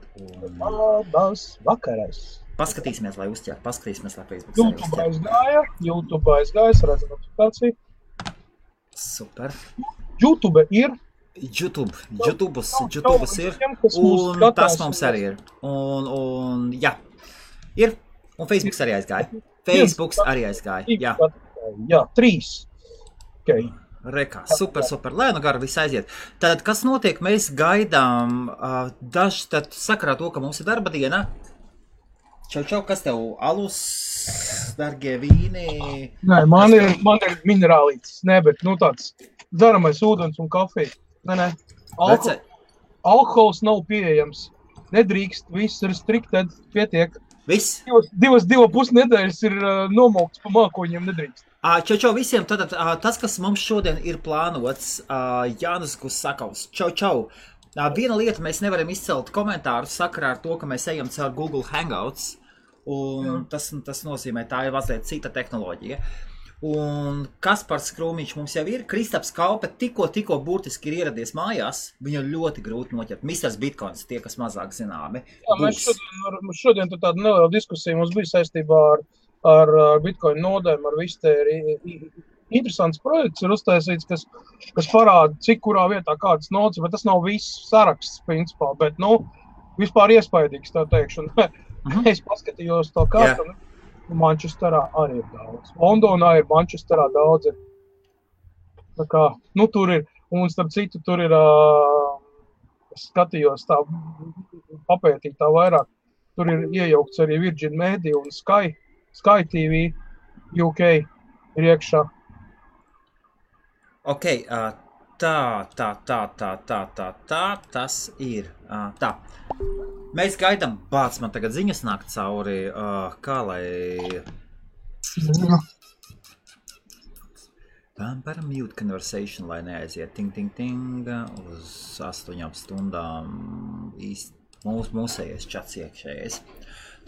tagad. Labas vakarais. Paskatīsimies, lai uzķer. Paskatīsimies, lai Facebook YouTube aizgāja, es redzu notifikāciju. Super. YouTube ir. YouTube ir. Un tas mums arī ir. Un jā. Ir. Un Facebooks arī aizgāja. Jā, 3. Okay. Rekā, super. Lai nu gara viss aiziet. Tad, kas notiek? Mēs gaidām daži, tad sakarā to, ka mums ir darba diena. Čau, kas tev? Alus, dargie vīni? Nē, man ir minerālītis. Nē, bet tāds dzeramais ūdens un kafija. Nē. Alkohols nav pieejams. Nedrīkst, viss ir striktēd, pietiek. Viss? 2,5 nedēļas ir nomaukts pa mākoņiem, nedrīkst. Čau visiem, tad tas, kas mums šodien ir plānots, Jānis Gusakovs. Čau. Viena lieta, mēs nevaram izcelt komentārus sakarā ar to, ka mēs ejam caur Google Hangouts, un tas nozīmē, tā ir mazliet cita tehnoloģija. Un Kaspars Krūmiņš mums jau ir, Kristaps Kaupe tikko burtiski ir ieradies mājās, viņu ļoti grūti noķert. Misters Bitcoins, tie, kas mazāk zināmi. Jā, mēs šodien tāda neliela diskusija mums bija saistībā ar Bitcoin nodēm, ar visu te interesants projekts ir uztaisīts, kas parāda, cik kurā vietā kādas nodas, bet tas nav viss saraksts, principā, bet, vispār iespaidīgs, tā teikšu. Es paskatījos to kārtu, Manchesterā arī ir daudz. Londonā ir, Manchesterā daudz ir. Tā kā, tur ir, un starp citu, tur ir, es skatījos tā, papētīt tā vairāk, tur ir iejaukts arī Virgin Media un Sky TV UK ir iekšā. Ok, tas ir. Tā. Mēs gaidām, man tagad ziņas nāk cauri, kā lai... Par mute conversation, lai neaiziet ting, uz 8 stundām mūsējais čats iekšējais.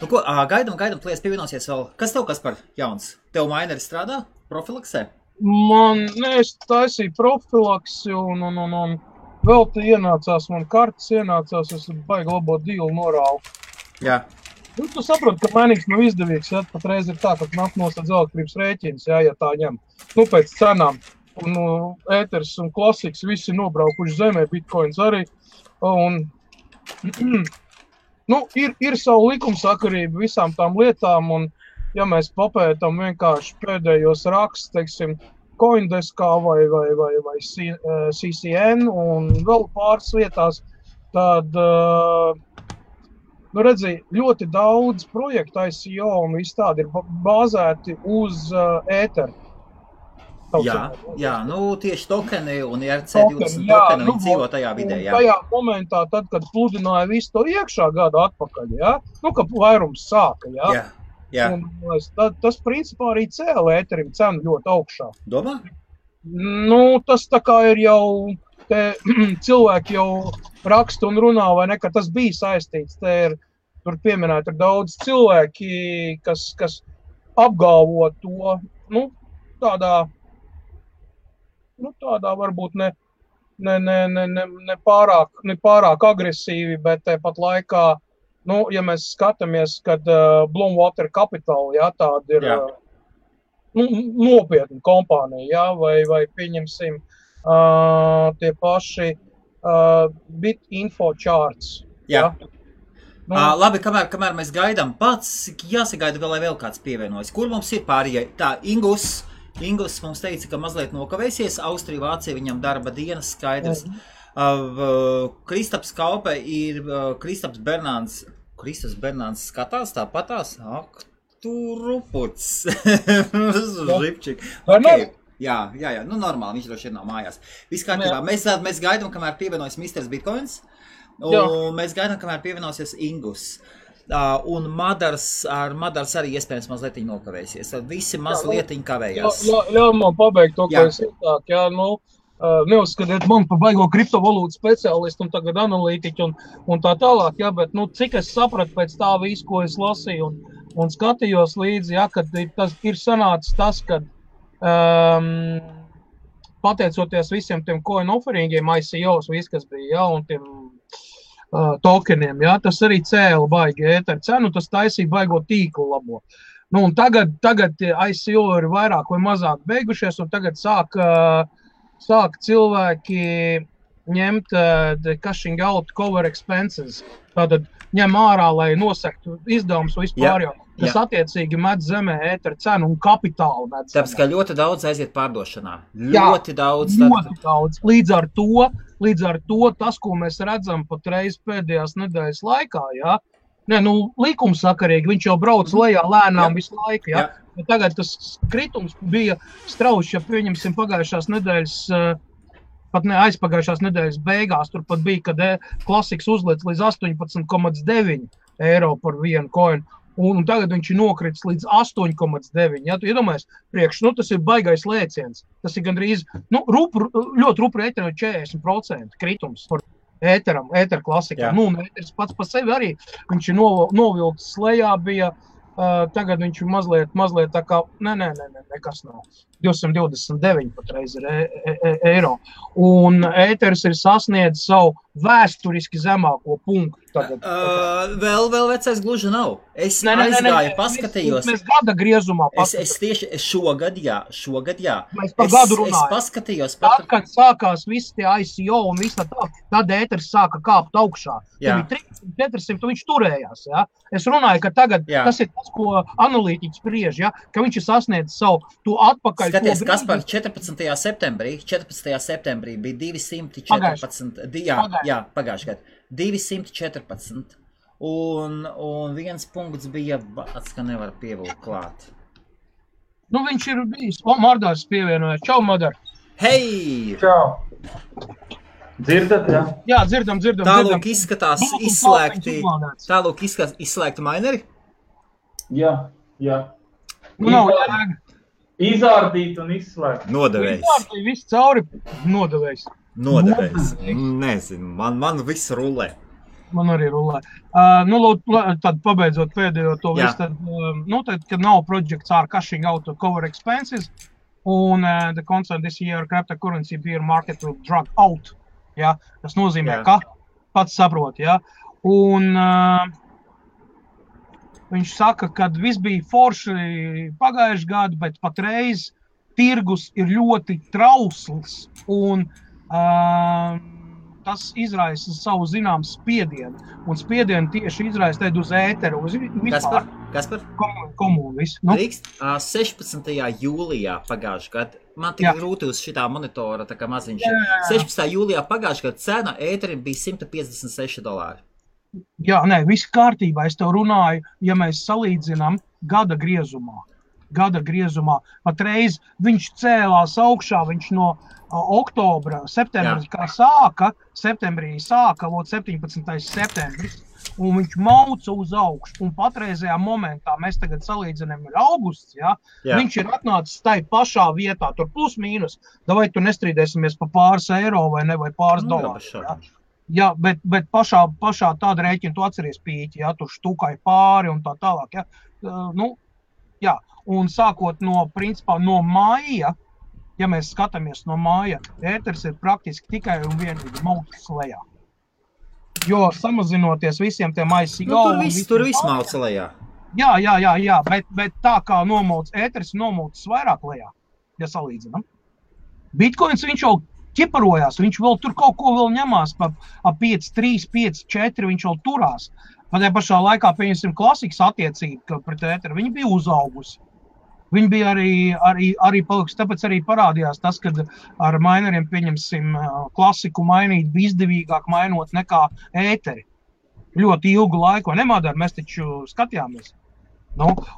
Nu ko, gaidām, plies pievienosies vēl. Kas tev, Kaspar, jauns? Tev maineri strādā profilaksē? Es taisīju profilaksi un vēl te ienācās, man kartas ienācās, es baigi labo dīlu norāvu. Jā. Tu saproti, ka mainīgs nav izdevīgs, ja? Pat reiz ir tā, ka nāk nostādz elektrības rēķins, ja tā ņem. Pēc cenām. Un ēters un klasiks visi nobraukuši zemē, bitcoins arī. Un, ir savu likumsakarību visām tām lietām, un ja mēs papētam vienkārši pēdējos rakstus, teiksim, Coindeskā vai CCN un vēl pāris vietās, tad, redzi, ļoti daudz projektu ICO un viss tādi ir bāzēti uz ēteru. Jā, tieši tokeni un ERC20 tokeni viņi dzīvo tajā vidē, jā. Tajā momentā, tad, kad pludināja visu to iekšā gadu atpakaļ, jā, ka vairums sāka, jā. Jā. Un tas principā arī cēla ēterim cenu ļoti augšā. Domā? Tas tā kā ir jau, cilvēki jau raksta un runā, vai ne, ka tas bija saistīts. Tur pieminēt ir daudz cilvēki, kas apgalvo to, tādā varbūt ne pārāk agresīvi, bet tāpat laikā, ja mēs skatāmies, kad Bloomwater Capital, tāda ir nopietna kompānija, vai pieņemsim tie paši BitInfo Charts. Jā. Labi, kamēr mēs gaidām pats, jāsagaida vēl kāds pievienojas. Kur mums ir pārējie? Tā, Ingus mums teica, ka mazliet nokavēsies, Austrija, Vācija, viņam darba dienas skaidrs. Kristaps Kaupe ir Kristaps Bernāns skatās tāpatās. Ak, tu ruputs. Žipčik. Okay. Jā, normāli, viņš droši ir nav mājās. Viss kārtībā. Mēs gaidām, kamēr pievienojas Misters Bitcoins, un mēs gaidām, kamēr pievienosies Ingus. Un Madars arī iespējams mazliet nokavēsies. Tad visi mazliet kavējās. Ļauj man pabeigt to, ko es ietāk. Neuzskatiet man par baigo kriptovalūtu speciālistu un tagad analītiķu un tā tālāk, bet cik es sapratu pēc tā visu, ko es lasīju un skatījos līdzi, kad tas ir sanācis tas, kad pateicoties visiem tiem coin offeringiem, ICOs, viss, kas bija, un tiem tokeniem, jā, tas arī cēla baigi ēteru cenu, tas taisīja baigo tīklu labo. Nu, un tagad ICO ir vairāk vai mazāk beigušies, un tagad sāk cilvēki ņemt cashing out cover expenses. Tātad ņem ārā, lai nosektu izdevumus vispār, kas attiecīgi met zemē ēteru cenu un kapitālu met zemē. Tāpēc, ka ļoti daudz aiziet pārdošanā. Ļoti daudz. Līdz ar to tas, ko mēs redzam patreiz pēdējās nedēļas laikā, jā, likumsakarīgi, viņš jau brauc lejā lēnām visu laiku, jā. Bet tagad tas kritums bija strauši, ja pieņemsim pagājušās nedēļas, pat ne aizpagājušās nedēļas beigās, tur pat bija, kad klasiks uzliec līdz 18,9 eiro par vienu coinu, un tagad viņš ir nokritis līdz 8,9. Ja, tu iedomājies, tas ir baigais lēciens. Tas ir gandrīz, ļoti rupri ēteram 40% kritums par ēteru klasikā. Un ēteris pats pa sevi arī, viņš ir novilkts lejā, bija, tagad viņš ir mazliet tā kā, nekas nav. 229 patreiz ir eiro. Un ēteris ir sasniedzis savu vēsturiski zemāko punktu. Vēl vecais gluži nav. Es aizgāju, paskatījos. Mēs gada griezumā Es tieši šogad, jā. Mēs par gadu runājam. Es paskatījos. Tad, kad sākās visi tie ICO un viss tā, tad ēteris sāka kāpt augšā. Tad bija 300-400, viņš turējās. Ja? Es runāju, ka tagad tas ir tas, ko analītiķis spriež, ja? Ka viņš ir sasniedzis savu to atpakaļ. Skaties, kas par 14. septembrī bija 214, pagājušajā gadu. 214, un viens punkts bija bāts, ka nevar pievilkt klāt. Viņš ir bijis. Mardārs pievienojas. Čau, Madar. Hei! Čau! Dzirdat, jā? Jā, dzirdam. Tālūk izskatās izslēgti mineri? Jā. Izārdīt un izslēgt. Nodevējs. Izārdīt viss cauri. Nodevējs. Nezinu, man viss rulē. Man arī rulē. Tad pabeidzot pēdējo to visu, tad, kad nav projects are cashing out to cover expenses, un the concern this year cryptocurrency bear market will drag out. Ja? Tas nozīmē, ka pats saprot. Ja? Un viņš saka, ka viss bija forši pagājuši gadu, bet patreiz tirgus ir ļoti trausls, un tas izraisa savu zināmu spiedienu. Un spiedienu tieši izraisa uz ēteru, uz vispār. Kaspar? Komunu visu. 16. jūlijā pagājušajā gadā, man tik grūti uz šitā monitora, tā kā maziņš. 16. jūlijā pagājušajā gadā cena ēterim bija $156. Jā, viss kārtībā. Es tev runāju, ja mēs salīdzinām gada griezumā. Patreiz viņš cēlās augšā, viņš no oktobra, septembrī sāka, 17. septembris, un viņš mauca uz augšu. Un patreizajā momentā, mēs tagad salīdzinām ir augusts, viņš ir atnācis tai pašā vietā, tur plus mīnus, vai tu nestrīdēsimies pa pāris eiro vai ne, vai pāris dolāru. Jā, bet pašā tāda rēķina, tu atceries pīķi, tu štukai pāri un tā tālāk. Un sākot no māja, ja mēs skatāmies no māja, ēteris ir praktiski tikai un vienīgi maucis lejā. Jo samazinoties visiem tiem ICO... Tur viss mauca lejā. Jā, bet tā kā ēteris nomaucis vairāk lejā, ja salīdzinām. Bitcoins viņš jau ķiparojās, viņš vēl tur kaut ko vēl ņemās pa 5,3, 5,4, viņš vēl turās. Pat pašā laikā, pieņemsim, klasikas attiecība pret ēteru, viņa bija uzaugusi. Viņi bija arī palikusi, tāpēc arī parādījās tas, kad ar mineriem, pieņemsim, klasiku mainīt bija izdevīgāk mainot nekā ēteri. Ļoti ilgu laiku, vai nemādār, mēs taču skatījāmies.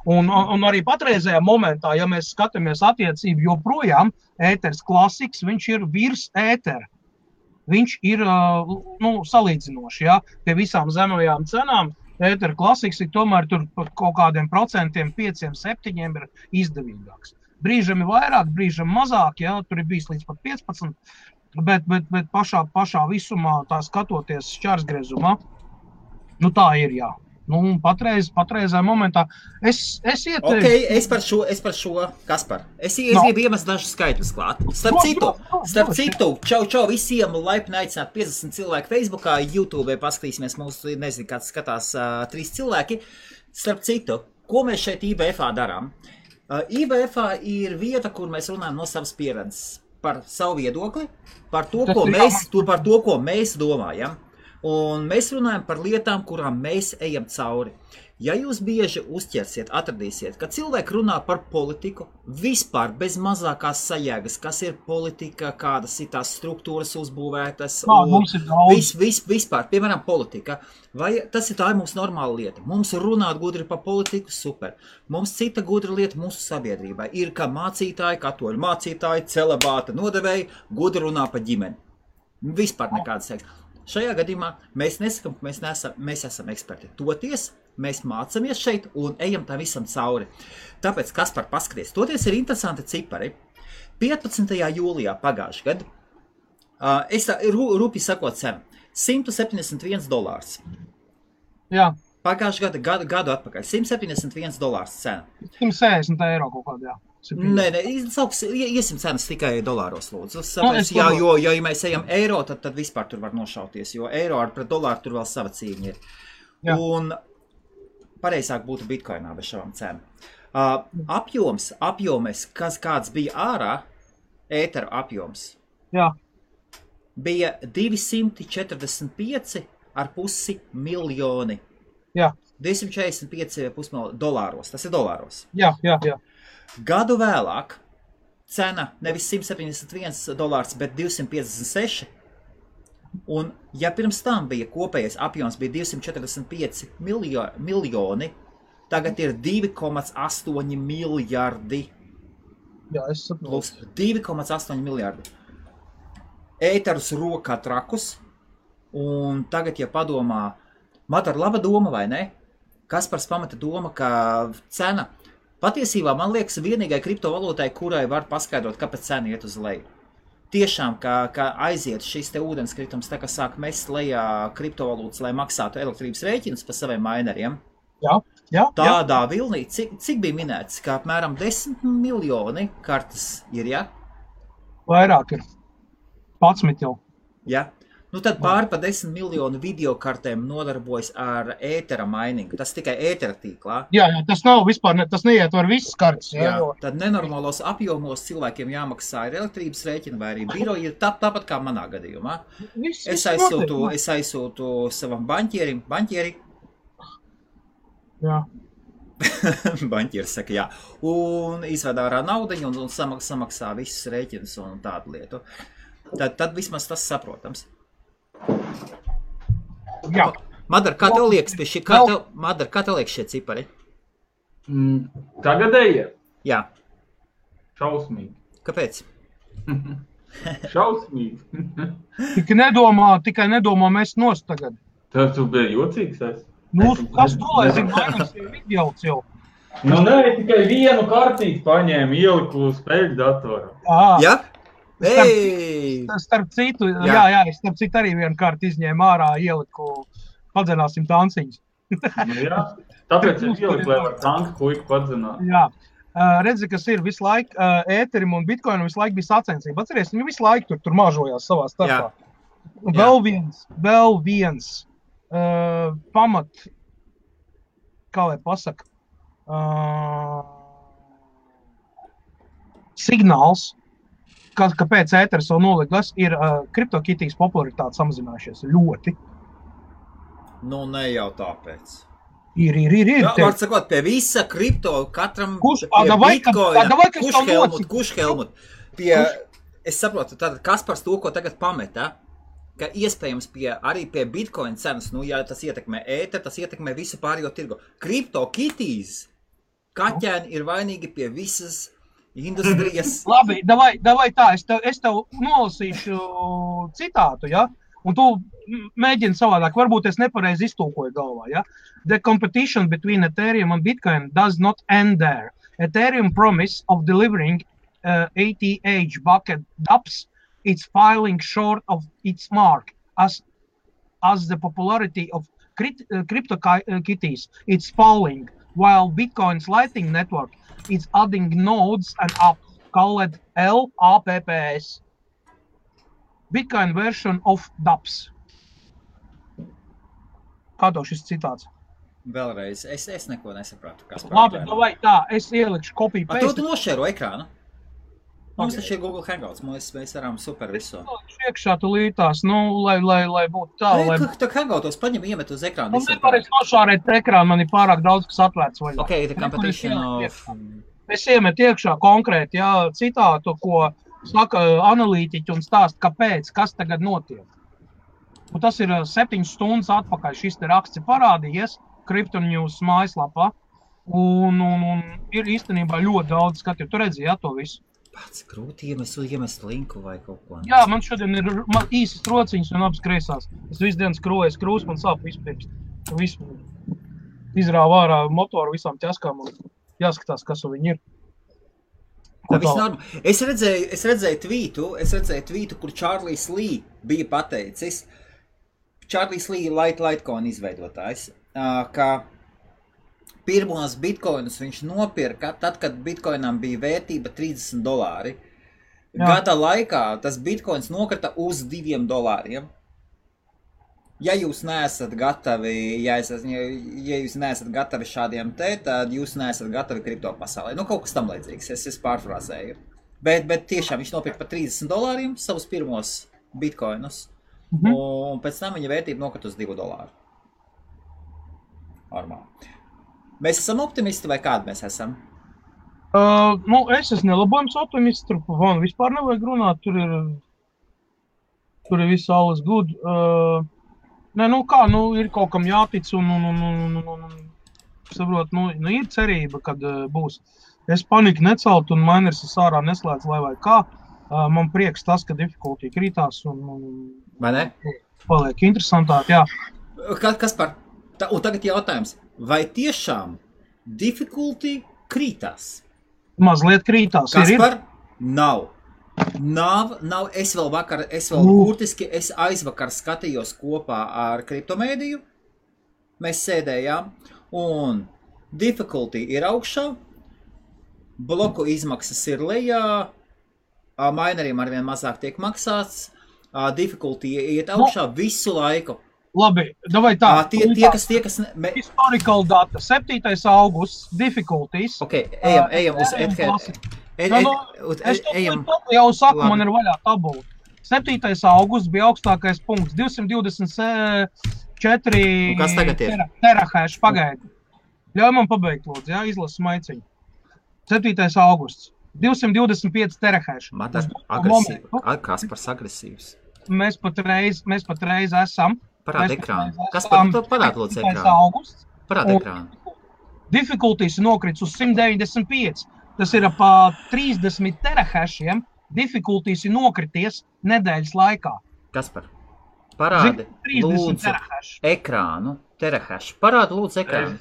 Un arī patreizējā momentā, ja mēs skatāmies attiecību, joprojām ēteris klasiks, viņš ir virs ētera. Viņš ir salīdzinoši, pie visām zemajām cenām. Ētera klasiks ir tomēr tur par kaut kādiem procentiem, 5-7 ir izdevīgāks. Brīžam ir vairāk, brīžam mazāk, tur ir bijis līdz pat 15, bet pašā visumā tā skatoties šķērsgriezumā, tā ir, Patreizā momentā es ieteiktu. Okay, es par šo, Kaspar. Es gribu iemest dažus skaitļus klāt. Starp citu, čau visiem laipni aicināt 50 cilvēku Facebookā, YouTube paskatīsimies mūsu, nezinu, kāds skatās 3 cilvēki. Starp citu, ko mēs šeit IBF-ā darām? IBF-ā ir vieta, kur mēs runājam no savas pieredzes par savu viedokli, par to, ko mēs domājam. Un mēs runājam par lietām, kurām mēs ejam cauri. Ja jūs bieži uzķersiet, atradīsiet, ka cilvēki runā par politiku vispār bez mazākās sajēgas, kas ir politika, kādas ir tās struktūras uzbūvētas, vispār, piemēram, politika. Vai tas ir tā ir mūsu normāla lieta? Mums runāt gudri par politiku, super. Mums cita gudra lieta mūsu sabiedrībai ir, ka mācītāji, katoļu mācītāji, celibāta nodevēji, gudri runā par ģimeni. Vispār nekādas seks. Šajā gadījumā mēs nesakam, ka mēs esam eksperti. Toties mēs mācamies šeit un ejam tam visam cauri. Tāpēc, Kaspar, paskaties, toties ir interesanti cipari. 15. jūlijā pagājušajā gadu, es rūpīgi sakot cenu, $171. Jā. Pagājušajā gadu atpakaļ, $171 cena. 160 eiro kaut kādā, jā. Nē, iesim cenas tikai dolāros, lūdzu. Ja mēs ejam eiro, tad vispār tur var nošauties, jo eiro pret dolāru tur vēl sava cīņa ir. Jā. Un pareizāk būtu bitcoinā bez šām cenām. Apjoms, kāds bija ārā, ētera apjoms, jā. Bija 245,5 miljoni. Jā. 245,5 miljoni dolāros, tas ir dolāros. Jā. Gadu vēlāk cena nevis $171, bet 256. Un ja pirms tam bija kopējais apjoms bija 245 miljoni, tagad ir 2,8 miljardi. Jā, es saprotu. Plus 2,8 miljardi. Ēterus rokā trakus. Un tagad, ja padomā, man ir laba doma, vai ne? Kaspars pamata doma, ka cena patiesībā, man liekas, vienīgai kriptovalūtai, kurai var paskaidrot, kāpēc cena iet uz leju. Tiešām, ka aiziet šis te ūdenskritums, tā kā sāk mest lejā kriptovalūtas, lai maksātu elektrības rēķinus pa saviem mineriem. Jā. Tādā vilnī, cik bija minēts, ka apmēram 10 miljoni kartes ir, ja? Vairāk ir. 11 jau. Ja? Nu tad pāri pa 10 miljonu videokartēm nodarbojas ar ētera miningu. Tas tikai ētera tīklā. Jā, tas nav vispār, tas neietver visas kartes. Jā, tad nenormālos apjomos cilvēkiem jāmaksā ir elektrības rēķina vai arī biroji ir tāpat kā manā gadījumā. Es aizsūtu savam banķieri. Jā. Banķieris saka, jā. Un izved ārā naudiņu un samaksā visus rēķinus un tādu lietu. Tad vismaz tas saprotams. Jā. Madar, kā tev liekas pie šī? Madar, kā tev liekas šie cipari? Tagadēji? Jā. Šausmīgi. Kāpēc? Šausmīgi. Tikai nedomā mest nost tagad. Tas tu bija jocīgs es? Nu, kas to, lai zinu, mainīs ir vidjauts jau. Nu, nē, tikai vienu kartīti paņēmu, ieliku spēļu datoru. Jā? Starp citu, jā, starp citu arī vienu kārtu izņēmu ārā, ieliku, padzenāsim tanciņus. Nu, jā, tāpēc es ieliku, lai var tanku puiku padzenāt. Jā, redzi, kas ir visu laiku, ēterim un bitcoinam visu laiku bija sacensība. Atceries, viņi visu laiku tur mažojās savā starpā. Vēl viens pamat, kā lai pasaka, signāls, kāpēc ēteris vēl nolikas, ir kriptokitijas popularitāte samazinājušies ļoti. Nu, ne jau tāpēc. Ir. Jā, var sakot, pie visa kripto, katram Kušhelmut. Es saprotu, tātad Kaspars to, ko tagad pameta, ka iespējams arī pie bitcoin cenas, nu, ja tas ietekmē ēter, tas ietekmē visu pārējo tirgu. Kriptokitijas kaķēni ir vainīgi pie visas industrijas. Labi, davai tā, es tev nolasīšu citātu, ja? Un tu mēģini savādāk, varbūt es nepareizi iztulkoju galvā, ja? The competition between Ethereum and Bitcoin does not end there. Ethereum promise of delivering ATH bucket dApps is falling short of its mark as the popularity of CryptoKitties, it's falling, while Bitcoin's Lightning Network is adding nodes and apps called LAPPS. Bitcoin version of DApps. Kā tev šis citāts? Vēlreiz, es neko nesapratu. Labi, vai tā, es ielikšu kopiju pēc. Tu nošēro ekrānu? Mums taču ir Google Hangouts, mēs varam super visu. Iekšā tu lītās, lai būtu tā, lai... Tā Hangoutos paņem iemet uz ekrānu. Man nevarēs nošārēt ekrānu, man ir pārāk daudz, kas atvērts vaļā. Ok, the competition of... Es iemetu iekšā konkrēti, citātu, ko saka analītiķi un stāst, kāpēc, kas tagad notiek. Un tas ir 7 stundas atpakaļ, šis te raksts ir parādījies Crypto News mājaslapā, un ir īstenībā ļoti daudz skatīt. Tu redzi, to visu. Pats grūti iemest linku vai kaut ko. Jā, man šodien ir īsas rociņas un abas kreisās. Es visu dienu skroju krūs, man sāp vispirms. Visu izrāvu ārā motoru visām ķaskām un jāskatās, kas viņi ir. Es redzēju tvītu, kur Charlies Lee bija pateicis. Charlies Lee Litecoin izveidotājs, ka pirmos bitcoinus viņš nopirka tad, kad bitcoinam bija vērtība $30. Gada laikā tas bitcoins nokrita uz $2. Ja jūs neesat gatavi, ja jūs neesat gatavi šādiem tad jūs neesat gatavi kripto pasaulē. Kaut kas tam līdzīgs, es pārfrāzēju. Bet tiešām viņš nopirka par $30 savus pirmos bitcoinus. Un pēc tam viņa vērtība nokrita uz $2. Normāli. Mēs esam optimisti vai kādi mēs esam? Es esmu nelabojums optimists, tur vispār nevajag runāt, tur ir viss alles good. Ir kaut kam jātic un saprot, ir cerība, kad būs. Es paniku necelt un miners ārā neslēdz, lai vai kā. Man prieks tas, ka difficulty krītās un vai ne? Paliek interesantāk, jā. Kaspar, un tagad jautājums, vai tiešām difficulty krītās? Mazliet krītās. Kaspar, nav. Es burtiski aizvakar skatījos kopā ar kriptomēdiju. Mēs sēdējām un difficulty ir augšā, bloku izmaksas ir lejā, mineriem arvien mazāk tiek maksāts, difficulty iet augšā visu laiku. Labi, davai tā. Tie, kas... Historical data, 7. augusts, difficulties. Ok, ejam uz Ethereum. Es jau saku, man ir vaļā tabula. 7. augusts bija augstākais punkts, 224 terahash pagaidi. Ļauj man pabeigt, lūdzu, izlasu maiciņu. 7. augusts, 225 terahash. Kaspars agresīvs. Mēs patreiz esam. Parāda ekrānu. Kaspar, parāda lūdzu ekrānu. Parāda ekrānu. Difficulties nokrits uz 195. Tas ir pa 30 terahashiem. Difficulties ir nokrities nedēļas laikā. Kaspar, parādi lūdzu ekrānu. Terahash. Parāda lūdzu ekrānu.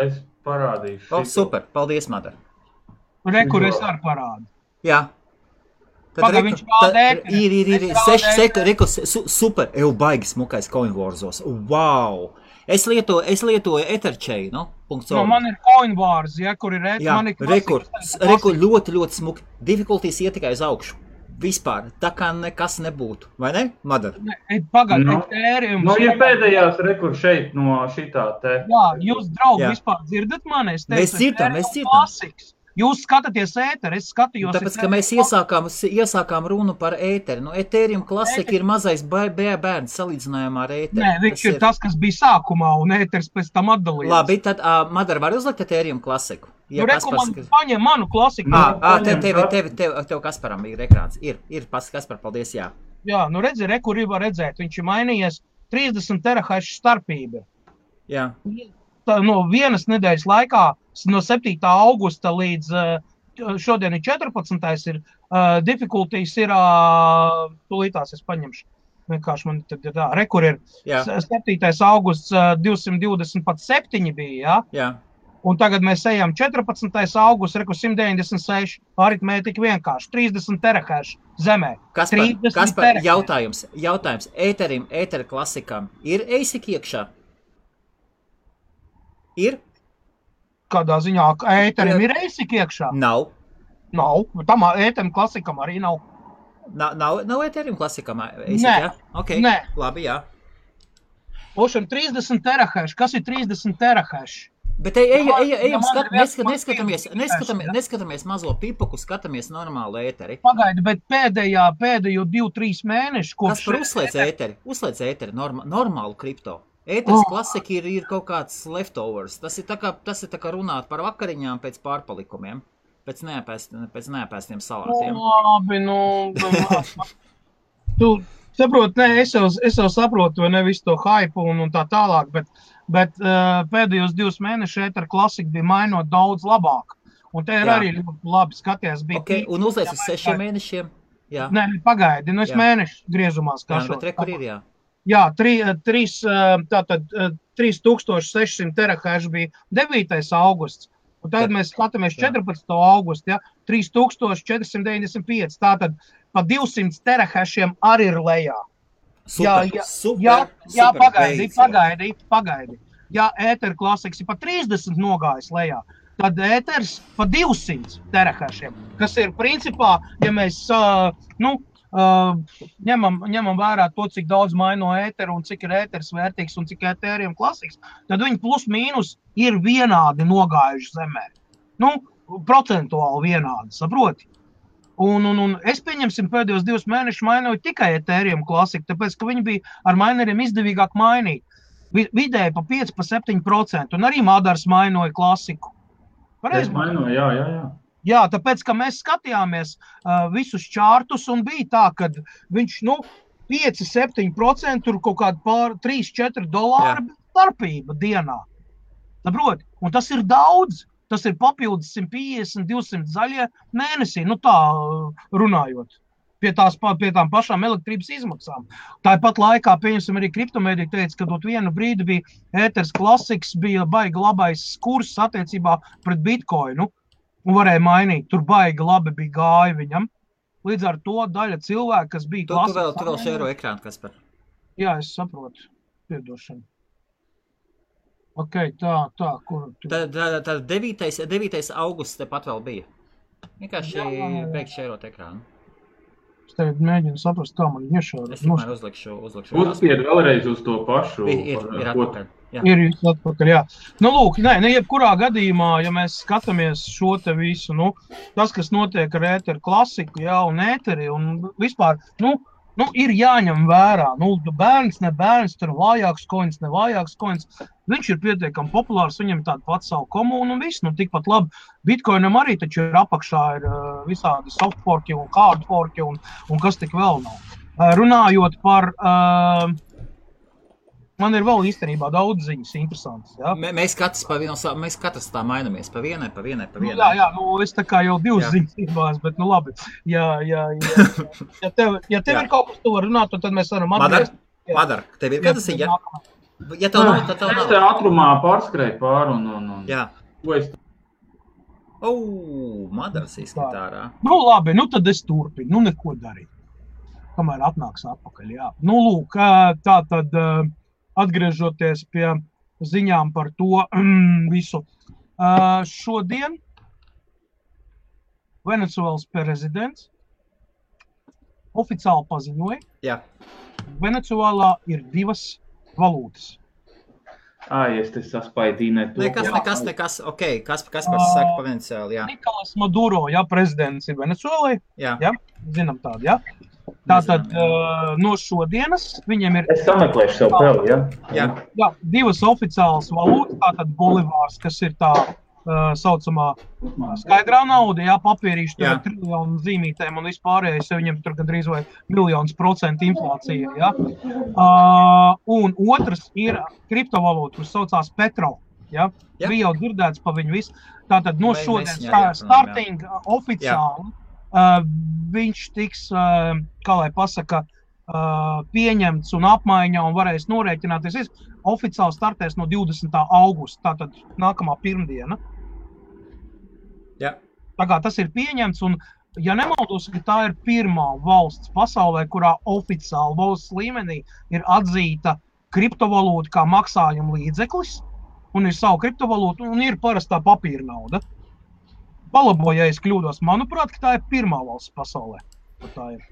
Es parādīšu. Super, paldies, Madara. Rekur es arī parādu. Jā. Viņš pārdēk. Ir 6 sekundes, super, baigi smukais CoinWarzos. Wow! Es lietoju Etherchain, man ir CoinWars, kur ir rekur, ļoti smuki. Difficulties iet tikai uz augšu. Vispār, tā kā nekas nebūtu. Vai ne, Madara? Pagad, Ethereum. Ir pēdējās rekur šeit no šitā te. Jā, jūs, draugi, vispār dzirdat mani? Mēs dzirdam. Klasiks. Jūs skatāties ēteri, es skatījos... Tāpēc, ka mēs iesākām runu par ēteri. Ethereum Classic ir mazais bērns salīdzinājumā ar ēteri. Nē, viņš ir tas, kas bija sākumā, un ēteris pēc tam atdalījās. Labi, tad Madara var uzlikt Ethereum Classicu? Paņem manu klasiku. Tev Kasparam ir ekrāns. Ir Kaspar, paldies, jā. Jā, redzi, kur var redzēt. Viņš ir mainījies 30 terahash starpība. Jā. No vienas nedēļas laikā, no 7. augusta līdz šodien ir 14. ir difficulties ir, tūlītās es paņemšu, vienkārši man tad ir tā, rekur ir 7. augusts 227 bija, jā? Un tagad mēs ejam 14. augusts, 196, aritmētika vienkārši, 30 terahash zemē. Kaspar, jautājums. Ētera klasikam ir ASIC iekšā? Ir? Kādā ziņā ēterim ir ASIC iekšā? Nav. Tam ēterim klasikam arī nav. Nav ēterim klasikam ASIC, Nē. jā? Ok, Nē. labi, jā. Ošam 30 terahash. Kas ir 30 terahash? Bet ejam, neskatāmies mazo pipuku, skatāmies normālu ēteri. Pagaidi, bet pēdējo 2-3 mēnešu kopš... Kaspar, uzslēdz ēteri, normālu kripto. Ēteris klasika ir kaut kāds leftovers. Tas ir tā kā runāt par vakariņām pēc pārpalikumiem, pēc neapēstiem salātiem. Labi, tu saproti, es jau saprotu, vai ne visu to hype un tā tālāk, bet pēdējos 2 mēnešus ētera klasika bija mainot daudz labāk. Un te ir arī ļoti labi skaties. Un uzliec uz 6 mēnešiem? Jā. Nē, pagaidi, es mēnešu griezumā skašos. Bet kur ir, jā? Jā, 3600 terahash bija 9. augusts, un tagad mēs skatāmies 14. augustu, ja, 3495, tātad pa 200 terahashiem arī ir lejā. Super, pagaidi. Ja ētera klasiks ir pa 30 nogājis lejā, tad ēters pa 200 terahashiem, kas ir principā, ja mēs, ņemam vērā to, cik daudz maino ēteru un cik ir ēters vērtīgs un cik ēteriem klasiks, tad viņi plus mīnus ir vienādi nogājuši zemē. Procentuāli vienādi, saproti? Un es pieņemsim pēdējos 2 mēnešus mainoju tikai ēteriem klasiku, tāpēc, ka viņi bija ar maineriem izdevīgāk mainīt. Vidēji pa 5-7%, un arī Madars mainoja klasiku. Es mainoju, jā. Jā, tāpēc, ka mēs skatījāmies visus čārtus un bija tā, ka viņš, 5-7% tur kaut kāda $3-4 starpība dienā. Saproti? Un tas ir daudz. Tas ir papildus 150-200 zaļie mēnesī, tā runājot. Pie tām pašām elektrības izmaksām. Tāpat laikā, pieņemsim, arī kriptomēdija teica, ka dot vienu brīdi bija ēters klasiks, bija baigi labais kurs attiecībā pret bitcoinu. Un varēja mainīt, tur baigi labi bija gāja viņam. Līdz ar to daļa cilvēku, kas bija klasiski... Tu vēl šēro ekrānu, Kaspar. Jā, es saprotu. Piedošanu. Ok, tā, kur... Tad 9. augusts tepat vēl bija. Vienkārši beigt šērot ekrānu. Es tev mēģinu saprast, kā man iešāra. Es tikmēr uzlikšu. Uzspied vēlreiz uz to pašu. Ir atpakaļ. Jā. Ir atpakaļ, jā. Lūk, jebkurā gadījumā, ja mēs skatāmies šo te visu, tas, kas notiek ar ēteru klasiku, jā, un ēteri, un vispār, ir jāņem vērā. Bērns, ne bērns, tur vājāks koins, ne vājāks koins. Viņš ir pietiekami populārs, viņam tāda pats savu komunu un viss. Tikpat labi. Bitcoinam arī taču ir apakšā ir visādi soft forki un hard forki un kas tik vēl nav. Runājot par... Man ir vēl īstenībā daudz ziņas interesantas. Ja? Mēs katrs tā mainamies pa vienai. Jā, es tā kā jau 2 ziņas iebās, bet labi. Ja tev ir kaut kas, tu var runāt, tad mēs varam atgriezt. Madar, tev ir kāda ziņa? Ja tev nav, tad tev nav. Es te ātrumā pārskrēju pāri un... Jā. Ko es... Madars izskatārā. Labi, tad es turpinu, neko darīt. Kamēr atnāks atpakaļ, jā. Lūk, tā tad... Atgriežoties pie ziņām par to visu. Šodien Venecuēlas prezidents oficiāli paziņoja, Jā. Venecuēlā ir 2 valūtas. Es te saspaidīju Nekas. Ok, kas saka pa Venecuēlu, jā. Nikolas Maduro, prezidents ir Venecuēlai. Jā. Zinām tādu, jā. Tātad no šodienas viņiem ir... Es sameklēšu sev peli, jā? Jā, 2 oficiālas valūtas, tātad bolivārs, kas ir tā saucamā skaidrā nauda, papīrīši, tur ir triljonu zīmītēm un vispārējais, viņiem tur gandrīz vai 1% inflācija, jā. Un otrs ir kriptovalūta, kas saucās Petro, jā. Bija jau dzirdēts pa viņu visu. Tātad no šodienas starting oficiāli viņš tiks, kā lai pasaka, pieņemts un apmaiņā un varēs norēķināties. oficiāli startēs no 20. augusta, tātad nākamā pirmdiena. Jā. Tā kā tas ir pieņemts, un ja nemaldos, ka tā ir pirmā valsts pasaulē, kurā oficiāli valsts līmenī ir atzīta kriptovalūta kā maksājuma līdzeklis, un ir savu kriptovalūtu, un ir parastā papīra nauda. Palaboju, ja es kļūdos, manuprāt, ka tā ir pirmā valsts pasaulē. Tā ir.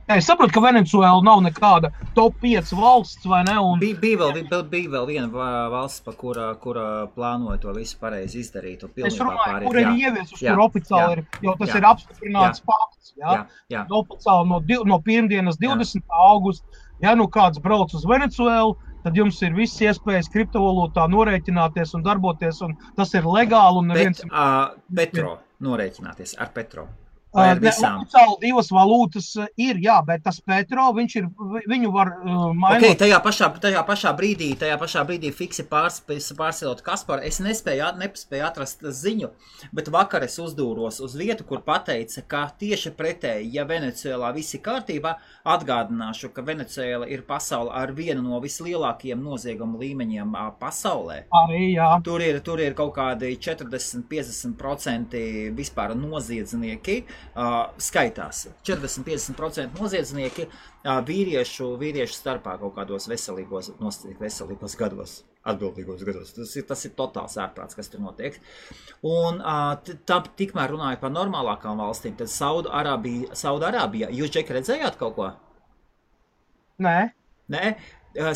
Ja, es saprotu, ka Venecuēla nav nekāda top 5 valsts, vai ne? Un... Bija vēl viena valsts, kura plānoja to visu pareizi izdarīt. Es runāju, kur ir ieviesus, kur oficiāli ir, jo tas ir apstiprināts fakts. Jā. Oficiāli no pirmdienas 20. augusta, ja nu kāds brauc uz Venecuēlu, tad jums ir viss iespējas kriptovalūtā norēķināties un darboties, un tas ir legāli. Un Petro norēķināties ar Petro. Oficiāli 2 valūtas ir, jā, bet tas Petro, viņu var mainot. Okay, tajā pašā brīdī fiksi pārsilot Kasparu. Es nespēju atrast ziņu, bet vakar es uzdūros uz vietu, kur pateica, ka tieši pretēji, ja Venecuēlā viss ir kārtībā, atgādināšu, ka Venecuēla ir pasaule ar vienu no vislielākajiem noziegumu līmeņiem pasaulē. Arī, jā. Tur ir kaut kādi 40-50% vispār noziedznieki. Skaitās 40-50% noziedznieki vīriešu starpā kaut kādos veselīgos gados, atbildīgos gados. Tas ir totāls ārprāts, kas tur notiek. Un tikmēr runāju par normālākām valstīm, tad Saudarābija. Jūs, Džeki, redzējāt kaut ko? Nē?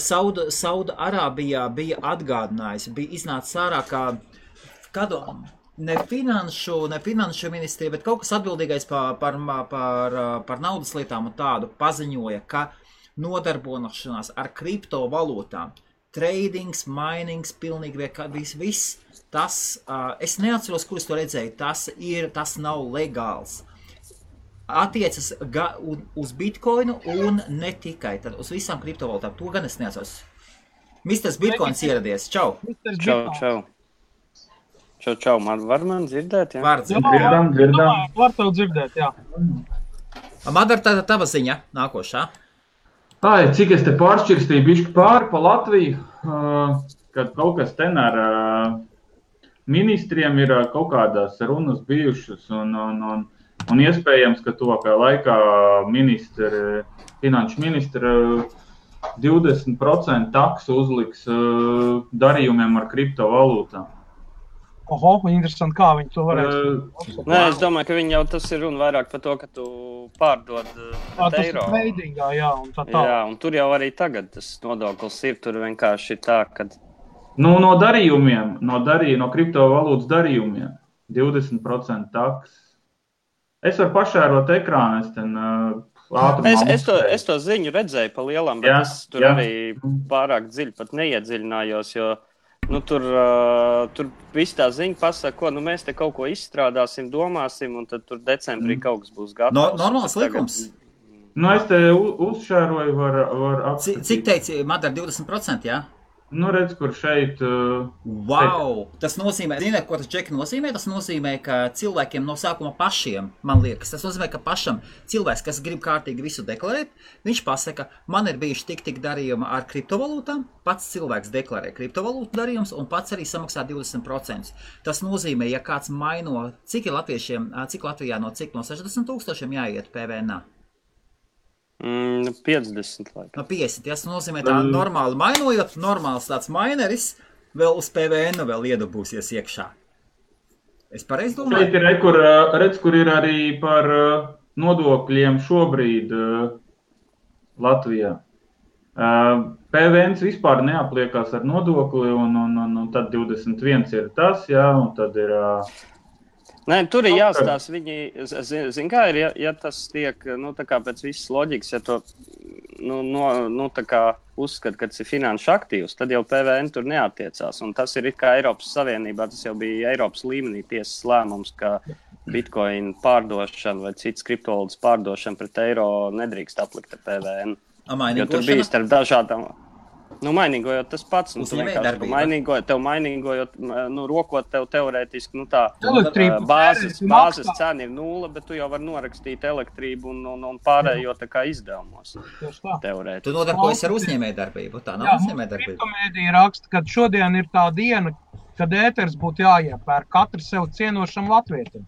Saudarābijā bija atgādinājusi, bija iznācis ārā kādu... Ne finanšu ministrija, bet kaut kas atbildīgais par naudas lietām un tādu paziņoja, ka nodarbošanās ar kriptovalūtām, tradings, minings, pilnīgi viss, tas, es neatceros, kur es to redzēju, tas nav legāls. Attiecas uz Bitcoinu un ne tikai, tad uz visām kriptovalūtām. To gan es neatceros. Misters Bitcoins ieradies. Čau! Čau! Čau, var man dzirdēt, jā? Var dzirdēt. Dzirdam. Var tev dzirdēt, jā. Madara, tava ziņa nākošā. Cik es te pāršķirstīju bišķi pāri pa Latviju, kad kaut kas ten ar ministriem ir kaut kādās runas bijušas un iespējams, ka tuvākajā laikā finanšu ministra 20% taksu uzliks darījumiem ar kriptovalūtām. Interesanti, kā viņi to varēs. Nē, es domāju, ka viņi jau tas ir runa vairāk par to, ka tu pārdod eiro. Tas ir tradingā, jā, un tā. Jā, un tur jau arī tagad tas nodoklis ir, tur vienkārši tā, kad... No darījumiem, no kriptovalūtas darījumiem, 20% taks. Es varu pašērot ekrānu, Es to ziņu redzēju pa lielam, bet es tur arī pārāk dziļi pat neiedziļinājos, jo tur viss tā ziņa pasaka, mēs te kaut ko izstrādāsim, domāsim, un tad tur decembrī kaut kas būs gatavs. Normāls likums. Es te uzšēroju, var apskatīt. Cik teici, Madara, 20%, jā? Redz, kur šeit... Wow! Tas nozīmē, ziniet, ko tas, Džeki, nozīmē? Tas nozīmē, ka cilvēkiem no sākuma pašiem, man liekas, tas nozīmē, ka pašam cilvēks, kas grib kārtīgi visu deklarēt, viņš pasaka, man ir bijuši tik darījumi ar kriptovalūtām, pats cilvēks deklarē kriptovalūtu darījums un pats arī samaksā 20%. Tas nozīmē, ja kāds maino, cik Latvijā no 60 000 jāiet PVN-ā? 50, laikam. No 50, tas nozīmē tā normāli mainojot, normāls tāds maineris vēl uz PVN vēl iedabūsies iekšā. Es pareizi domāju? Šeit ir, redz, kur ir arī par nodokļiem šobrīd Latvijā. PVNs vispār neapliekās ar nodokli, un tad 21 ir tas, jā, un tad ir... Nē, tur ir jāstāsta, viņi, zin kā ir, ja tas tiek, tā kā pēc visas loģikas, ja to, tā kā uzskata, ka tas ir finanšu aktīvs, tad jau PVN tur neattiecās, un tas ir it kā Eiropas Savienībā, tas jau bija Eiropas līmenī tiesas lēmums, ka Bitcoin pārdošana vai cits kriptovalūtas pārdošana pret eiro nedrīkst aplikt ar PVN. Jo tur bija starp dažādām... Nu, mainīgojot tas pats, un tu vienkārši tev mainīgojot, rokot tev teorētiski, tā bāzes cena ir 0, bet tu jau vari norakstīt elektrību un pārējo tā kā izdevumos. Teorētiski. Tu nodarbojies ar uzņēmējdarbību, tā nav uzņēmējdarbība. Kriptomēdija raksta, ka šodien ir tā diena, kad ēters būtu jāiepērk katru sev cienošam latvietim.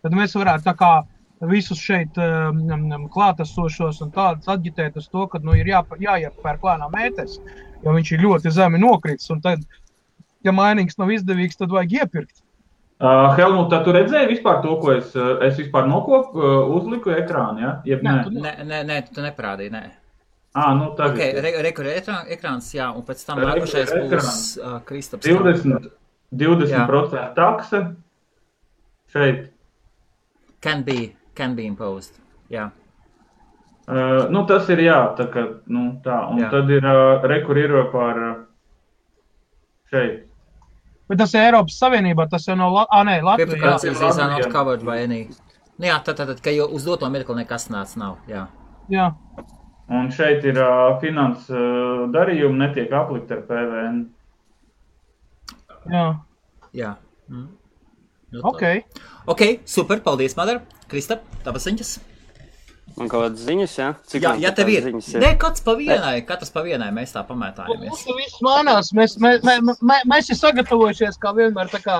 Tad mēs varētu tā kā visus šeit klātesošos un tādus aģitēt uz to, ka ir jāiepērk lēnām ēters, jo viņš ir ļoti zemi nokritis, un tad, ja mainīgs nav izdevīgs, tad vajag iepirkt. Helmut, tu redzēji vispār to, ko es vispār uzliku ekrānu, ja? Nē, tu neparādīji, nē. Nu tagad. Rekur ekrāns, jā, un pēc tam nākušais būs Kristaps. 20% taksa šeit. Can be imposed, jā. Tas ir jā, tā kā, tā, un jā. Tad ir rekur ir par šeit. Bet tas ir Eiropas Savienībā, tas jau nav Latvijā. Cryptocurrencies are not covered by any. Jā, tad, ka jau uz doto mirkli nekas nav, jā. Jā. Un šeit ir finanses darījumi, netiek aplikt ar PVN. Jā. Jā. Ok, super, paldies, Madara. Kristap, tavas ziņas? Man kaut kādas ziņas, jā? Jā, tev ir. Nē, katrs pa vienai, mēs tā pamētājamies. Mums viss mainās, mēs ir sagatavojušies, kā vienmēr, tā kā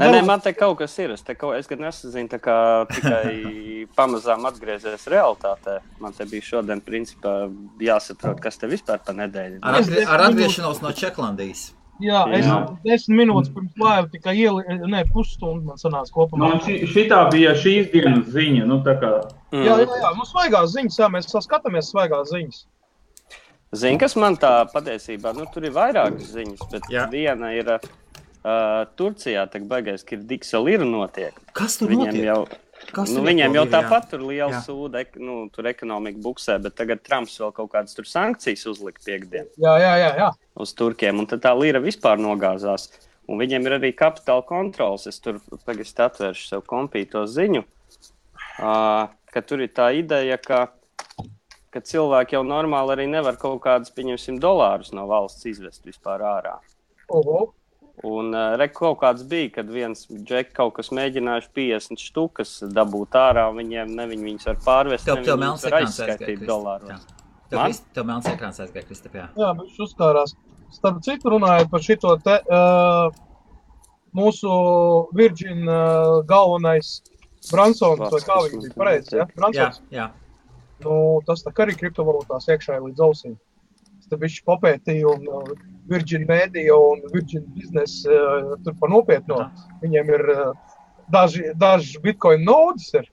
Nē, man te kaut kas ir, es gan nesazinu, tā kā tikai pamazām atgriezies realitātē. Man te bija šodien, principā, jāsaprot, kas te vispār pa nedēļu. Ar atgriešanos no Čeklandijas. Jā, es 10 minūtes pirms laiva tikai pusstundu man sanāca kopumā. Šitā bija šīs dienas ziņa, tā kā. Jā, mums svaigās ziņas, jā, mēs skatāmies svaigās ziņas. Zini, kas man tā patiesībā, tur ir vairākas ziņas, bet viena ir Turcijā, tak baigais, ka ir Diksa lira notiek. Kas tur notiek? Viņiem jau tāpat tur liela sūda, tur ekonomika buksē, bet tagad Trumps vēl kaut kādas tur sankcijas uzlika piekdien. Jā. Uz Turkiem, un tad tā lira vispār nogāzās. Un viņiem ir arī kapitāla kontrols. Es tur pagast atvēršu sev kompīto ziņu, ka tur ir tā ideja, ka cilvēki jau normāli arī nevar kaut kādus, pieņemsim, dolārus no valsts izvest vispār ārā. Un kaut kāds bija, kad viens džek kaut kas mēģinājuši 50 štukas dabūt ārā, un viņi viņus var pārvest, tev viņus var aizskaitīt dolāros. Tev melns ekrāns aizgāja, Kristap, jā. Jā, viņš uzkārās. Starp citu runājot par šito te mūsu Virgin galvenais Bransons, vai kā viņš bija pareizi, ja? Bransons? Jā. Tas tā kā arī kriptovalūtās iekšā līdz ausīm. Tad viņš papētīja un Virgin Media un Virgin Business tur pa nopietno. Viņiem ir daži Bitcoin nodes ir.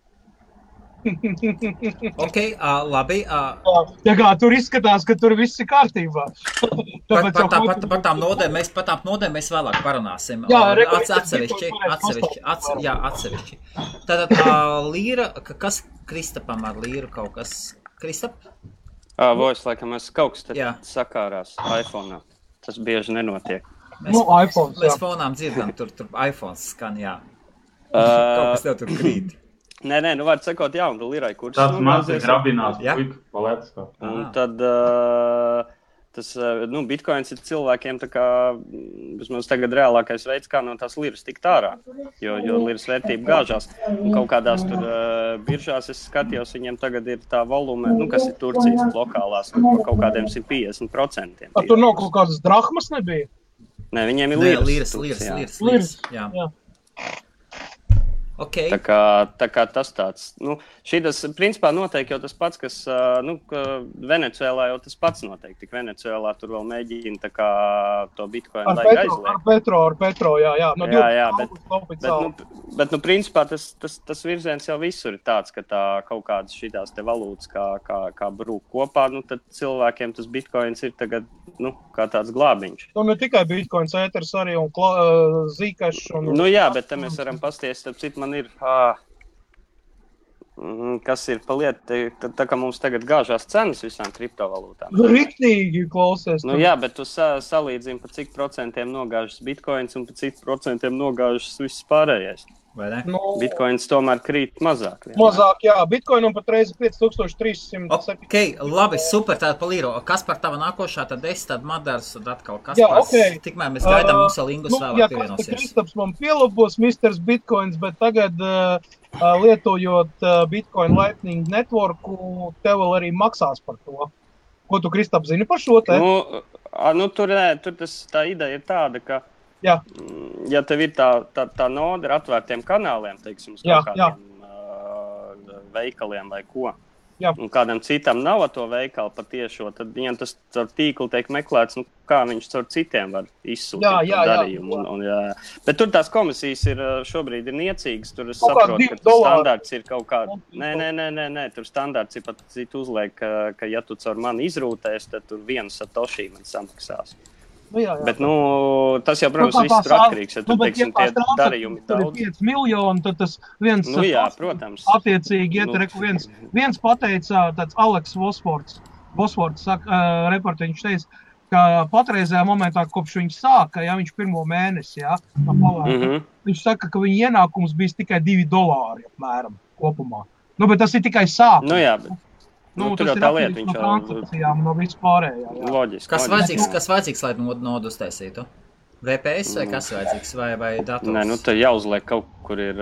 Ok, labi. Ja kā tur izskatās, ka tur viss ir kārtībā. Par tām nodēm mēs vēlāk parunāsim. Atsevišķi. Tātad līra, kas Kristapam ar līru kaut kas? Kristap? Voice, laikam, kaut kas sakārās iPhone'ā. Tas bieži nenotiek. Mēs fonām dzirdam, tur iPhones skan, jā. Kaut kas tev tur krīt. Nē, var sakot, un lirai kursus. Tas maz ir grabinās, palētas kā. Un tad tas, Bitcoins ir cilvēkiem tā kā, vismaz tagad reālākais veids, kā no tās liras tikt ārā, jo liras vērtība gāžās. Un kaut kādās tur biržās es skatījos, viņiem tagad ir tā volume, kas ir Turcijas lokālās, kaut kādiem 150%. Tur nav kaut kādas drahmas nebija? Nē, viņiem ir liras. Jā. Okay. Tā kā tas tāds, šitas principā notiek jau tas pats, kas, Venecuēlā jau tas pats notiek, tik Venecuēlā tur vēl mēģina tā kā to Bitcoin laika aizliegt. Ar Petro, jā. Bet principā tas virziens jau visur ir tāds, ka tā kaut kādas šitās te valūtas kā brūk kopā, tad cilvēkiem tas Bitcoins ir tagad, kā tāds glābiņš. Ne tikai Bitcoins, ēters arī un zīkašs. Jā, bet te mēs varam pasties, starp citu, man ir, kas ir pa lietu, tā kā mums tagad gāžās cenas visām kriptovalūtām. Riktīgi klausies. Jā, bet tu salīdzini, pa cik procentiem nogāžas Bitcoins un pa cik procentiem nogāžas viss pārējais. vai ne? Bitcoins tomēr krīt mazāk. Mazāk, jā. Bitcoinam patreiz 5300. Ok, labi, super, tāda palīro. Kas par tava nākošā, tad es, tad Madars, tad atkal kas Jā, par... ok. Tikmēr mēs gaidām, mums vēl Ingus vēlāk Jā, pievienosies. Kristaps man pielabos Mr. Bitcoins, bet tagad lietojot Bitcoin Lightning Networku, tev vēl arī maksās par to. Ko tu, Kristap, zini par šo te? Tur tā ideja ir tāda, ka Jā. Ja tev ir tā noda ar atvērtiem kanāliem, teiksim, uz kādiem veikaliem vai ko, Jā. Un kādam citam nav to veikalu patiešo, tad viņam tas caur tīklu tiek meklēts, kā viņš caur citiem var izsūtīt darījumu. Bet tur tās komisijas šobrīd ir niecīgas, tur es saprotu, ka tas standārts ir kaut kā... Nē, tur standārts ir pat citu uzliek, ka ja tu caur mani izrūtēs, tad tur 1 satoshi man samaksās. Jā. Bet, tas jau, protams, viss tur atkarīgs, ja tu, teiksim, tie darījumi daudz. Tur ir 5 miljoni, tad tas viens... protams. Attiecīgi, viens pateica, tāds Aleks Vosfords saka, reporti, viņš teica, ka patreizējā momentā, kopš viņš sāka, viņš pirmo mēnesi, viņš saka, ka viņa ienākums bijis tikai $2 apmēram kopumā. Bet tas ir tikai sākums. Tur jau tā lieta, viņš jau... No vispārējā, Loģiski. Kas vajadzīgs, lai nodu uztaisītu? VPS vai kas vajadzīgs, vai dators? Nē, tad jāuzliek kaut kur ir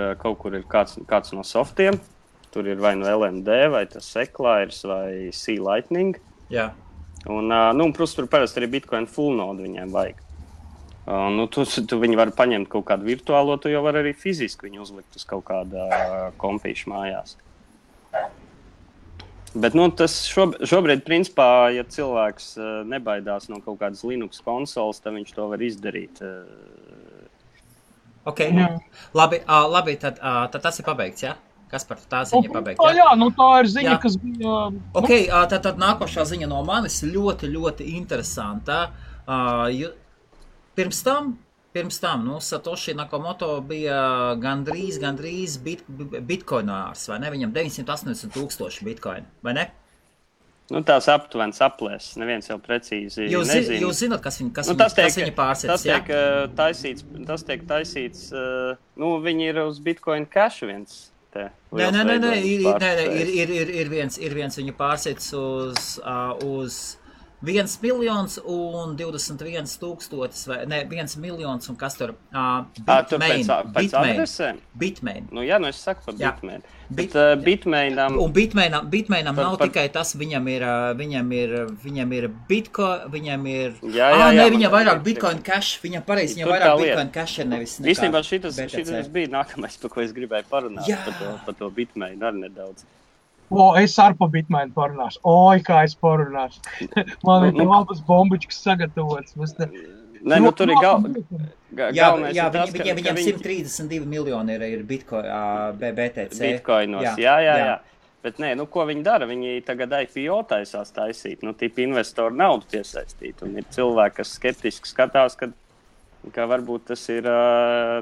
kāds no softiem. Tur ir vai no LND, vai tas Eclairs, vai C-Lightning. Jā. Un, protams, tur parasti arī Bitcoin full nodu viņiem vajag. Tu viņi var paņemt kaut kādu virtuālo, tu jau var arī fiziski viņu uzlikt uz kaut kāda kompīša mājās. Bet tas šobrīd, principā, ja cilvēks nebaidās no kaut kādas Linux konsoles, tad viņš to var izdarīt. Ok, labi, tad tas ir pabeigts, jā? Kas par tā ziņa pabeigta? Jā, tā ir ziņa, kas bija... Ok, tad nākošā ziņa no manis ļoti, ļoti interesanta. Pirms tam, Satoshi Nakamoto bija gandrīz bitcoinārs, vai ne? Viņam 980,000 bitcoin, vai ne? Tās aptuvenas aplēses, neviens jau precīzi nezina. Jūs zināt, kas viņa pārsēdz, jā? Tas tiek taisīts, viņi ir uz Bitcoin Cash viens. Nē, ir viens viņu pārsēdz uz 1,021,000 vai ne, 1 miljons un kas tur? Bitmain. Es saku par Bitmain. Bet Bitmainam... Un Bitmainam nav tikai tas, viņam ir Bitcoin, viņam ir... Viņam vairāk Bitcoin Cash, viņam pareizi, viņam vairāk Bitcoin Cash ir nevis nekā. Īstenībā šitas bija nākamais, par ko es gribēju parunāt, par to Bitmainu arī nedaudz. Es ar pa Bitmainu parunāšu. Kā es parunāšu. Man ir labas bombičkas sagatavotas. Tur ir galvenais. Viņam 132 miljoni ir Bitcoin, BTC. Bitcoinos, jā. Bet ko viņi dara? Viņi tagad IPO taisās taisīt. Tipi investoru naudu piesaistīt. Un ir cilvēki, kas skeptiski skatās, ka varbūt tas ir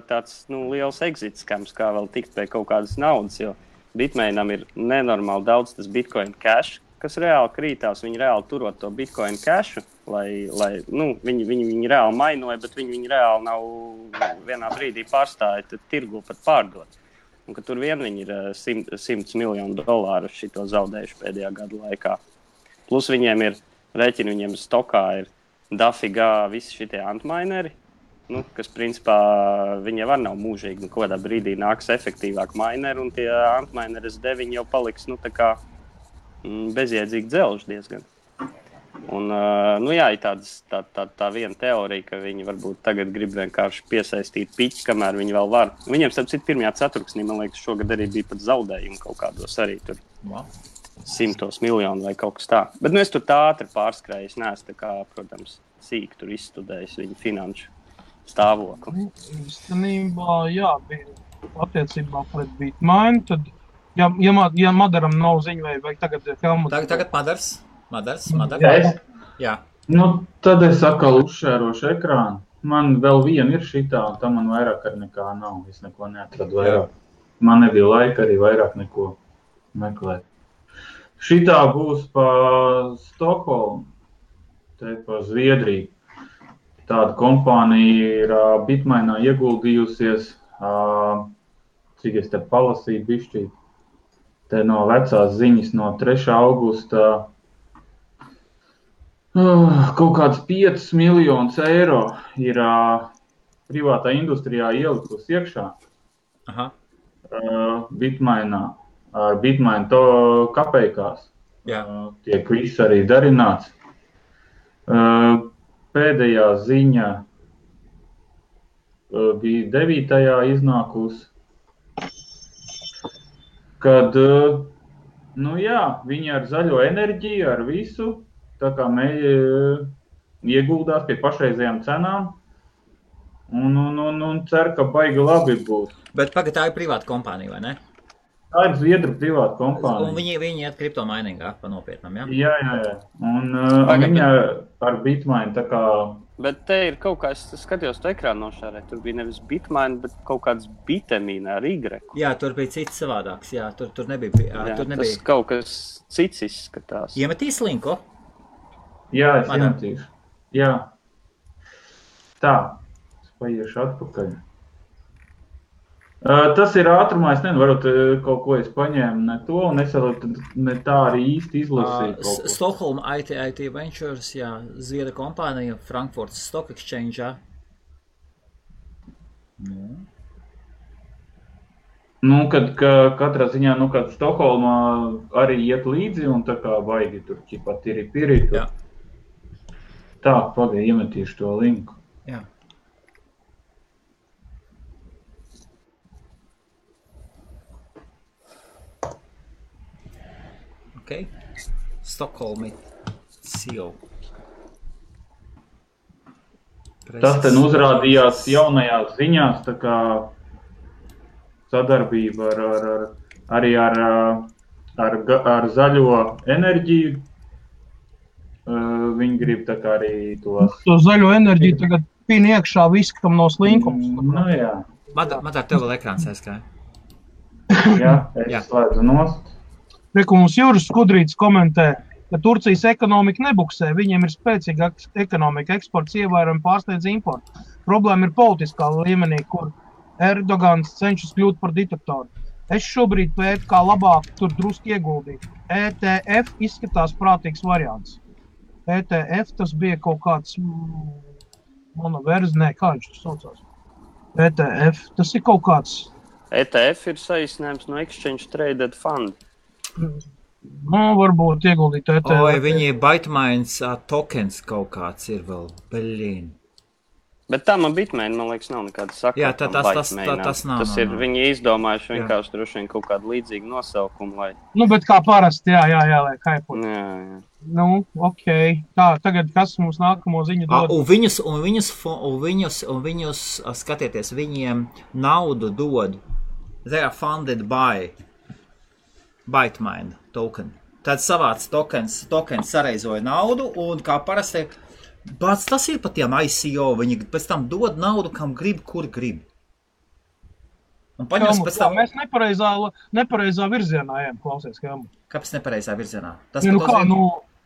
tāds liels exit skams, kā vēl tikt pie kaut kādas naudas, jo Bitmainam ir nenormāli daudz tas Bitcoin Cash, kas reāli krītās. Viņi reāli turot to Bitcoin Cashu, lai viņi reāli mainoja, bet viņi reāli nav vienā brīdī pārstāja tirgu pat pārdot. Un ka tur vien viņi ir $100 miljonu šito zaudējuši pēdējā gada laikā. Plus viņiem ir rēķini, viņiem stokā ir dafigā visi šitie antmineri, kas principā viņi jau nav mūžīgi, kaut kādā brīdī nāks efektīvāk mineri, un tie antmineri S9 jau paliks, tā kā bezjēdzīgi dzelži diezgan. Un, ir tā viena teorija, ka viņi varbūt tagad grib vienkārši piesaistīt piķi, kamēr viņi vēl var. Viņiem, starp citu, pirmajā ceturksnī, man liekas, šogad arī bija pat zaudējumi kaut kādos arī tur 100 miljonu vai kaut kas tā. Bet es tur tā ātri pārskrēju, es neesmu tā kā, protams, sīk tur izstudējis viņu finanšu stāvokli. Īstenībā, bija attiecībā pret Bitmain, tad, ja Madaram nav ziņa vai tagad Helmut... Tagad Madars. Jā. Tad es atkal uzšērošu ekrānu. Man vēl viena ir šitā, un tam man vairāk ar nekā nav. Es neko neatradu vairāk. Man nebija laika arī vairāk neko meklēt. Šitā būs pa Stokholmu, te pa Zviedriju. Tāda kompānija ir Bitmainā ieguldījusies cik es te palasīju bišķīt. Te no vecās ziņas no 3. augusta kaut kāds 5 miljonus eiro ir privātā industrijā ielikus iekšā. Aha. Bitmainā, ar Bitmain to kapeikās. Jā. Tiek viss arī darināts. Pēdējā ziņa bija 9. iznākus, kad, viņi ar zaļo enerģiju, ar visu, tā kā ieguldās pie pašreizējām cenām un cer, ka baigi labi būs. Bet pagad, tā ir privāta kompānija, vai ne? Tā ir Zviedru privāta kompānija. Un viņi iet kriptomainingā pa nopietnam, ja? Jā. Un viņa ar Bitmain tā kā... Bet te ir kaut kā, es skatījos to ekrānu nošārē, tur bija nevis Bitmain, bet kaut kāds Bitemīna ar Y. Jā, tur bija cits savādāks, jā, tur nebija. Jā, tas kaut kas cits izskatās. Iemetīs linku? Jā, es iemetīšu. Jā. Tā, es paiešu atpakaļ. Tas ir ātrumā, es nezinu, varbūt kaut ko es paņēmu ne to, un es vēl ne tā arī īsti izlasīju kaut ko. Stockholm IT Ventures, jā, Zviedra kompānija, Frankfurts Stock Exchange, jā. Kad katrā ziņā, kad Stokholmā arī iet līdzi, un tā kā baigi tur ķipat ir pirī. Jā. Tā, pagaid, iemetīšu to linku. Jā. Okay. Stockholmi CEO. Tas ten uzrādījās jaunajās ziņās, tā kā sadarbība arī ar zaļo enerģiju. Viņi grib tā kā arī tos... To zaļo enerģiju tagad pīn iekšā viss, kam nav slinkums. Jā. Man tā tev vēl ekrāns aizskāja. Jā, es slēdzu nost. Reku mums Juris Skudrītis komentē, ka Turcijas ekonomika nebuksē, viņiem ir spēcīga ekonomika, eksports ievērojami pārsniedz importu. Problēma ir politiskā līmenī, kur Erdogans cenšas kļūt par diktatoru. Es šobrīd pētu, kā labāk tur druski ieguldīt. ETF izskatās prātīgs variants. ETF tas bija kaut kāds monoverzi, kā viņš tur saucās. ETF, tas ir kaut kāds... ETF ir saīsinājums no Exchange Traded Fund. Varbūt ieguldīt ETF. Oi, viņi Bitmains tokens kaut kāds ir vēl, beļīn. Bet tā man Bitmain, man liekas, nav nekāda sakra. Jā, tas nav. Tas ir, viņi izdomājuši vienkārši droši vien kaut kādu līdzīgu nosaukumu, lai... Bet kā parasti, jā, lai kaipot. Jā. Okei. Tā, tagad kas mums nākamo ziņu dod? Un viņus, skatieties, viņiem naudu dod. They are funded by Bitmain token. Tad savāc tokens sareizoja naudu, un kā parasti... Bāc, tas ir pat tiem ICO, viņi pēc tam dod naudu, kam grib, kur grib. Un paņems pēc tam... Mēs nepareizā virzienā ejam, klausies, Helmut. Kāpēc nepareizā virzienā?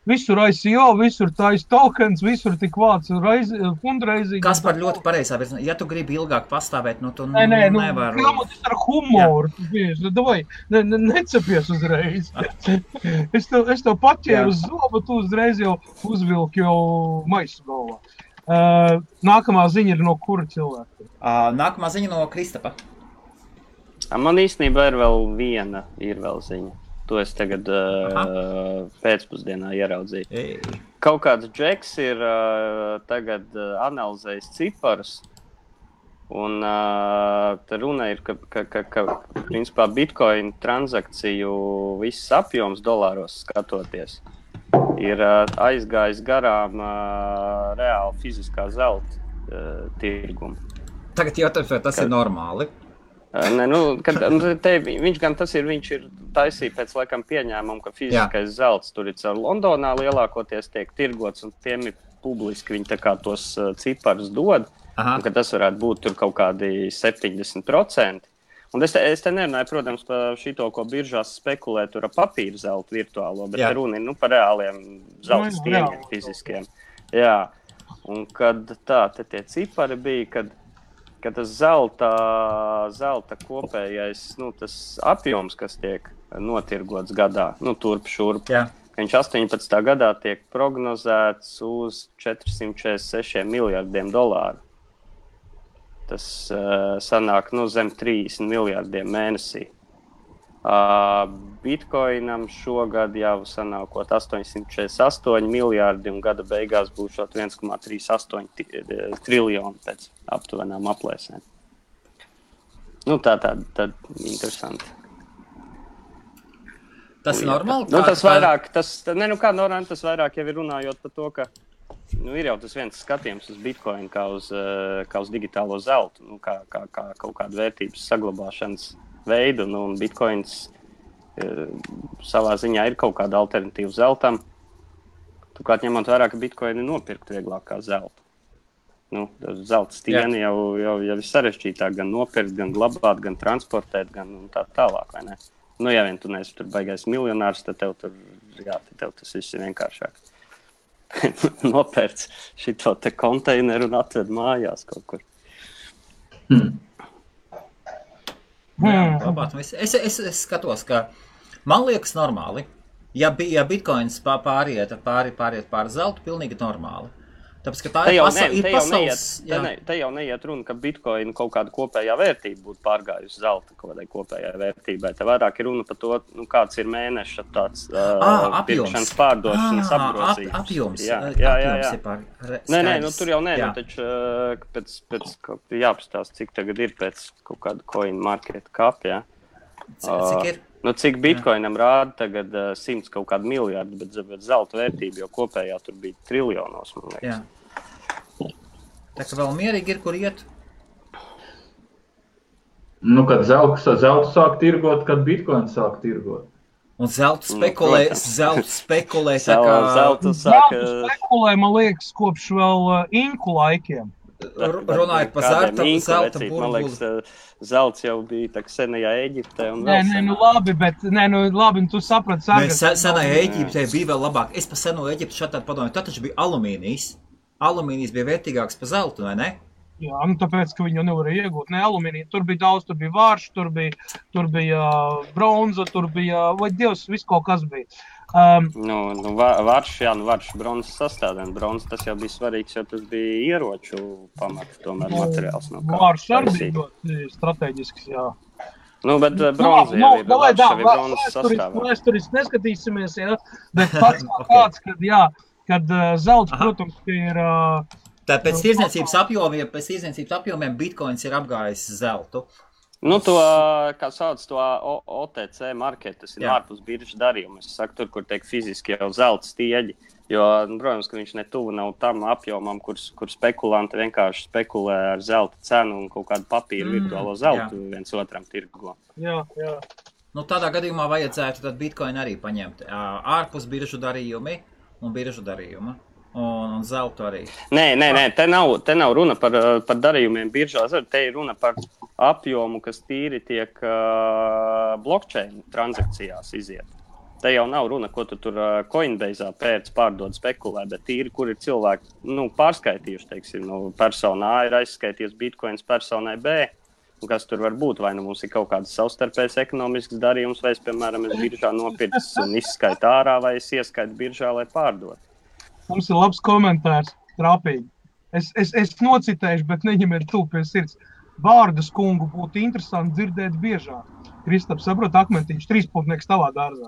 Visur ICO, visur tais tokens, visur tik vāc fundraising. Kas par ļoti pareizā virzienā? Ja tu gribi ilgāk pastāvēt, tu nevar... Helmut, es ar humoru, davai, necepies uzreiz. Es tev paķēru uz zobu, tu uzreiz jau uzvilki jau maisu galvā. Nākamā ziņa ir no kura cilvēka? Nākamā ziņa no Kristapa. Man īstenībā ir vēl viena ziņa. To es tagad pēcpusdienā ieraudzīju. Kaut kāds džeks ir tagad analizējis ciparus, un te runa ir, ka principā Bitcoin transakciju viss apjoms dolāros skatoties ir aizgājis garām reāli fiziskā zelta tirgumu. Tagad jautājums, vai tas ir normāli? Viņš ir taisīja pēc laikam pieņēmumu, ka fiziskais zelts tur ir caur Londonā lielākoties tiek tirgots, un tiem ir publiski viņi tā kā tos ciparus dod, un ka tas varētu būt tur kaut kādi 70%. Un es te nerunāju, protams, par šito, ko biržās spekulē tur ar papīra zeltu virtuālo, bet runa ir par reāliem zelta stieņiem fiziskiem. Jā, un kad te tie cipari bija, kad ka tas zelta kopējais, tas apjoms, kas tiek notirgots gadā, turp šurp, ka viņš 18. gadā tiek prognozēts uz $446 miljardiem. Tas sanāk zem 30 miljardiem mēnesī. Bitcoinam šogad jau sanākot 848 miljardi un gada beigās būs 1,38 triljoni pēc aptuvenām aplēsēm. Tā interesanti. Tas ir normāli? Tas vairāk, kā normāli, tas vairāk jau ir runājot par to, ka ir jau tas viens skatījums uz Bitcoin kā uz digitālo zeltu, kā kaut kādu vērtības saglabāšanas veidu, un Bitcoins savā ziņā ir kaut kāda alternatīva zeltam. Turklāt ņemot vērā, ka Bitcoini nopirkt vieglāk kā zeltu. Zelta stieni jau ir sarežģītāk gan nopirkt, gan glabāt, gan transportēt, gan tā tālāk, vai ne? Ja vien tu neesi tur baigais miljonārs, tad tev tas viss ir vienkāršāk. Nopērts šito te konteineru un atved mājās kaut kur. Es skatos, ka man liekas normāli, ja Bitcoins pāriet pār zeltu, pilnīgi normāli. Tāpēc, ka tā ir pasaules... Te jau neiet runa, ka Bitcoin kaut kāda kopējā vērtība būtu pārgājusi zelta kaut kādai kopējā vērtībai. Te vairāk ir runa par to, kāds ir mēneša tāds pirkšanas pārdošanas apgrozījums. Apjoms. Nē, tur jau nē, taču pēc jāpastāst, cik tagad ir pēc kaut kāda coin market cap, jā. Cik ir? Cik Bitcoinam rāda tagad 100 kaut kādu miljardu, bet zelta vērtība jau kopējā tur bija triljonos, man liekas. Jā. Tā kā vēl mierīgi ir, kur iet? Kad zeltu sāk tirgot, kad Bitcoin sāk tirgot. Un zeltu spekulē tā kā... Zeltu spekulē, man liekas, kopš vēl inku laikiem. Runājot par zelta burbuli. Man liekas, zelts jau bija tā senajā Eģiptē un vēl senāk. Labi, tu saprati. Senajā Eģiptē bija vēl labāk. Es pa seno Eģiptu šādi padomāju, tad taču bija alumīnijas. Alumīnijas bija vērtīgāks par zeltu, vai ne? Jā, tāpēc, ka viņi jau nevarēja iegūt alumīniju. Tur bija daudz, tur bija vārš, tur bija bronza, tur bija, vai Dievs, viss kaut kas bija. Vārš bronzas sastāvdaļa. Bronzas tas jau bija svarīgs, jo tas bija ieroču pamats, tomēr materiāls. Vārš arī bija ļoti strateģisks, jā. Bet bronza jau ir bronzas sastāvdaļa. Vēsturiski neskatīsimies, jā, bet pats kāds, kad zelts, protams, ir... Tā pēc tirdzniecības apjomiem Bitcoins ir apgājis zeltu. To, kā sauc to OTC market, tas ir ārpus biržas darījuma. Es saku, tur, kur tiek fiziski jau zelta stieģi, jo, protams, ka viņš netuvu nav tam apjomam, kur spekulanti vienkārši spekulē ar zelta cenu un kaut kādu papīru virtuālo zeltu viens otram tirgo. Jā. Tādā gadījumā vajadzētu tad Bitcoin arī paņemt ārpus biržu darījumi un biržu darījuma. Un zeltu arī. Nē, te nav runa par darījumiem biržās, te ir runa par apjomu, kas tīri tiek blockchain transakcijās iziet. Te jau nav runa, ko tu tur Coinbase'ā pārdod spekulē, bet tīri, kur ir cilvēki pārskaitījuši, teiksim, persona A ir aizskaitījusi Bitcoins personai B, un kas tur var būt, vai mums ir kaut kāds savstarpējs ekonomisks darījums, vai es, piemēram, biržā nopircis un izskaitu ārā, vai es ieskaitu biržā, lai pārdot. Mums ir labs komentārs, trāpīgi. Es nocitēšu, bet neņemiet tu pie sirds. Bārdas kungu būtu interesanti dzirdēt biežāk. Kristaps, saprot, akmentiņš, 3-putnieks tavā dārzā.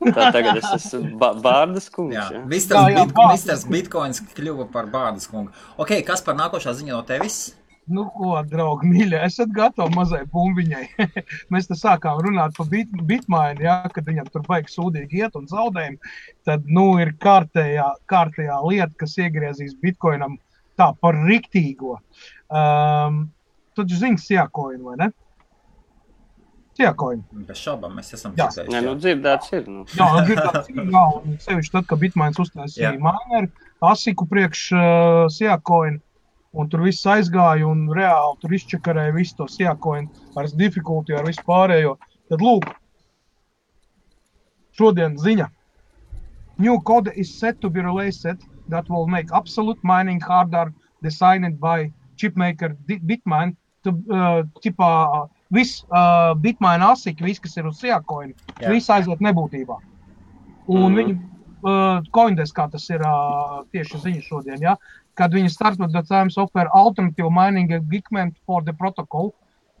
Tā tagad es esmu Bārdas kungs. Jā. Misters Bitcoins kļuva par Bārdas kungu. Ok, kas par nākošā ziņa no tevis? Ko, draugi, mīļie, esat gatavi mazai bumbiņai. Mēs te sākām runāt par Bitmainu, kad viņam tur baigi sūdīgi iet un zaudējumi. Tad, ir kārtējā lieta, kas iegriezīs Bitcoinam tā par riktīgo. Tad zini Siacoin, vai ne? Siacoin. Bez šaubām, mēs esam dzirdējuši. Nē, dzirdēts ir. Jā, dzirdēts ir, un sevišķi tad, ka Bitmains uztaisīja mineru, asiku priekš Siacoin. Un tur viss aizgāja un reāli tur izčakarēja visu to Siacoin ar difficulty, ar visu pārējo. Tad lūk, šodien ziņa. New code is set to be released that will make absolute mining harder, designed by chipmaker Bitmain viss bitmaina asiki, viss, kas ir uz Siakoina, viss aiziet nebūtībā. Un viņi Coindesk, kā tas ir tieši ziņa šodien, ja? Kad viņi started the times offer alternative mining equipment for the protocol,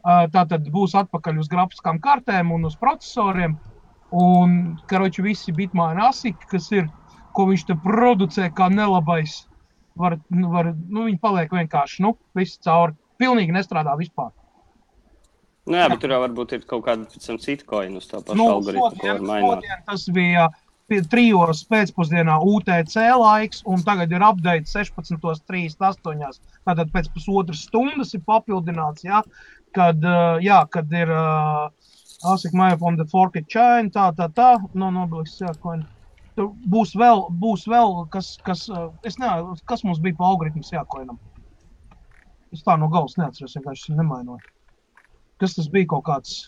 tātad būs atpakaļ uz grafiskām kartēm un uz procesoriem, un, karoči, visi bitmaina asiki, kas ir, ko viņš te producē kā nelabais, viņi paliek vienkārši, visi cauri, pilnīgi nestrādā vispār. Nu jā, bet tur jau varbūt ir kaut kāda cita coin uz tā pašu algoritmu, ko var mainot. Tas bija 3 pēcpusdienā UTC laiks, un tagad ir update 16:38. Tātad pēc pusotras stundas ir papildināts, ja, kad ir ASIC Maya from the forked chain, nobliks, jā, coin. Tur būs vēl kas es nezinu, kas mums bija pa algoritmus jākoinam. Es tā no galvas neatceros, vienkārši nemainoju. Kas tas bija kaut kāds?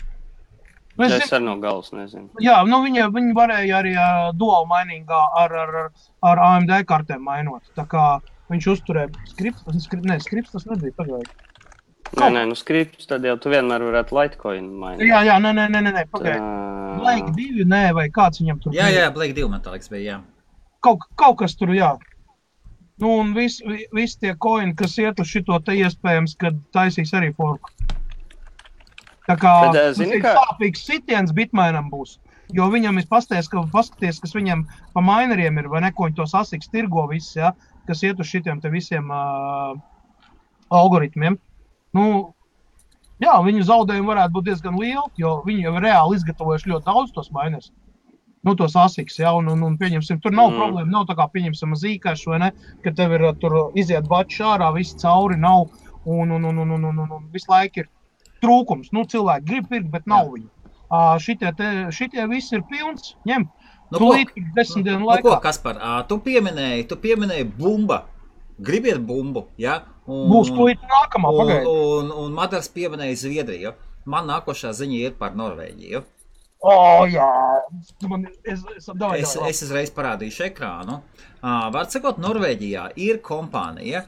Es ar no galvas nezinu. Jā, viņi varēja arī dual miningā ar AMD kartēm mainot. Tā kā viņš uzturēja skripts tas nebija pagaidi. Nē, skripts, tad jau tu vienmēr varētu Litecoin mainīt. Jā, nē, pagaidi. Blake 2, nē, vai kāds viņam tur bija? Jā, Blake 2 man tā liekas bija, jā. Kaut kas tur, jā. Un visi tie coini, kas iet uz šito te iespējams, kad taisīs arī forku. Tā kā tas ir sāpīgs sitiens bitmainam būs, jo viņam ir paskaties, kas viņam pa mineriem ir, vai ne, ko viņi tos asiks tirgo visi, ja, kas iet uz šitiem te visiem algoritmiem. Jā, viņu zaudējumi varētu būt diezgan lieli, jo viņi jau reāli izgatavojuši ļoti daudz tos miners. Tos asiks, ja, un pieņemsim, tur nav problēma, nav tā kā pieņemsim Zcash, vai ne, ka tev ir tur iziet bači ārā, visi cauri nav, un visu laiku ir trūkums. Cilvēki grib pirkt, bet nav viņu. Šitie visi ir pilns, ņem. Tūlīt 10 dienu laikā. Ko, Kaspar, tu pieminēji bumba. Gribiet bumbu, ja? Būs tūlīt nākamā, pagaidi. Un Madars pieminēja Zviedriju. Man nākošā ziņa ir par Norvēģiju. Jā. Es uzreiz parādīšu ekrānu. Var sakot, Norvēģijā ir kompānija.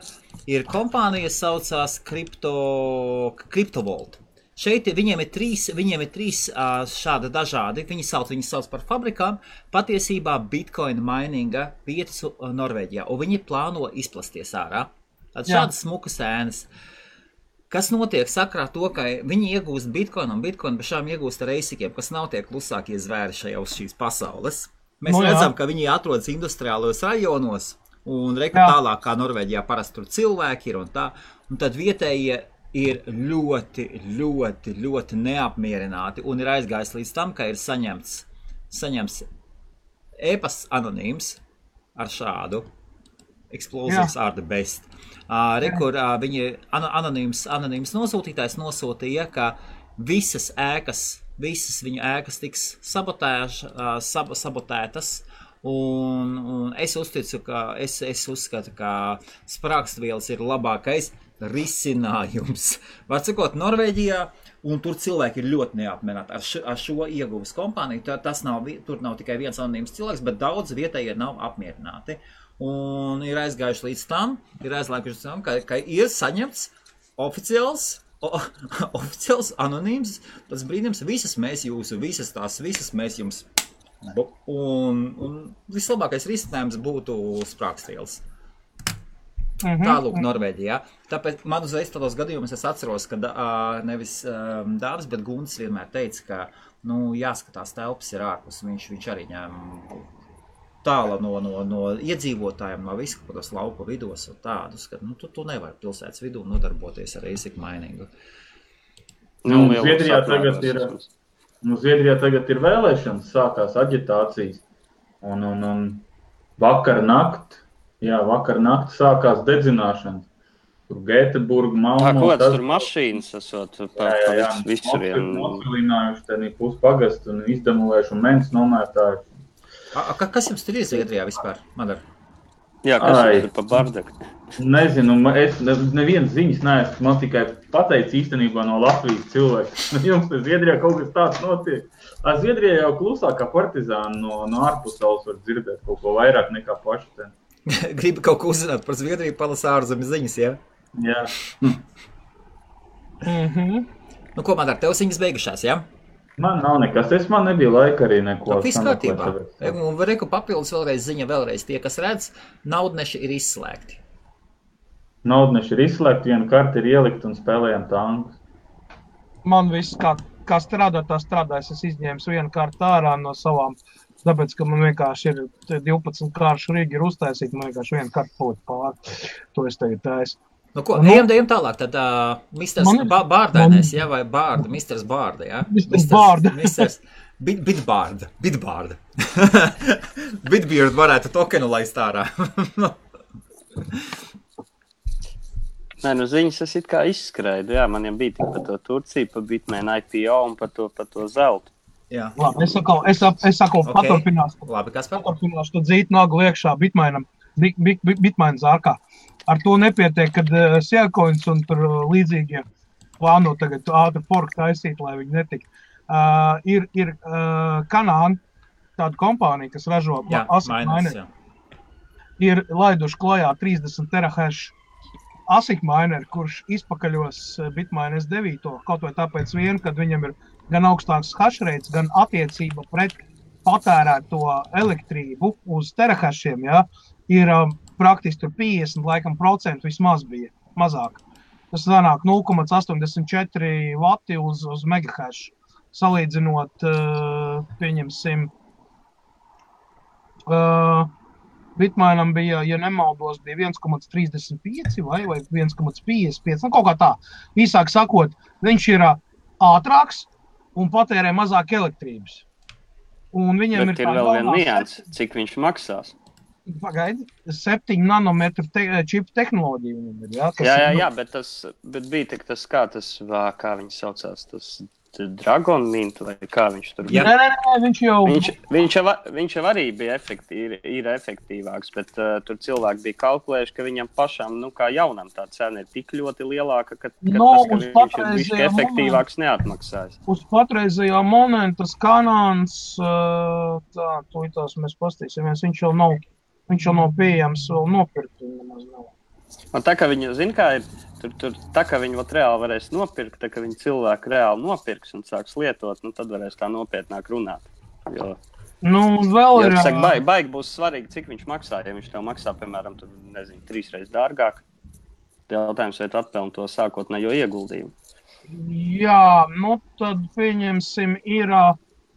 Saucās Cryptovolt. Šeit viņiem ir trīs šādi dažādi. Viņi sauc par fabrikām. Patiesībā Bitcoin mininga vietas Norvēģijā. Un viņi plāno izplasties ārā. Tad šādas smukas ēnas. Kas notiek sakrā to, ka viņi iegūst Bitcoin un Bitcoin bešām iegūst ar eisikiem, kas nav tie klusākie zvēri šajā uz šīs pasaules. Mēs redzam, ka viņi atrodas industriālos rajonos un tālāk kā Norvēģijā parasti tur cilvēki ir un tā. Un tad vietējie ir ļoti, ļoti, ļoti neapmierināti un ir aizgājis līdz tam, ka ir saņemts e-pasts anonīms ar šādu Explosives are the best. Kur viņi anonīms nosūtītājs nosūtīja, ka visas viņu ēkas tiks sabotētas, un es uzskatu, ka sprāgstvielas ir labākais risinājums. Var sakot, Norvēģijā, un tur cilvēki ir ļoti neapmierināti ar šo ieguves kompāniju. Tur nav tikai viens anonīms cilvēks, bet daudz vietējie nav apmierināti. Un ir aizgājuši līdz tam, ka ir saņemts oficiāls anonīms, tas brīdījums, visas mēs jums. Un vislabākais risinājums būtu sprāgstvielas. Tālūk Norvēģijā. Tāpēc man uzreiz tādos gadījumos es atceros, ka nevis Dāvis, bet Gunts vienmēr teica, ka jāskatās telpas ir ārpus. Viņš arī ņēma tāla no iedzīvotājiem, no visu kādos lauku vidos un tādus, ka tu nevari pilsētas vidū nodarboties ar ASIC miningu. Zviedrijā tagad ir vēlēšanas, sākās aģitācijas un vakar nakti sākās dedzināšanas. Tur Gēteburga, Malmo. Ko tur mašīnas esot pa visuriem? Nosilinājuši tenī puspagastu un izdemolējuši un mens nomētājuši. Kas jums tur ir Zviedrijā vispār, Madar? Jā, kas jums ir pa bardaku? Nezinu, es nevienas ziņas neesmu, man tikai pateic īstenībā no Latvijas cilvēku. Jums te Zviedrijā kaut kas tāds notiek. Zviedrijā jau klusāk kā partizāni no ārpusaules var dzirdēt kaut ko vairāk nekā paši ten. Gribi kaut ko uzzināt par Zviedriju, palasa ārzemju ziņas, ja? Jā. Nu, ko man ar tev ziņas beigušās, jā? Man nav nekas, man nebija laika arī neko. Viss kārtībā. Un reku papildus vēlreiz ziņa, vēlreiz tie, kas redz, naudneši ir izslēgti. Naudneši ir izslēgti, viena karta ir ielikt un spēlējam tankus. Man viss, kā strādā, tā strādājas. Es izņēmu vienu kartu ārā no savām, tāpēc, ka man vienkārši ir 12 kāršu rīgi ir uztaisīti, man vienkārši vienu kartu palikt pāri. To es tagad taisu. Nu ko, ejam tālāk, tad Misters Bārdainais, jā, vai Bārda, Misters Bārda, jā? Misters Bārda. Misters Bitbārda. Bitbeard varētu tokenu laist ārā. Nē, nu ziņas es it kā izskrēju, jā, man jau bija tik par to Turciju, par Bitmain IPO un par to zeltu. Jā. Labi, es saku, paturpināšu. Labi, Kaspar? Paturpināšu to dzītu nagu iekšā Bitmain zārkā. Ar to nepietiek, kad Seacoins un tur līdzīgie plāno tagad ātri fork taisīt, lai viņi netik. Ir Kanāna, tāda kompānija, kas ražo ASIC mineri, ir laiduši klajā 30 terahash ASIC mineri, kurš izpakaļos Bitmain S9, kaut vai tāpēc vien, kad viņam ir gan augstāks hash rates, gan attiecība pret patērēto elektrību uz terahashiem, jā, ir praktiski tur 50% vismaz bija, mazāk. Tas sanāk 0,84 vati uz megahash. Salīdzinot, pieņemsim, Bitmainam bija, ja nemaldos, bija 1,35 vai 1,55, nu kaut kā tā. Īsāk sakot, viņš ir ātrāks un patērē mazāk elektrības. Un viņam Bet ir vēl viena nianse, cik viņš maksās. Pagaidi, 7 nanometru čipu tehnoloģiju viņam ir, jā? Jā, bet bija tik tas, kā viņi saucās, tas Dragon Mint, vai kā viņš tur bija? Nē, viņš jau... Viņš jau arī bija ir efektīvāks, bet tur cilvēki bija kalkulējuši, ka viņam pašam, nu kā jaunam tā cena ir tik ļoti lielāka, ka viņš ir bišķi efektīvāks neatmaksājas. Uz patreizējā momenta Kanāns, tās mēs pastīsimies, viņš jau nav pieejams vēl nopirkt, nemaz nav. Un tā kā viņi, zin kā ir, tā kā viņi reāli varēs nopirkt, tā kā viņi cilvēki reāli nopirks un sāks lietot, nu tad varēs tā nopietnāk runāt. Jo, vēl ir... Baigi būs svarīgi, cik viņš maksā, ja viņš tev maksā, piemēram, 3 reizes dārgāk. Jautājums, vai tu atpelni to sākotnējo ieguldījumu. Jā, nu tad pieņemsim ir...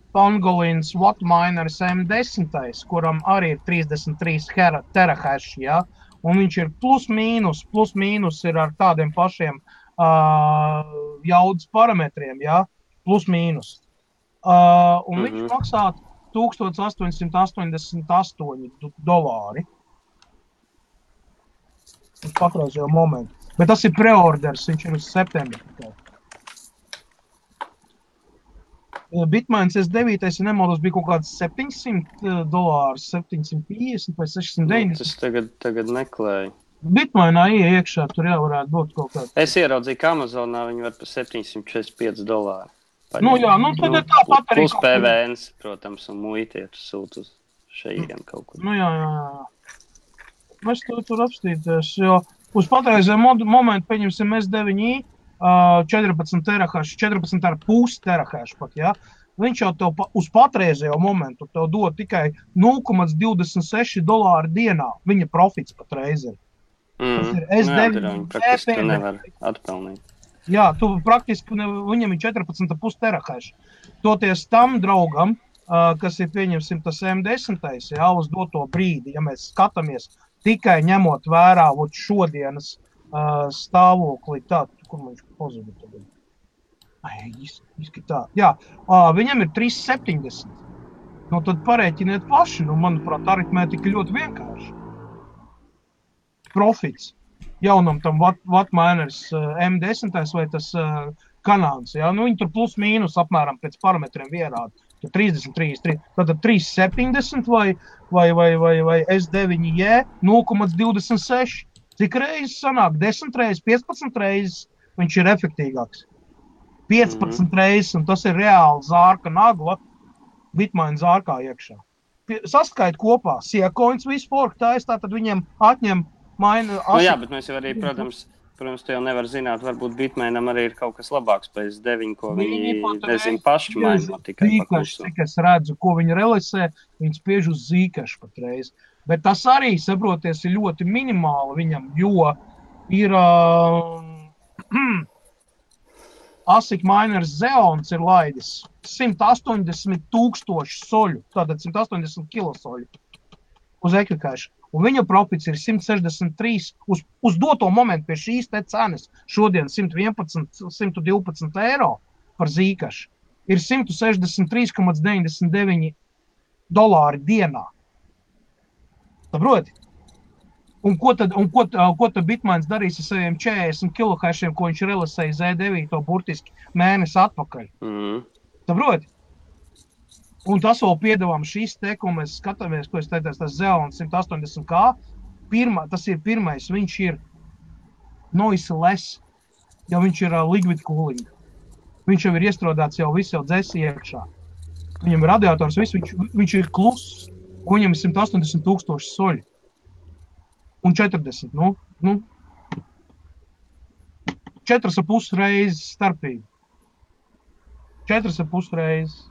Pangolins Wattmineris M10, kuram arī ir 33 terahash, ja? Un viņš ir plus mīnus ir ar tādiem pašiem jaudas parametriem, ja? Plus mīnus. Un viņš maksā $1888 uz patreizējo momentu. Bet tas ir preorders, viņš ir uz septembri. Bitmains S9, ja nemaldos, bija kaut kāds $700, 750 vai 690. Tas tagad meklēju. Bitmainā iekšā tur jau varētu būt kaut kāds. Es ieraudzīju, ka Amazonā viņi var par $745. Nu jā, nu tad ir tāpat arī. Plus PVNs, protams, un muitiet sūt uz šeien kaut kur. Nu jā. Mēs tur apstīties, jo uz patreizējo momentu pieņemsim S9i, 14 terahash, 14,5 terahash pat, ja? Viņš jau tev uz patreizējo momentu tev dod tikai $0,26 dienā. Viņa profits patreiz ir. Tas ir S9. Jā, praktiski tu nevar atpelnīt. Jā, tu praktiski, viņam ir 14,5 terahash. Toties tam draugam, kas ir pieņemsim tas M10, jā, uz doto brīdi, ja mēs skatāmies tikai ņemot vērā šodienas stāvokli, kur viņš pazuda tagad? Tā. Jā, viņam ir 370. Nu, tad parēķiniet paši. Nu, manuprāt, aritmētika ļoti vienkārši. Profits jaunam tam Wattmineris M10 vai tas Kanāns. Ja? Nu, viņi tur plus mīnus apmēram pēc parametriem ierāda. 33. Tātad 370 vai S9J 0,26. Cik reizes sanāk? 10 reizes, 15 reizes viņš ir efektīgāks. 15 reizes, un tas ir reāli zārka nagla Bitmain zārkā iekšā. Saskait kopā, Seacoins visu fork taisa, tad viņiem atņem Nu jā, bet mēs jau arī, protams, protams, tu jau nevar zināt, varbūt Bitmainam arī ir kaut kas labāks pēc 9, ko viņi nezinu paši maino tikai paklusu. Cik es redzu, ko viņi realizē, viņi spiež uz zīkašu patreiz. Bet tas arī, saproties, ir ļoti minimāli viņam, jo ir ASIC miners Xeons ir laidis 180,000 soļu, tātad 180 kilosoļu uz ekvikašu. Un viņa profits ir 163 uz doto momentu pie šīs te cenas. Šodien 111, 112 eiro par zīkašu ir 163,99 dolāri dienā. Saproti? Un ko tad Bitmains darīs ar saviem 40 kilohešiem, ko viņš realizēja Z9 burtiski mēnesi atpakaļ? Saproti? Un tas vēl piedāvām šīs te, ko mēs skatāmies, ko es teicu, tas Xeon 180K. Tas ir pirmais, viņš ir noiseless, jo viņš ir liquid cooling. Viņš jau ir iestrādāts jau viss jau dzēsi iekšā. Viņam ir radiators, viņš ir kluss, un viņam ir 180,000 soļi. Un 40, 4,5 reizes starpība. 4,5 reizes.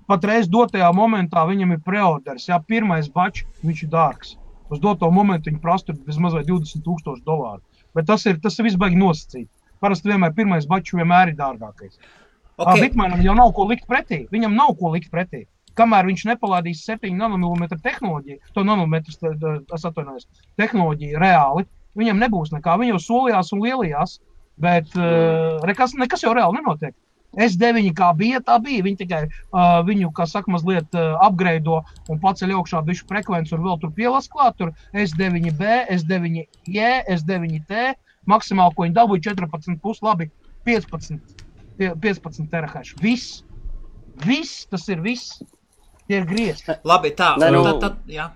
Patreiz dotajā momentā viņam ir preorders. Jā, pirmais bačs, viņš ir dārgs. Uz doto momentu viņi prasa vismaz $20,000. Bet tas ir viss baigi nosacīt. Parasti vienmēr pirmais bačs vienmēr ir dārgākais. Okay. Bitmainam jau nav ko likt pretī. Viņam nav ko likt pretī. Kamēr viņš nepalādīs 7 nanomilimetru tehnoloģiju, tehnoloģiju reāli, viņam nebūs nekā. Viņi jau solījās un lielījās, bet nekas jau reāli nenotiek. S9 kā bija, tā bija. Viņi tikai viņu, kā saka, mazliet upgraido un paceļ augšā bišķi frekvenci un vēl tur pielas klāt. Tur S9B, S9J, S9T, maksimāli, ko viņi dabūja 14,5, labi, 15 terahash. Viss, tas ir viss. Tie ir griezti. Labi, tā. Jā.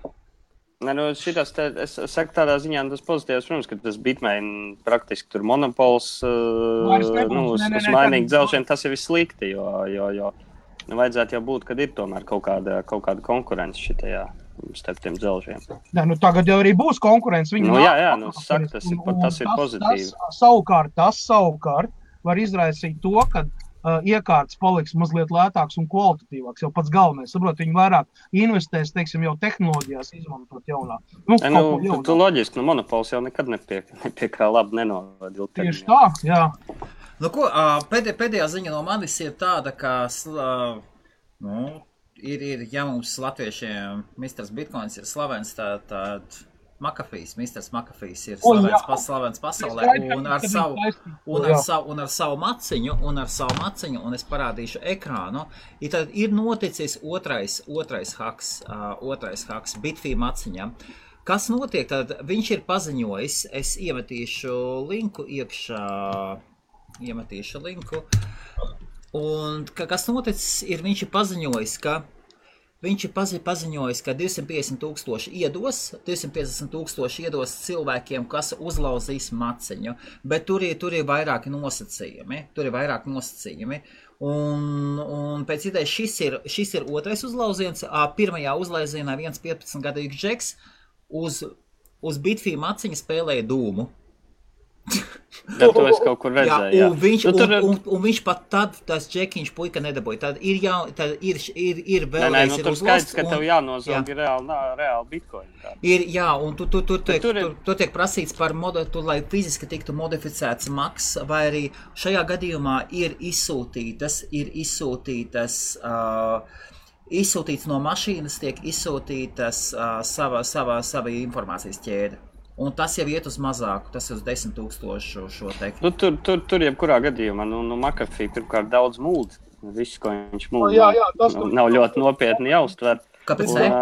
Šitas, es saku tādā ziņā, tas pozitīvs, protams, ka tas Bitmain praktiski tur monopols, uz mainīgu dzelžiem, tas ir viss slikti, jo vajadzētu jau būt, kad ir tomēr kaut kāda konkurence šitajā starp tiem dzelžiem. Tagad jau arī būs konkurence. Tas ir pozitīvi. Tas savukārt var izraisīt to, ka iekārtas paliks mazliet lētāks un kvalitatīvāks, jau pats galvenais. Saprot, viņi vairāk investēs, teiksim, jau tehnoloģijās izmantot jaunā. Tu loģiski, monopols jau nekad nepie kā labi nenovada. Tieši tā, jā. Pēdējā ziņa no manis ir tāda, ka, ja mums latviešiem Mr. Bitcoins ir slavens, tad Mr. McAfees ir slavens pasaulē un ar savu maciņu, un es parādīšu ekrānu, tad ir noticis otrais haks Bitfī maciņam. Kas notiek? Tad viņš ir paziņojis, es iemetīšu linku iekšā, un kas noticis ir, viņš ir paziņojis, ka 250,000 iedos cilvēkiem, kas uzlauzīs maciņu, bet tur ir vairāki nosacījumi. Un pēc idejas šis ir otrais uzlauziens. Pirmajā uzlauzienā 15-gadīgs džeks uz Bitfī maciņa spēlēja dūmu. To es kaut kur redzēju, un viņš pat tad, tas džekiņš puika nedabūja. Tad ir vēlreiz ir uzlasts. Skaidrs, ka tev jānozog reāli bitcoin. Un tur tiek prasīts par lai fiziski tiktu modificēts maks, vai arī šajā gadījumā ir izsūtīts no mašīnas, tiek izsūtītas sava informācijas ķēde. Un tas jau iet uz mazāku, tas ir uz 10,000 šo teiktu. Tur jebkurā gadījumā, McAfee pirmkārt daudz mūd. Viss, ko viņš mūd, nav ļoti nopietni jāuztver. Kāpēc ne?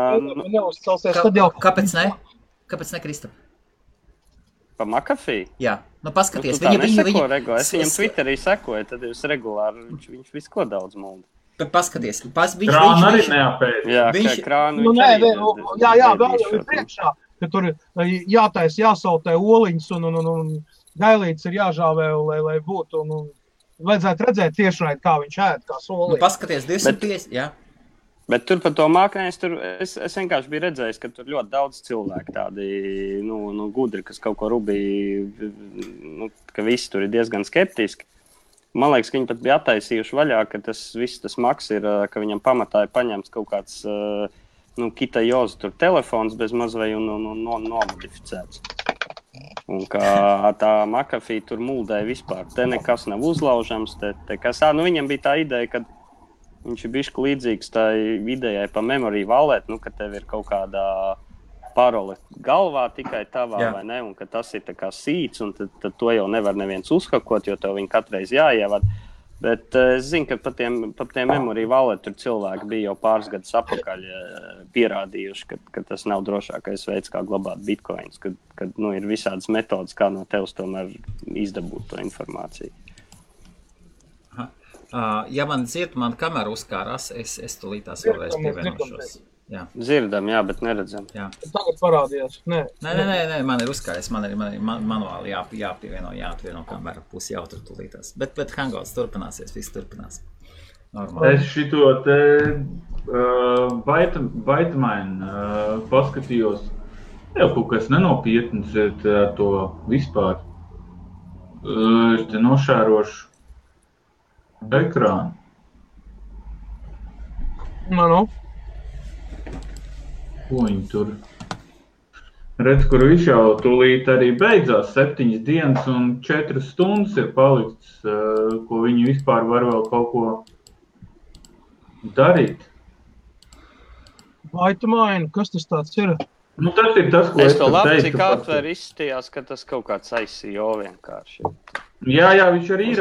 Kāpēc ne, Kristap? Pa McAfee? Jā, paskaties. Tu tā neseko, Rego. Es viņam Twitterī sekoju, tad jūs regulāri, viņš visu ko daudz mūd. Bet paskaties. Krānu arī neapēd. Jā, krānu viņš arī. Jā, vēl jau ir priekšā. Ka tur jāsautē oliņas un gailītes ir jāžāvē, lai būtu. Vajadzētu redzēt tiešraidi, kā viņš ēd, kā soliņas. Paskaties, 250, jā. Bet tur par to māknēs, es vienkārši biju redzējis, ka tur ļoti daudz cilvēku tādi, gudri, kas kaut ko rubīja, ka visi tur ir diezgan skeptiski. Man liekas, ka viņi pat bija attaisījuši vaļā, ka tas maks ir, ka viņam pamatā ir paņemts kaut kāds, Kitajoza tur telefons bez mazvai un nomodificēts. Un kā tā McAfee tur muldēja vispār. Te nekas nav uzlaužams, viņam bija tā ideja, ka viņš ir bišķi līdzīgs tai idejai pa memory wallet, ka tev ir kaut kādā parole galvā tikai tavā, vai ne, un ka tas ir tā kā sīts, un tad to jau nevar neviens uzhakot, jo tev viņi katreiz jāievad. Bet es zinu, ka pa tiem memory wallet tur cilvēki bija jau pāris gadus apakaļ pierādījuši, ka tas nav drošākais veids, kā glabāt bitcoins, kad ir visādas metodas, kā no tevis tomēr izdabūt to informāciju. Ja man kamera uzkārās, es tulītās vēlreiz pievienošos. Jā. Dzirdam, bet neredzam. Jā. Tagad parādījās. Nē, man ir uzkāries, man ir manuāli jāatvieno kamera, pusi jau tur tulītās. Bet Hangouts turpināsies, viss turpinās. Normāli. Es šito te Baitmain paskatījos, jau kaut kas nenopietns ir to vispār. Es te nošērošu ekrānu. Ko viņi tur? Redz, kur viņš jau tūlīt arī beidzās 7 dienas un 4 stundas ir palikts, ko viņi vispār var vēl kaut ko darīt. Baitmain, kas tas tāds ir? Tas ir tas, ko es to labi, cik atver izstījās, ka tas kaut kāds ICO vienkārši. Jā, viņš arī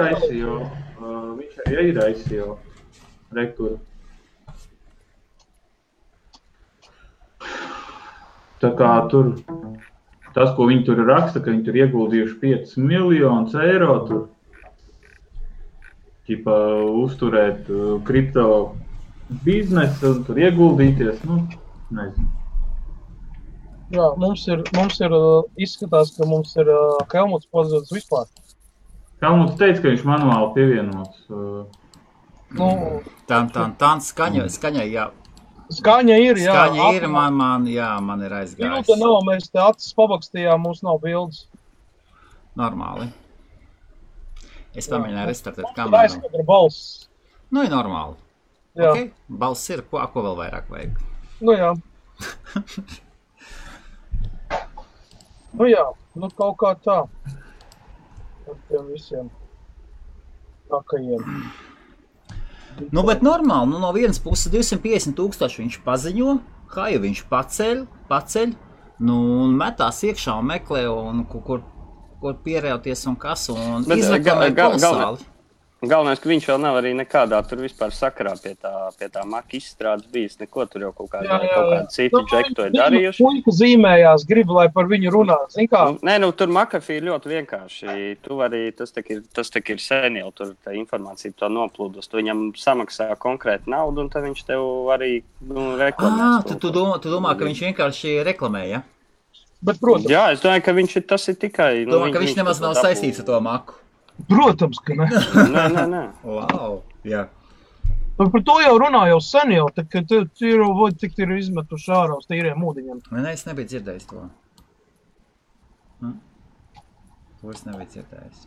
ir ICO. Rekur. Tā kā tur, tas, ko viņi tur raksta, ka viņi tur ieguldījuši 5 miljonus eiro tur, uzturēt kripto biznesu un tur ieguldīties, nezinu. Jā, mums ir izskatās, ka mums ir Helmuts pazudis vispār. Helmuts teica, ka viņš manuāli pievienots. Skaņai, jā. Skaņa ir, jā. Skaņa ir, man ir aizgājis. Minūte nav, mēs te acis pabakstījām, mums nav bildes. Normāli. Es pamēģināju restartēt kameru. Aizskatra balss. Ir normāli. Jā. Okay. Balss ir, ko vēl vairāk vajag? Jā. Kaut kā tā. Ar tiem visiem takajiem. Bet normāli, no vienas puses 250,000 viņš paziņo, kā jau viņš paceļ, un metās iekšā un meklē, un kur pierējoties un kas, un izreklamē kolosāli. Galvenais, ka viņš vēl nav arī nekādā tur vispār sakarā pie tā Mac izstrādes bijis, neko tur jau kaut kādi citi džeki to ir darījuši. Puika zīmējās, grib, lai par viņu runā, zin kā? Tur McAfee ir ļoti vienkārši. Tu vari, tas tak ir sen jau, tur tā informācija to noplūdus. Tu viņam samaksā konkrēti naudu, un tad viņš tev arī reklamēs. Tu domā, ka viņš vienkārši reklamē, ja? Bet, protams. Jā, es domāju, ka tas ir tikai... Domā, ka viņš nemaz nav saistīts ar to Macu. Protams, ka ne. Nē. Wow, jā. Par to jau runā jau sen jau, kad tik ir izmetuši ārā uz tīriem ūdeņiem. Nē, es nebiju dzirdējis to. To es nebiju dzirdējis.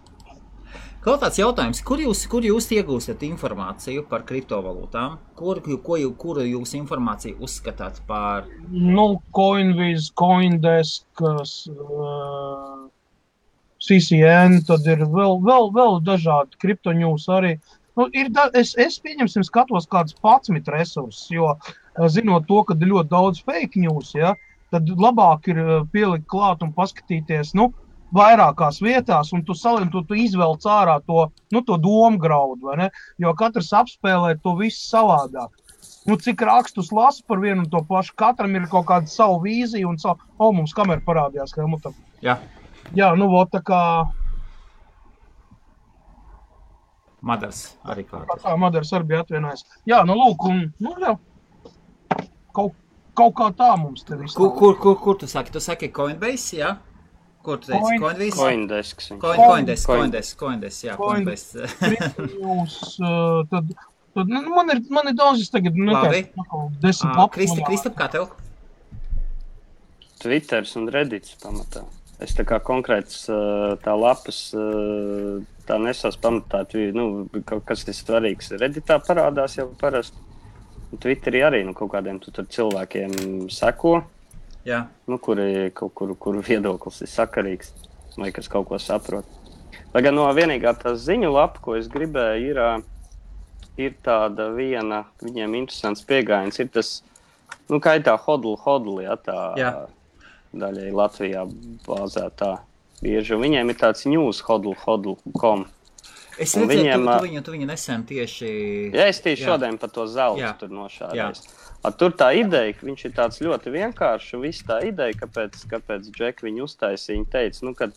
Kaut tāds jautājums, kur jūs iegūstat informāciju par kriptovalūtām? Kuru jūs informāciju uzskatāt par? Coinviz, Coindesk, CCN, tad ir vēl dažādi kriptoņūs arī. Es pieņemsim skatos kādus 11 resursus, jo zinot to, ka ir ļoti daudz fake news, ja, tad labāk ir pielikt klāt un paskatīties, vairākās vietās, un tu izvelc ārā to domgraudu, vai ne? Jo katrs apspēlē to visu savādāk. Cik rakstus lasa par vienu un to pašu, katram ir kaut kāda savu vīziju un savu... mums kamera parādījās, ka Helmutam. Jā. Jā, tā kā... Madars arī klāties. Madars arī bija atvienājis. Jā, lūk, jā. Kaut kā tā mums te viss. Kur tu saki? Tu saki Coinbase, jā? Kur tu teici? Coindesk. Coindesk, jā, Coinbase. Kriptoņūs, tad Tad, man ir daudzas tagad, Labi. 10 lapas. Kristap, kā tev? Twitters un Reddits pamatā. Es tā kā konkrēts tā lapas tā nesās pamatā, kaut kas ir svarīgs. Redditā parādās jau parasti. Twitterī arī kaut kādiem tur cilvēkiem seko, kuri kaut kur viedoklis ir sakarīgs, vai kas kaut ko saprot. Lai gan no vienīgā tā ziņu lapa, ko es gribēju, ir tāda viena, viņiem interesants pieejams, ir tas, kā ir tā hodl, tā daļai Latvijā bāzētā bieži. Viņiem ir tāds news hodl.com. Es redzēju, tu viņu nesen tieši... Jā, es tieši šodien par to zeltu tur nošādēs. Tur tā ideja, viņš ir tāds ļoti vienkāršs, un viss tā ideja, kāpēc Džek viņu uztaisīja, viņa teica, kad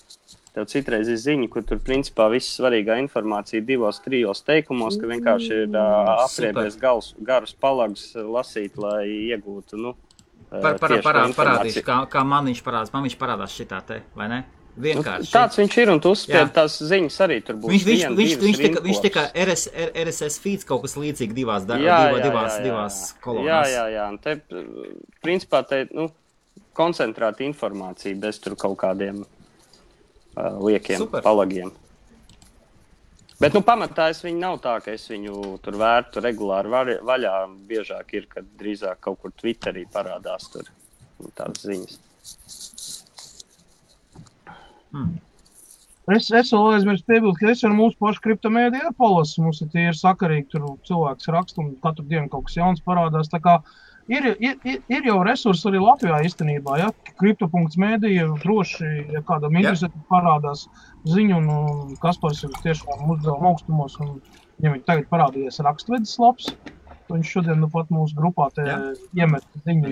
tev citreiz ir ziņa, kur tur principā viss svarīgā informācija 2-3 teikumos, ka vienkārši ir apriebies garus palagus lasīt, lai iegūtu, Parādīšu, kā man viņš parādās šitā te, vai ne? Vienkārši. Tāds viņš ir, un tu uzspied tās ziņas arī tur būs viņš tika RSS feeds kaut kas līdzīgi divās kolonās. Jā. Un te, principā, koncentrēta informācija bez tur kaut kādiem liekiem palagiem. Bet, pamatā viņu nav tā, ka es viņu tur vērtu regulāri vaļā. Biežāk ir, kad drīzāk kaut kur Twitterī parādās tur tādas ziņas. Es vēl aizmirstu piebilst, ka es ar mūsu pašu kriptomēdiju palasu. Mums ir tie sakarīgi, tur cilvēks raksta un katru dienu kaut kas jauns parādās. Tā kā ir jau resursi arī Latvijā īstenībā, ja? Kripto.medija droši, ja kādam interesēti parādās ziņu, un Kaspars ir tiešām uzdevuma augstumos, un ja viņi tagad parādījies rakstvedis labs, viņš šodien pat mūsu grupā iemet ziņu,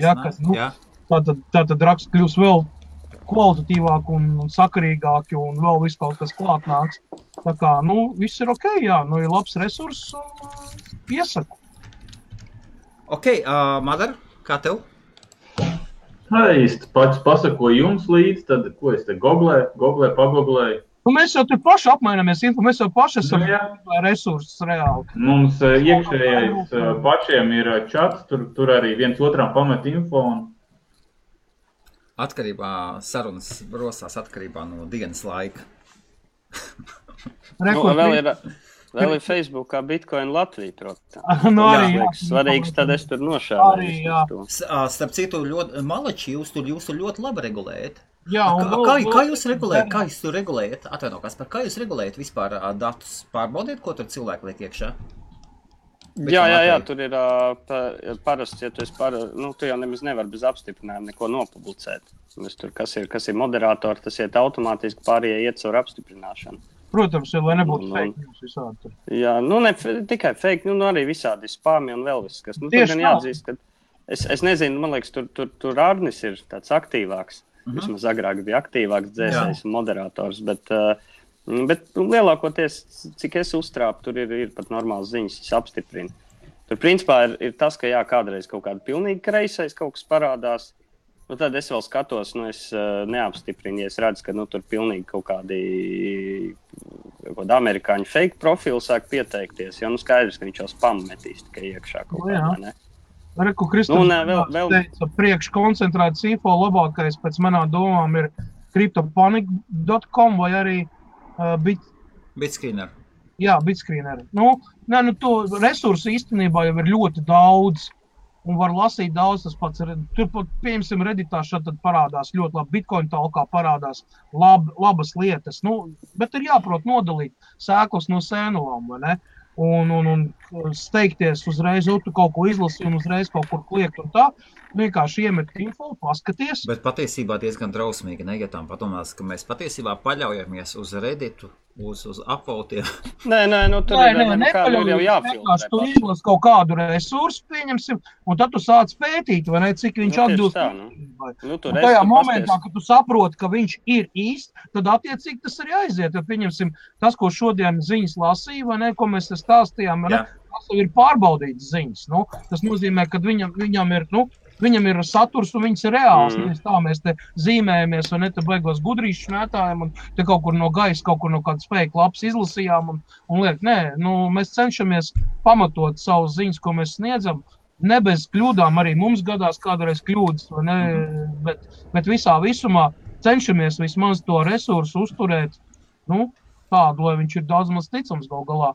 tātad raksts kļūs vēl kvalitatīvāki un sakarīgāki un vēl viss kaut kas klāt nāks. Tā kā, viss ir okei, ir labs resurss un piesaku. Okei, Madar, kā tev? Īsti pats pasakoju jums līdz, tad ko es te pagoglēju. Mēs jau tur paši apmainamies info, mēs jau paši esam resursus reāli. Mums iekšējais pašiem ir čats, tur arī viens otram pamet info un atkarībā sarunas rosās atkarībā no dienas laika. Vēl ir Facebookā Bitcoin Latvija, protams. Svarīgs, tad es tur nošādēju. Starp citu, malači, jūs tur ļoti labi regulējat. Jā, kā jūs regulējat? Atvaino, Kaspar, kā jūs regulējat vispār datus? Pārbaudiet, ko tur cilvēki liek iekšā? Jā, tur ir parasti, ja tu jau nemaz nevar bez apstiprinājuma neko nopublicēt. Tur, kas ir moderatori, tas iet automātiski pārējie iet caur apstiprināšanu. Protams, lai nebūtu fake news visādi. Jā, ne tikai fake, arī visādi spāmi un vēl viss, kas. Tur gan jāatzīst, ka es nezinu, man liekas, tur Arnis ir tāds aktīvāks. Vismaz agrāk bija aktīvāks dzēsējs un moderators, bet lielākoties, cik es uztrāpu, tur ir pat normāls ziņas, es apstiprinu. Tur principā ir tas, ka kādreiz kaut kāda pilnīgi kreisais kaut kas parādās, tad es vēl skatos, es neapstiprinu, ja es redzu, ka tur pilnīgi kaut kādi amerikāņu fake profili sāk pieteikties, jo skaidrs, ka viņš jau spam metīs tikai iekšā kaut kādā, ne? Reku, Kristof, teica, priekš koncentrētas info labākais pēc manām domām ir cryptopanic.com vai arī Bitscreener. Jā, Bitscreener. To resursu īstenībā jau ir ļoti daudz un var lasīt daudz. Tas pats ir. Tur pat, piemēram, Redditā šad parādās ļoti labi. Bitcoin talkā parādās labas lietas. Bet ir jāprot nodalīt sēklas no sēnulām, vai ne? Un steigties uzreiz, tu kaut ko izlasi un uzreiz kaut kur kliekt un tā. Vienkārši iemet info, paskaties. Bet patiesībā diezgan drausmīgi, ne, ja tām padomās, ka mēs patiesībā paļaujamies uz Redditu, uz upvotiem. Nē, tur ir jau jāfiltrē. Tu izlasi kaut kādu resursu, pieņemsim, un tad tu sāc pētīt, vai ne, cik viņš atbilst. Tajā momentā, kad tu saproti, ka viņš ir īsts, tad attiecīgi tas arī aiziet. Ja, pieņemsim, tas, ko šodien ziņas lasīja, vai ne, ko mēs stāstījām, vai ne, tas jau ir pārbaudīts ziņas. Tas nozīmē, ka viņam ir, viņam ir saturs un viņas ir reāls. Mēs te zīmējamies un ne te beigos gudrīšu šmētājam un te kaut kur no gaisa, kaut kur no kādas fake lapas izlasījām un liek, nē, mēs cenšamies pamatot savus ziņas, ko mēs sniedzam. Ne bez kļūdām, arī mums gadās kādreiz kļūdas, vai ne, bet visā visumā cenšamies vismaz to resursu uzturēt, tādu, lai viņš ir daudz maz ticams gal galā.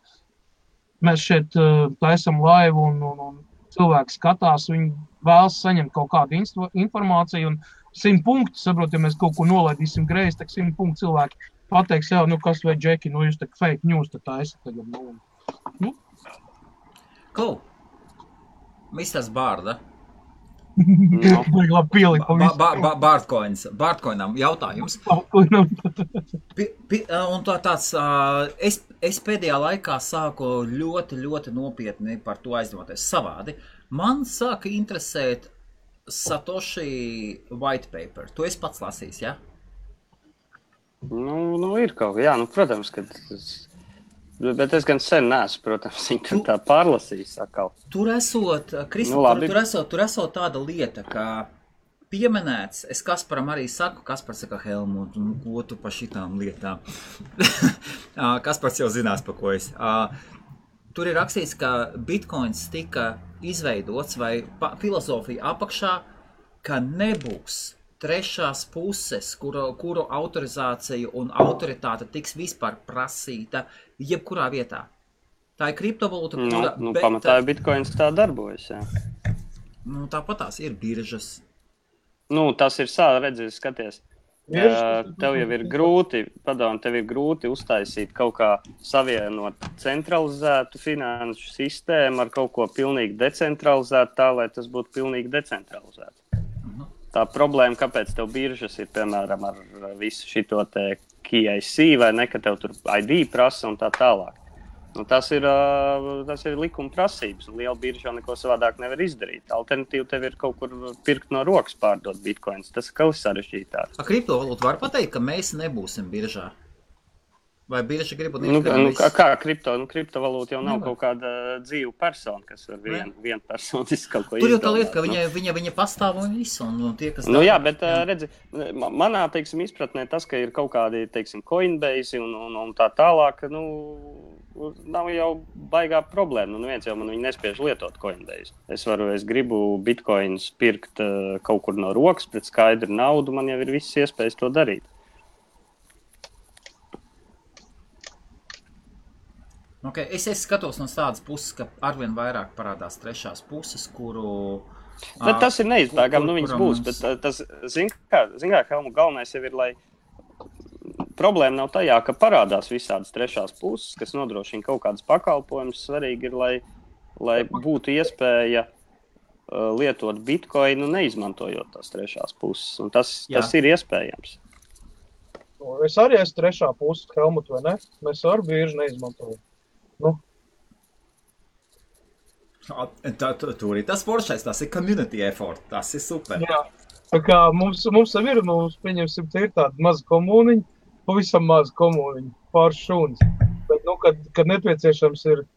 Mēs šeit taisam laivu un cilvēki skatās, viņi vēlas saņemt kaut kādu informāciju un 100 punkti, saprot, ja mēs kaut ko nolaidīsim greizi, tak 100 punkti cilvēki pateiks, jā, kas vai džeki, jūs tak fake news, tad taisa tagad, Cool. Misters Bārda. Vajag labi pielikt. Bārtkoinam jautājums. Un tāds, es pēdējā laikā sāku ļoti, ļoti nopietni par to aizdoties savādi. Man sāka interesēt Satoshi white paper. Tu esi pats lasījis, ja? Ir kaut kā, protams, ka bet es gan sen neesmu, protams, viņu tā pārlasījis atkal. Tur esot, Kristof, tur esot tāda lieta, ka pieminēts, es Kasparam arī saku, Kaspars saka, Helmut, ko tu pa šitām lietām? Kaspars jau zinās, pa ko es. Tur ir rakstīts, ka Bitcoins tika izveidots vai filozofija apakšā, ka nebūs trešās puses, kuru autorizācija un autoritāte tiks vispār prasīta jebkurā vietā. Tā ir kriptovalūta, kura... Pamatā Bitcoins tā darbojas, jā. Tāpat tās ir biržas. Tas ir redzies, skaties. Tev jau ir grūti uztaisīt kaut kā savienot centralizētu finanšu sistēmu ar kaut ko pilnīgi decentralizētu tā, lai tas būtu pilnīgi decentralizēts. Tā problēma, kāpēc tev biržas ir, piemēram, ar visu šito te KYC vai ne, ka tev tur ID prasa un tā tālāk. Tas ir likuma prasības, un liela birža neko savādāk nevar izdarīt. Alternatīva tev ir kaut kur pirkt no rokas pārdot bitcoins. Tas ir kaut sarežģītāk. Kriptovalūta var pateikt, ka mēs nebūsim biržā? Vai birža grib kā kriptovalūta jau nav kaut kāda dzīva persona, kas var vienpersoniski kaut ko izdomāt. Tur jau tā lieta, ka viņa pastāv un visu, un tie, kas... Jā, bet redzi, manā, izpratnē tas, ka ir kaut kādi, Coinbase un tā tālāk, nav jau baigā problēma. Neviens jau man viņu nespiež lietot Coinbase. Es gribu bitcoins pirkt kaut kur no rokas pret skaidru naudu, man jau ir visas iespējas to darīt. Okay, es skatos no tādas puses, ka arvien vairāk parādās trešās puses, kuru... Bet tas ir neizbēgami, viņas būs, bet tas, zin kā, Helmut, galvenais jau ir, lai problēma nav tajā, ka parādās visādas trešās puses, kas nodrošina kaut kādas pakalpojumus. Svarīgi ir, lai būtu iespēja lietot bitcoinu, neizmantojot tās trešās puses, un tas ir iespējams. Es arī esmu trešā puse, Helmut, vai ne? Mēs ar bieži neizmantojam. Tur ir tas foršais, tas ir community effort, tas ir super. Jā, tā kā mums ir, pieņemsim, ir tāda maza komūniņa, pavisam maza komūniņa, pāris šūnas. Bet, kad nepieciešams ir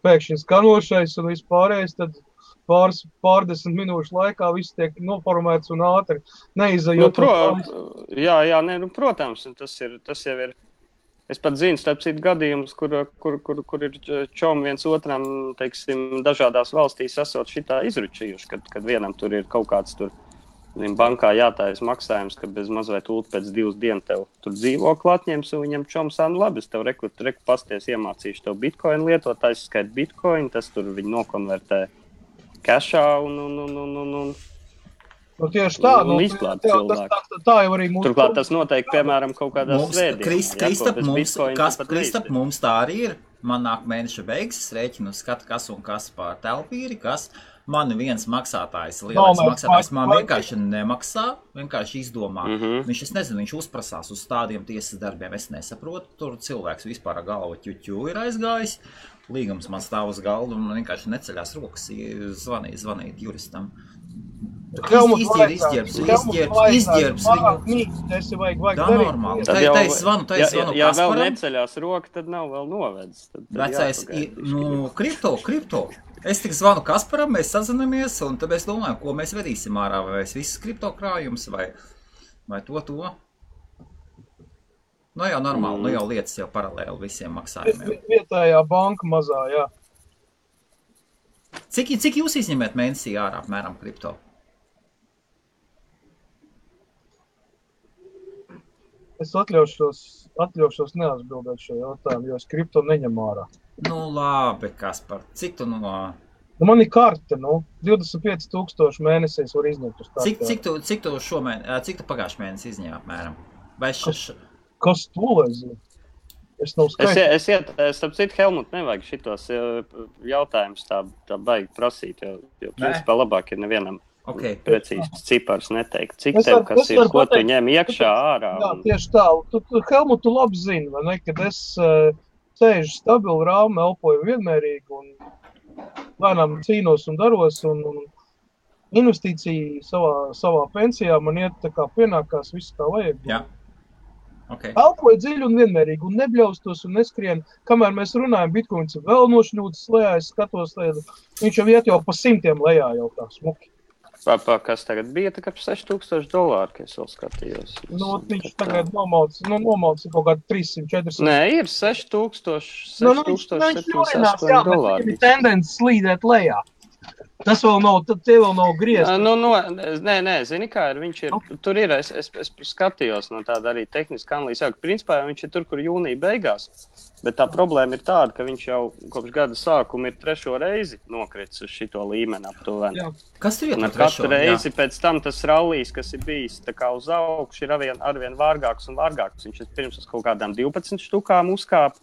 pēkšņi skanošais un vispārējais, tad pārdesmit minūšu laikā viss tiek noformēts un ātri neizajot. Protams, tas jau ir. Es pat zinu, starp citu gadījumus, kur ir čomi viens otram, dažādās valstīs esot šitā izručījuši, kad vienam tur ir kaut kāds bankā jātājas maksājums, ka bez mazliet ult pēc 2 dienu tev tur dzīvokli atņems, un viņam čoms labi, es tev reku pasties iemācīšu tev bitcoin lietot, aizskait bitcoin, tas tur viņi nokonvertē cashā un tieši tā, tā jau arī mūsu... Turklāt tas noteikti, piemēram, kaut kādā Kristap, mums tā arī ir. Man nāk mēneša beigas, es rēķinu skatu, kas un kas pār telpīri, kas man viens maksātājs, lielais maksātājs, man vienkārši nemaksā, vienkārši izdomā. Viņš, es nezinu, viņš uzprasās uz tādiem tiesas darbiem, es nesaprotu, tur cilvēks vispār galva ķuķu ir aizgājis, līgums man stāv uz galdu un vienkārši neceļās rokas, zvanīt juristam. Izģērbs viņu. Tā normāli. Tā es zvanu Ja vēl Kasparam. neceļās roka, tad nav vēl novedis. Vecais, kripto. Es tik zvanu Kasparam, mēs sazinamies, un tad mēs domājam, ko mēs vedīsim ārā, vai mēs visas kripto krājums, vai to. Nu jau normāli, nu jau lietas jau paralēli visiem maksājumiem. Vietējā banka mazā, jā. Cik jūs izņemiet mēnesī ārā apmēram kripto? Es atļaušos neatbildēt šo jautājumu, jo es kripto neņem ārā. Nu labi, Kaspar, cik tu Nu, man ir karte, 25,000 mēnesīs var izņemt uz karti. Cik tu pagājušajā mēnesī izņēmi apmēram? Vai Kas to lai zina? Es nav skaidrs. Starp citu, Helmut, nevajag šitos jautājumus tā baigi prasīt, jo principā labāk ir nevienam precīzs cipars neteikt. Cik tev, kas ir, ko tu ņem iekšā ārā? Jā, tieši tā. Helmut, tu labi zini, vai ne, kad es sēžu stabili rāmi, elpoju vienmērīgi un lēnām cīnos un daros un investīcija savā pensijā man iet tā kā pienākās viss kā vajag. Jā. Okay. Elpoju dziļi un vienmērīgi un nebļaustos un neskrien. Kamēr mēs runājam, Bitcoins ir vēl nošļūtas lejā, es skatos, viņš jau iet jau pa 100 lejā jau tā smuki. Kas tagad bija, tā kā $6,000, ka es vēl skatījos. Viņš tagad nomalcis kaut kādu 300-400. Nē, ir $6,700. Jā, bet viņam ir tendence slīdēt lejā. Tas vēl nav, tie vēl nav griezti. Nē, zini kā ir, viņš ir, tur ir, es skatījos no tāda arī tehniska analīze, ka principā viņš ir tur, kur jūnija beigās, bet tā problēma ir tāda, ka viņš jau kopš gada sākuma ir 3. reizi nokritis uz šito līmeni aptuveni. Kas tur ir par 3? Katru reizi pēc tam tas rallijs, kas ir bijis tā kā uz augšu, ir arvien vārgāks un vārgāks. Viņš ir pirms uz kaut kādām 12 štukām uzkāp.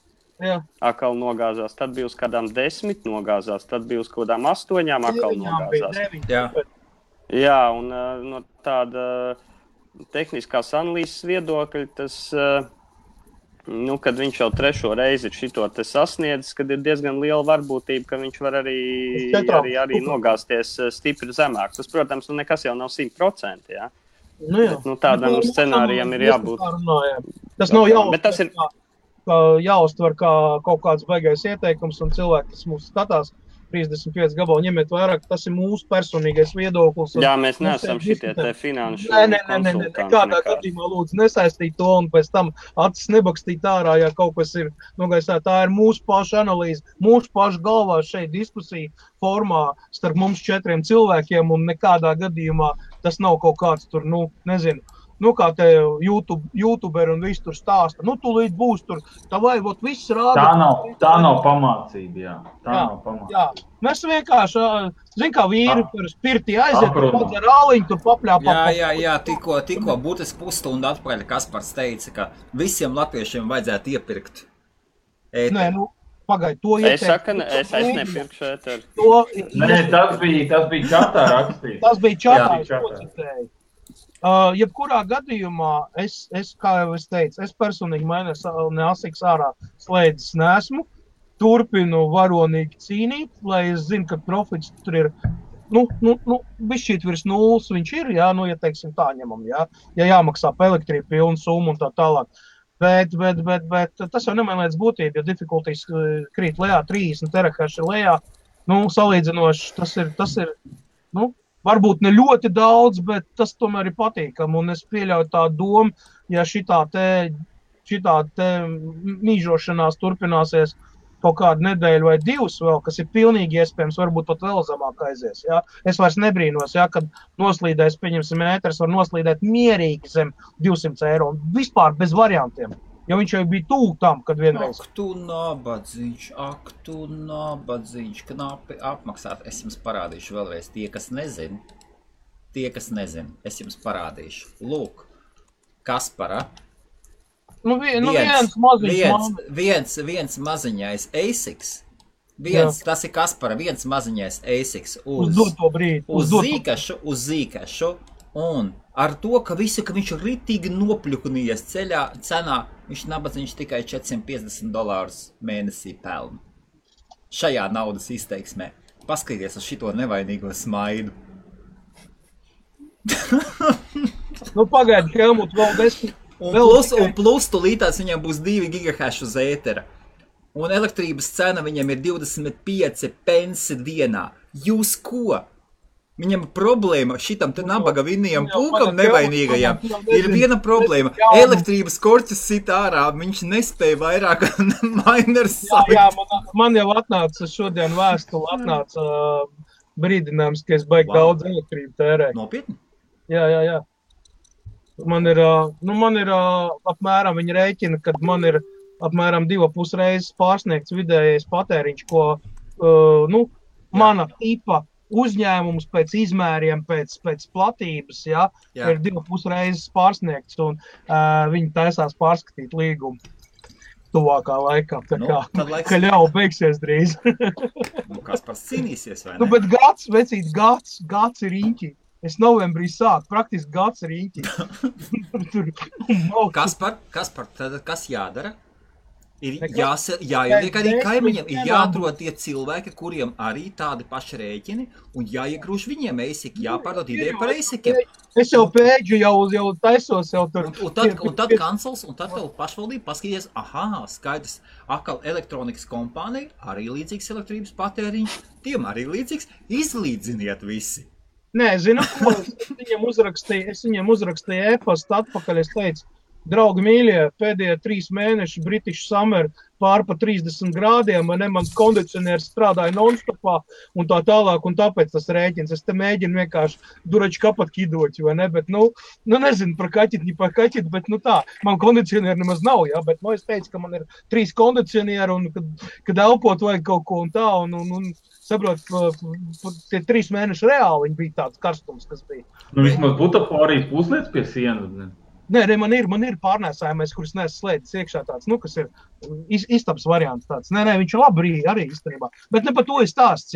Akal nogāzās, tad bija uz kādām 10 nogāzās, tad bija uz kādām 8 akal nogāzās. Jā, un no tāda tehniskās analīzes viedokļa tas, kad viņš jau 3. reizi ir šito te sasniedzis, kad ir diezgan liela varbūtība, ka viņš var arī nogāzties stipri zemāk. Tas, protams, nekas jau nav 100%, jā. Bet, tādam scenārijam ir jābūt. Tas nav jāuztver kā kaut kāds baigais ieteikums, un cilvēki, kas mūs skatās, 35 gabalu ņemiet vairāk, tas ir mūsu personīgais viedoklis. Jā, mēs neesam šitie te finanšu konsultanti. Nekādā gadījumā lūdzu nesaistīt to un pēc tam acis nebakstīt ārā, ja kaut kas ir nogaisā. Tā ir mūsu paša analīze, mūsu paša galvā šeit diskusija formā starp mums 4 cilvēkiem, un nekādā gadījumā tas nav kaut kāds tur, nezinu, kā te YouTuberi un viss tur stāsta. Tu līdz būs tur, tā vai, viss rāda. Tā nav pamācība, jā. Nav pamācība. Jā. Mēs vienkārši, kā vīri par spirti aiziet, pats ar āliņu tur papļāpā. Jā, tikko būtiski pusstundu atpakaļ Kaspars teica, ka visiem latviešiem vajadzētu iepirkt ēteru. Nē, pagaid, to ieteikt. Es nepirkšu ēteru. Nē, tas bija čatā rakstīts. Tas bija čatā, es to citēju. Jebkurā gadījumā, kā jau es teicu, es personīgi neasiks ārā slēdzis neesmu, turpinu varonīgi cīnīt, lai es zinu, ka profits tur ir, bišķīt virs 0 viņš ir, jā, ja teiksim tā ņemam, jā, ja jāmaksā pa elektrību pilnu summu un tā tālāk. Bet tas jau nemainīts būtību, jo difficulties krīt lejā, 30 terahaši lejā, salīdzinoši tas ir, varbūt ne ļoti daudz, bet tas tomēr ir patīkami, un es pieļauju tā domu, ja šitā te mīžošanās turpināsies kaut kādu nedēļu vai 2 vēl, kas ir pilnīgi iespējams, varbūt pat vēl zemāk aizies, jā. Es vairs nebrīnos, jā, kad noslīdēs, pieņemsim, ēters var noslīdēt mierīgi zem €200, vispār bez variantiem. Jo viņš jau bija tuvu tam, kad vienreiz. Ak, tu nabadzīņš, knapi apmaksāt. Es jums parādīšu vēlreiz tie, kas nezin, es jums parādīšu. Lūk, Kaspara. Viens maziņais ASICs. Tas ir Kaspara, viens maziņais ASICs uz zīkašu. Un ar to, ka viņš ir ritīgi nopļukunies cenā, viņš nabadzīņš tikai $450 mēnesī pelna. Šajā naudas izteiksmē. Paskaties uz šito nevainīgo smaidu. Nu, pagaidi, Helmut, vēl 10. Un plus tulītās viņam būs 2 gigahash uz ētera. Un elektrības cena viņam ir 25 pensi dienā. Jūs ko? Viņam problēma šitam te nabaga vinnajam pulkam nevainīgajam. Ir viena problēma. Elektrības korķis sit ārā, viņš nespēja vairāk miners salikt. Jā, man jau atnāca šodien vēstuli, atnāca brīdinājums, ka es baigi daudz elektrību tērēt. Nopietni? Jā. Man ir apmēram, viņi rēķina, kad man ir apmēram 2,5 reizes pārsniegts vidējais patēriņš, ko, mana tipa uzņēmums pēc izmēriem, pēc platības, ir 2,5 reizes pārsniegts, un viņi taisās pārskatīt līgumu tuvākā laikā. Tā kā, ka jau beigsies drīz. Kaspars cīnīsies, vai ne? Bet gads ir īņķi. Es novembrī sāku, praktiski gads ir īņķi. Kaspar, tad kas jādara? Ir jāieliek arī kaimiņiem, ir jāatrod tie cilvēki, kuriem arī tādi paši rēķini, un jāiegrūž viņiem eisiki, jāpārdod ideju par eisikiem. Es jau pēģu, jau taisos jau tur. Un tad kancels, un tad vēl pašvaldība paskaties, skaidrs, atkal elektronikas kompānija, arī līdzīgs elektrības patēriņš, tiem arī līdzīgs, izlīdziniet visi. Nē, zinu, ko es viņiem uzrakstīju e-pastu atpakaļ, es teicu, draugi mīļie, pēdējie 3 mēneši British Summer pār pa 30 grādiem, vai ne, mans kondicionieris strādāja non-stopā un tā tālāk, un tāpēc tas rēķins. Es te mēģinu vienkārši durači kapat kidoķi, vai ne, bet, nezinu par kaķit, bet, tā, man kondicionieri nemaz nav, bet, es teicu, ka man ir 3 kondicionieri, un kad elpot vajag kaut ko un tā, un saprot, tie 3 mēneši reāli viņi bija tāds karstums, kas bija. Vismaz butaforijas puslietas pie sienas, ne? Nē, man ir pārnēsājumais, kurus nesu slēdis iekšā tāds, kas ir istabs variants tāds. Nē, viņš ir labi arī īstenībā. Bet ne par to ir stāsts,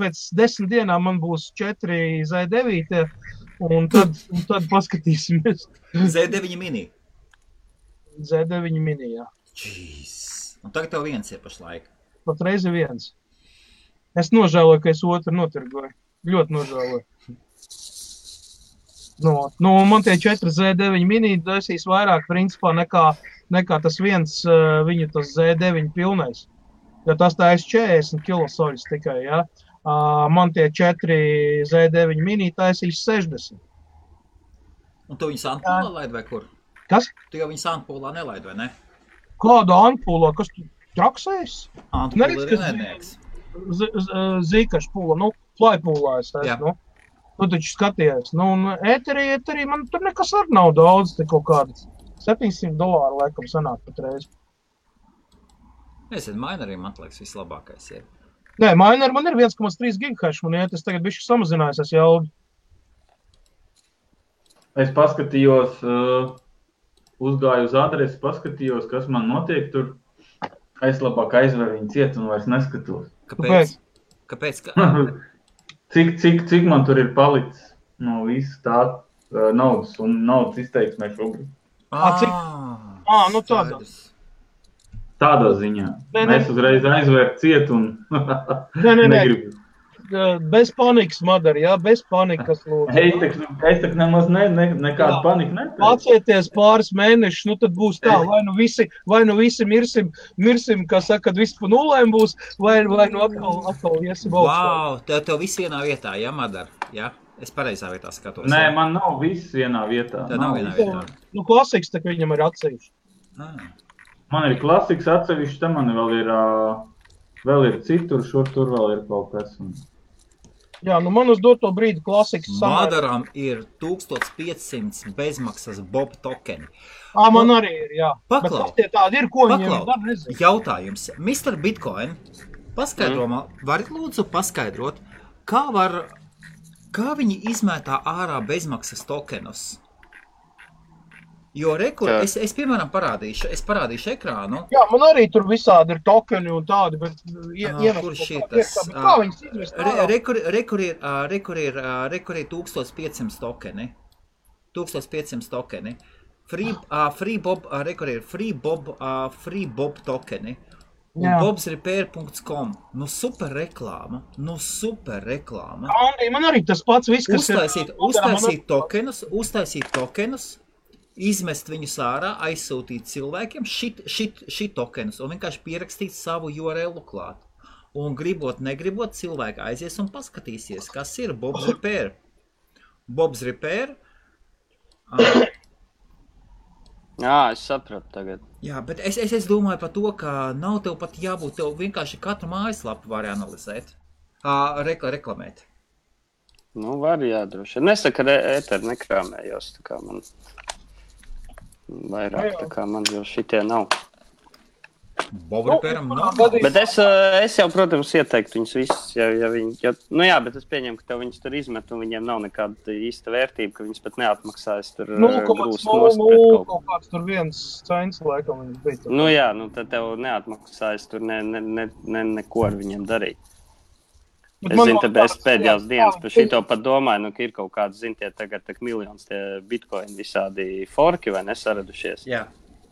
Pēc 10 dienām man būs 4 Z9, un tad paskatīsimies. Z9 mini? Z9 mini, jā. Jeez. Un tagad tev viens ir pašlaik. Pat reizi viens. Es nožēloju, ka es otru notirgoju. Ļoti nožēloju. Man tie 4 Z9 mini dēsīs vairāk principā nekā tas viens viņu tas Z9 pilnais. Jo tas tā ir 40 kilosoļus tikai, Man tie 4 Z9 mini taisīs 60. Un tu viņu Sandpolā laid vai kur? Kas? Tu jau viņu Sandpolā nelaid, vai ne? Kādu Antpolā? Kas tu traksēs? Antpolā ir nednieks. Zīkašpūla, Flypūlā es esmu, Tu taču skaties, un ēterī man tur nekas ar nav daudz, te kaut kādas $700 laikam sanāk pat reizi. Nezinu, minerī man liekas vislabākais ir. Nē, miner man ir 1,3 gigahash, man iet, es tagad bišķi samazinājos, es jaugi. Es paskatījos, uzgāju uz adresi, paskatījos, kas man notiek tur. Es labāk aizveru viņu ciet un vairs neskatos. Kāpēc? Cik man tur ir palicis no visu tā naudas un naudas izteiksmē šobrīd? Tādā. Tādā ziņā. Es uzreiz aizvēru ciet un negribu. Bez panikas, Madara, bez panikas, lūdzu. Es tak nemaz nekādu paniku neteicu. Pacieties pāris mēnešus, tad būs tā, vai nu visi mirsim, kā saka, kad viss pa nulēm būs, vai nu atkal iesim augstā. Wow, tev viss vienā vietā, Madara, Es pareizā vietā skatos. Nē, man nav viss vienā vietā. Tev nav vienā vietā. Klasiks, tak viņam ir atsevišķi. Man ir klasiks atsevišķi, te man vēl ir citur, tur vēl ir kaut kas. Jā, man uz doto brīdi klasiks Madaram ir 1500 bezmaksas Bob tokeni. Man arī ir, jā. Paklau. Bet tie tādi ir, ko viņiem var nezinu. Jautājums. Mr. Bitcoin, varat lūdzu paskaidrot, kā viņi izmētā ārā bezmaksas tokenus? Jo es piemēram parādīšu ekrānu. Jā, man arī tur visādi ir tokeni un tādi, bet kurš ir tas? Kā viņas izmest ārā? Rekur ir 1500 tokeni. 1500 tokeni. Free Bob tokeni. un bobsrepair.com. Nu super reklāma. Andi, man arī tas pats viss, kas uztaisīt tokenus, izmest viņus ārā, aizsūtīt cilvēkiem šit tokenus un vienkārši pierakstīt savu URL klāt. Un gribot, negribot, cilvēki aizies un paskatīsies, kas ir Bob's Repair. Bob's Repair. Es sapratu tagad. Jā, bet es domāju par to, ka nav tev pat jābūt, tev vienkārši katru mājaslapu var analizēt, reklamēt. Nu, var jādroši. Nesaka, ka ēteri nekrāmējos, tā kā man vairāk, tā kā man jau šitie nav. Bobripēram nav. Bet es jau, protams, ieteiktu viņus visus, ja viņi, bet es pieņemu, ka tev viņus tur izmet un viņiem nav nekāda īsta vērtība, ka viņus pat neatmaksājas tur grūst nost pret kaut ko. Kāds tur viens cents, laikam, viņus bija. Tad tev neatmaksājas tur neko ar viņiem darīt. Es zinu, es pēdējās dienas par šito pat domāju, ka ir kaut kāds, tagad miljonus tie bitcoin visādi forki vai nesaradušies.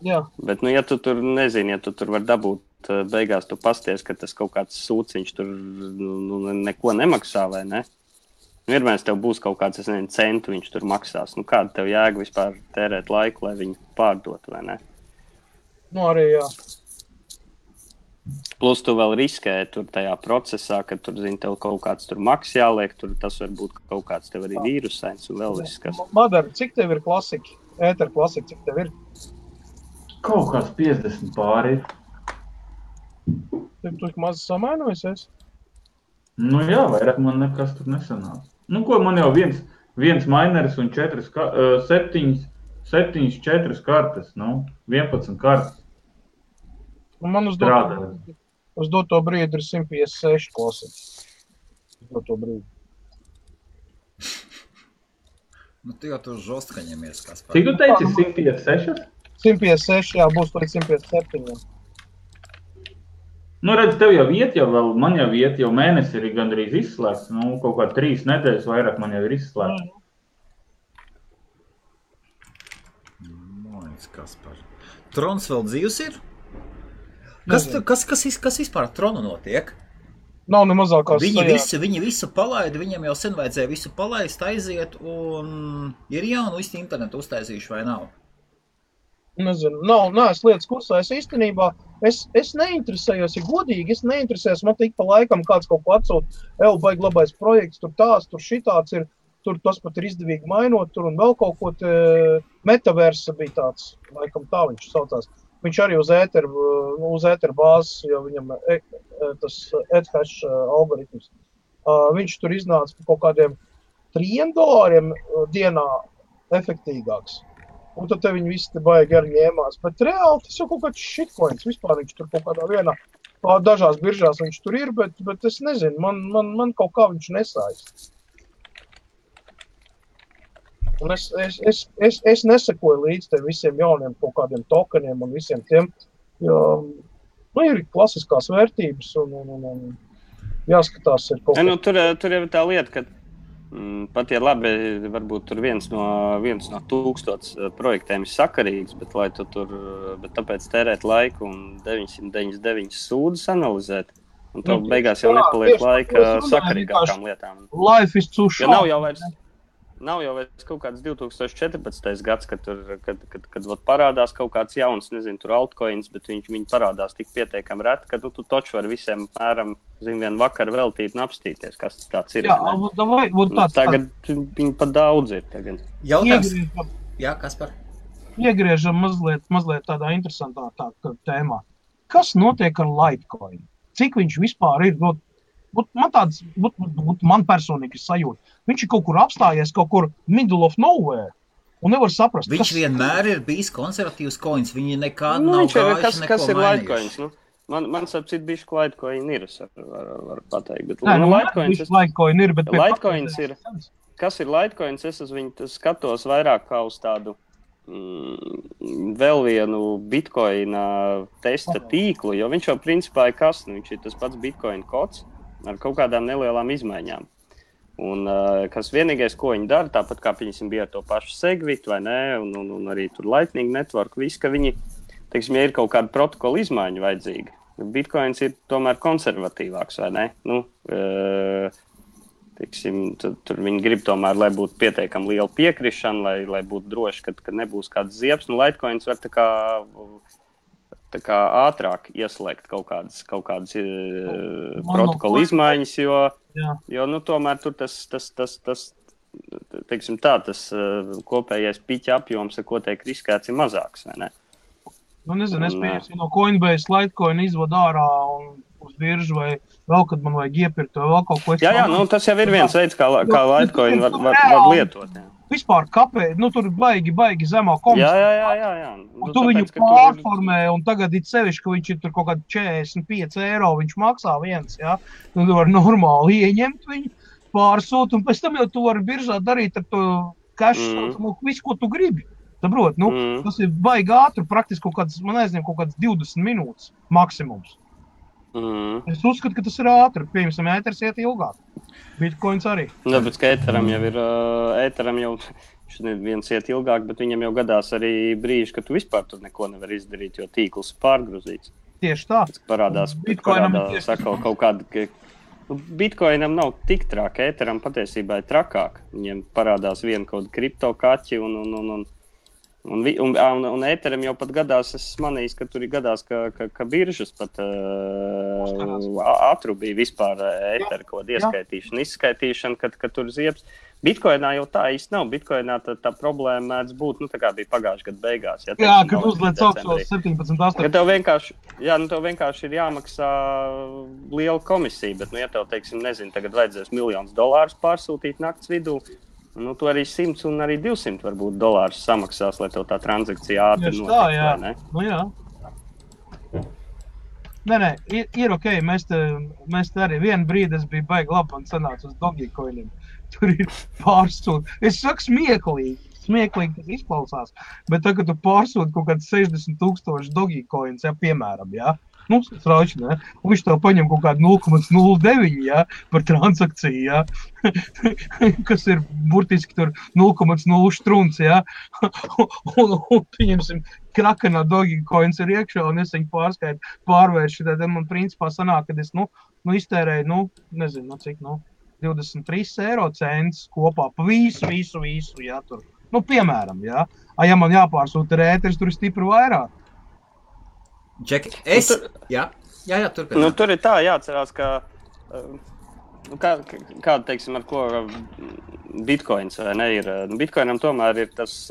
Jā. Bet, ja tu tur nezini, ja tu tur var dabūt, beigās tu pasties, ka tas kaut kāds sūciņš tur neko nemaksā, vai ne? Vienmēr tev būs kaut kāds, centu viņš tur maksās. Kāda tev jēga vispār tērēt laiku, lai viņu pārdot, vai ne? Arī jā. Plus tu vēl riskē tur tajā procesā, ka tur, tev kaut kāds tur maks jāliek, tur tas var būt kaut kāds tev arī vīrusains un vēl viss, kas. Madara, cik tev ir klasika? Ēter klasika, cik tev ir? Kaut kāds 50 pāri ir. Tev tu maz samainojusies? Jā, vairāk man nekas tur nesanāca. Ko man jau viens mineris un 7, 4 kartes, 11 kartes. Man uz doto brīdi ir 156 klasika. Uz doto brīdi. Tu jau tur žostka ņemies, kas par. Cik tu teici, 156? 156, jā, būs līdz 157. Redz, tev jau iet, man jau iet, jau mēnesi ir gandrīz izslēgts. Kaut kā 3 nedēļas vairāk man jau ir izslēgts. Mājas, kas par. Trons vēl dzīvs ir? Kas vispār ar Tronu notiek? Nav ne mazākās Viņi visu palaida, viņam jau sen vajadzēja visu palaist, aiziet, un ir jaunu visu internetu uztaisījuši, vai nav? Nezinu, neesmu lietas kursā, es īstenībā, es neinteresējos, ja godīgi, es neinteresējos, man tik pa laikam kāds kaut ko atsūt, baigi labais projekts, tur tāds, tur šitāds ir, tur tas pat ir izdevīgi mainot, tur un vēl kaut ko, metaversa bija tāds, laikam tā viņš saucās. Viņš arī uz ēteru bāzes, jo viņam tas ETH algoritms, viņš tur iznāca par kaut kādiem $3 dienā efektīgāks. Un tad viņi visi te baigi arī ņēmās. Bet reāli tas jau kaut kāds shitcoins. Vispār viņš tur kaut kādā vienā, dažās biržās viņš tur ir, bet es nezinu, man kaut kā viņš nesājas. Un es nesakoju līdz te visiem jauniem kaut kādiem tokeniem un visiem tiem, jo ir klasiskās vērtības un jāskatās ir kaut kā. Tur jau tā lieta, ka pat ja labi, varbūt tur viens no 1000 projektiem ir sakarīgs, bet tāpēc tērēt laiku un 999 sūdzes analizēt, un tev beigās jau nepaliek laika sakarīgākām lietām. Life is too short. Nav jau vairs kaut kāds 2014. gads, kad parādās kaut kāds jauns, nezinu, tur altcoins, bet viņi parādās tik pietiekami reti, ka tu taču var visiem mēram, vien vakar veltīt un apstīties, kas tas tāds ir. Jā, tagad viņi pat daudz ir tagad. Jautājums? Jā, kas par? Iegriežam mazliet tādā interesantā tēmā. Kas notiek ar Litecoin? Cik viņš vispār ir? Man personīgi ir sajūta. Viņš ir kaut kur apstājies, kaut kur middle of nowhere, un nevar saprast. Viņš vienmēr ir bijis konservatīvs coins, viņi nekādu nav gājuši neko kas ir mainījuši. Litecoins? Man sapcīt bišķi Litecoin ir, es varu pateikt. Bet Litecoin ir, bet Litecoins ir. Kas ir Litecoins? Es uz viņu skatos vairāk kā uz tādu vēl vienu Bitcoina testa tīklu, jo viņš jau principā ir kas? Viņš ir tas pats Bitcoin kods ar kaut kādām nelielām izmaiņām. Un kas vienīgais, ko viņi dara, tāpat kā viņam bija ar to pašu Segwit, vai ne, un arī tur Lightning Network, viss, ka viņi, teiksim, ja ir kaut kāda protokola izmaiņa vajadzīga, Bitcoins ir tomēr konservatīvāks, vai ne? Tur viņi grib tomēr, lai būtu pietiekami liela piekrišana, lai būtu droši, ka nebūs kāds ziepes. Litecoins var tā kā ātrāk ieslēgt kaut kādas protokolu izmaiņas, jo tomēr tur tas teiksim tā, tas kopējais piķa apjoms, ar ko tiek riskēts, ir mazāks, vai ne? Nezinu, es pieņemsim no Coinbase Litecoin izvadu ārā un uz biržu vai vēl, kad man vajag iepirkt vai vēl kaut ko. Jā, tas jau ir viens veids, kā Litecoin var lietot. Jā. Vispār kāpēc, tur baigi zemā komisija. Jā. Tu viņu pārformē un tagad ir sevišķi, ka viņš ir tur kaut kādi 45 eiro, viņš maksā viens, jā. Tu var normāli ieņemt viņu, pārsūt, un pēc tam jau tu vari biržā darīt ar to cash, visu, ko tu gribi. Saprot, tas ir baigi ātri, praktiski kaut kāds 20 minūtes maksimums. Es uzskatu, ka tas ir ātri. Piemēram, ēters iet ilgāk. Bitcoins arī. Bet ka ēteram jau viens iet ilgāk, bet viņam jau gadās arī brīži, ka tu vispār tur neko nevar izdarīt, jo tīkls ir pārgrozīts. Tieši tā. Parādās sakal kaut kāda... Bitcoinam nav tik trāk, ēteram patiesībā ir trakāk. Viņiem parādās viena kaut kripto kaķi un ēteram jau pat gadās, es manīju, ka tur ir gadās, ka biržas pat atrubīja vispār ēteru kaut ieskaitīšanu, izskaitīšanu, kad tur ziepes. Bitcoinā jau tā īsti nav. Bitcoinā tā problēma mēdz būt, tā kā bija pagājušā gada beigās. Ja, kad uzliec augšos 17,8. Tev vienkārši ir jāmaksā liela komisija, bet, ja tev, tagad vajadzēs $1,000,000 pārsūtīt nakts vidū, tu arī 100 un arī 200 varbūt dolārus samaksās, lai tev tā transakcija ātri notiek, vai ne? Jā. Nē, ir ok, mēs te arī vienu brīdi es biju baigi labi un sanācu uz Dogecoiniem. Tur ir pārsūt. Es saku smieklīgi tas izklausās, bet tagad tu pārsūt kaut kāds 60,000 Dogecoins, piemēram, Strauši, ne? Un viņš tev paņem kaut kādu 0,09, par transakciju, kas ir burtiski tur 0,0 štrunts, un pieņemsim, krakenā Dogecoins ir iekšā, un es viņu pārvēršu, tad man principā sanāk, kad es, iztērēju, nezinu, cik, 23 eiro cents kopā pa visu, tur. Piemēram, ja man jāpārsūta ar ēteris, tur ir stipri vairāk. Džeki, turpināt. Tur ir tā jāatcerās, ka kāda, teiksim, ar ko Bitcoins, vai ne, ir. Bitcoinam tomēr ir tas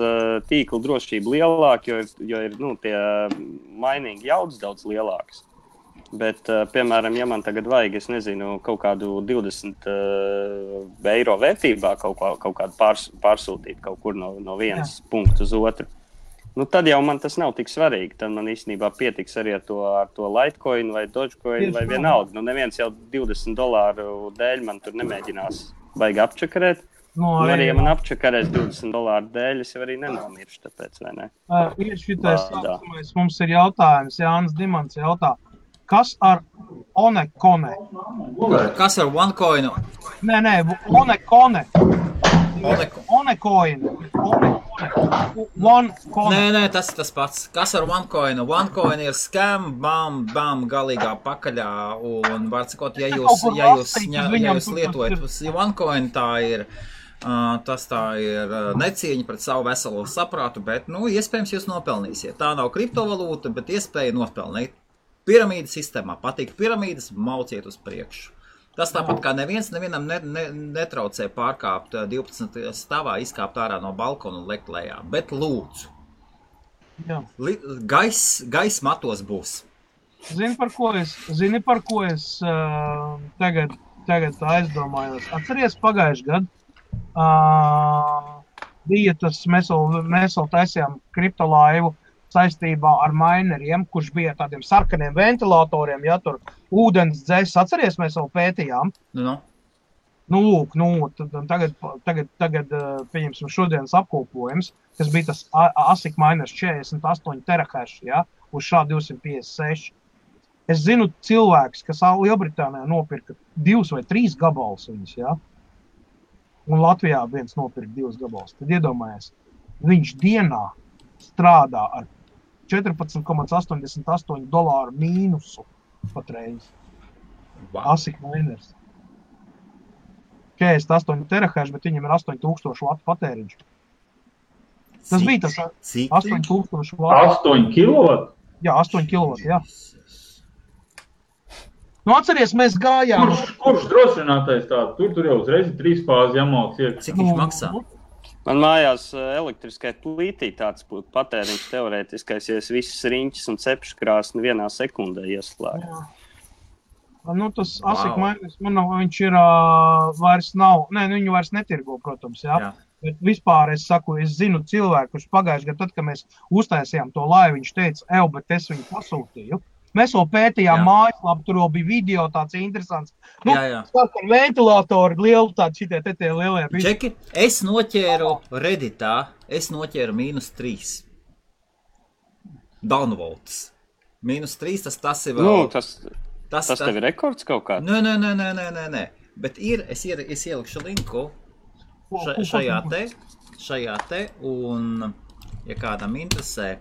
tīkla drošība lielāk, jo ir, tie mainīgi jaudas daudz lielākas. Bet, piemēram, ja man tagad vajag, es nezinu, kaut kādu 20 eiro vērtībā kaut kādu pārsūtīt kaut kur no vienas punktu uz otru, tad jau man tas nav tik svarīgi. Tad man īstenībā pietiks arī ar to Litecoin vai Dogecoin vai vienalga. Neviens jau $20 dēļ man tur nemēģinās baigi apčakarēt. Arī, ja man apčakarēs $20 dēļ, es jau arī nenomiršu, tāpēc, vai ne? Ir šitais sākumais, mums ir jautājums, Jānis Dimants jautā. Kas ar Onekone? Kas ar OneCoinu? Nē, Onekone. Onecoin. Nē, tas ir tas pats. Kas ar OneCoinu? OneCoin ir scam, bam, galīgā pakaļā. Un var sakot, ja jūs lietojat OneCoin, tas tā ir necieņa pret savu veselo saprātu, bet, iespējams jūs nopelnīsiet. Tā nav kriptovalūta, bet iespēja nopelnīt. Piramīdas sistēmā patīk piramīdas, mauciet uz priekšu. Tas tāpat kā nevienam netraucē pārkāpt 12 stāvā, izkāpt ārā no balkona un lekt lejā. Bet lūdzu, gaiss matos būs. Zini, par ko es tagad aizdomājos. Atceries pagājuši gadu? Bija tas, mēs vēl taisījām kriptolaivu saistībā ar mineriem, kurš bija tādiem sarkaniem ventilatoriem, tur ūdens dzēs, atceries, mēs vēl pētījām. Tagad pieņemsim šodienas apkopojums, kas bija tas ASIC miners 48 terahash, uz šā 256. Es zinu cilvēks, kas Lielbritānijā nopirka 2 vai 3 gabalus viņus, un Latvijā viens nopirka 2 gabalus. Tad iedomājies, viņš dienā strādā ar $14,88 mīnusu. patreiz. Wow. ASIC miners. 48 terahash, bet viņam ir 8000 vatu patēriņš. Tas bija tas 8000 vatu. 8 kW? Jā, 8 kW, jā. Nu, atceries, mēs gājām... Kurš drošinātais tādu? Tur jau uzreiz 3 fāzi jāmauc iekšā. Cik viņš maksā? Man mājās elektriskai plītī tāds būtu patēriņš teorētiskais, ja es visas riņķis un cepškrāsni vienā sekundē ieslēgu. Nu, tas ASIC miners, viņš ir vairs nav... Nē, viņu vairs netirgo, protams, jā. Bet vispār es saku, es zinu cilvēku, kurš pagājuši gadu, tad, kad mēs uztaisījām to laivu, viņš teica, bet es viņu pasūtīju. Mēs vēl pētījām mājaslapu, tur vēl bija video tāds interesants. Nu, sākam ventilatori, lielu tādu šitie lielie. Čeki, es noķēru Redditā, -3. Downvotes. -3, tas ir vēl... Nu, tas tev ir rekords kaut kā? Nē. Bet es ielikšu linku šajā te, un, ja kādam interesē,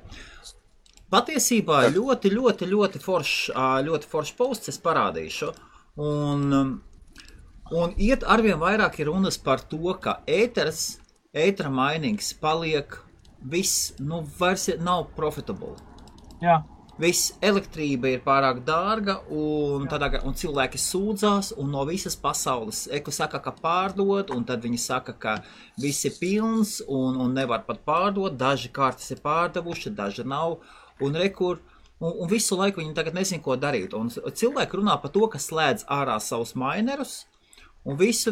patiesībā ļoti foršs posts es parādīšu, un arvien vairāk ir runas par to, ka ētera minings paliek viss, vairs nav profitable. Jā. Viss elektrība ir pārāk dārga, un cilvēki sūdzās, un no visas pasaules saka, ka pārdod, un tad viņi saka, ka viss ir pilns, un nevar pat pārdot, daži kartes ir pārdevuši, daži nav. Un visu laiku viņi tagad nezin, ko darīt. Un cilvēki runā par to, ka slēdz ārā savus minerus, un visu.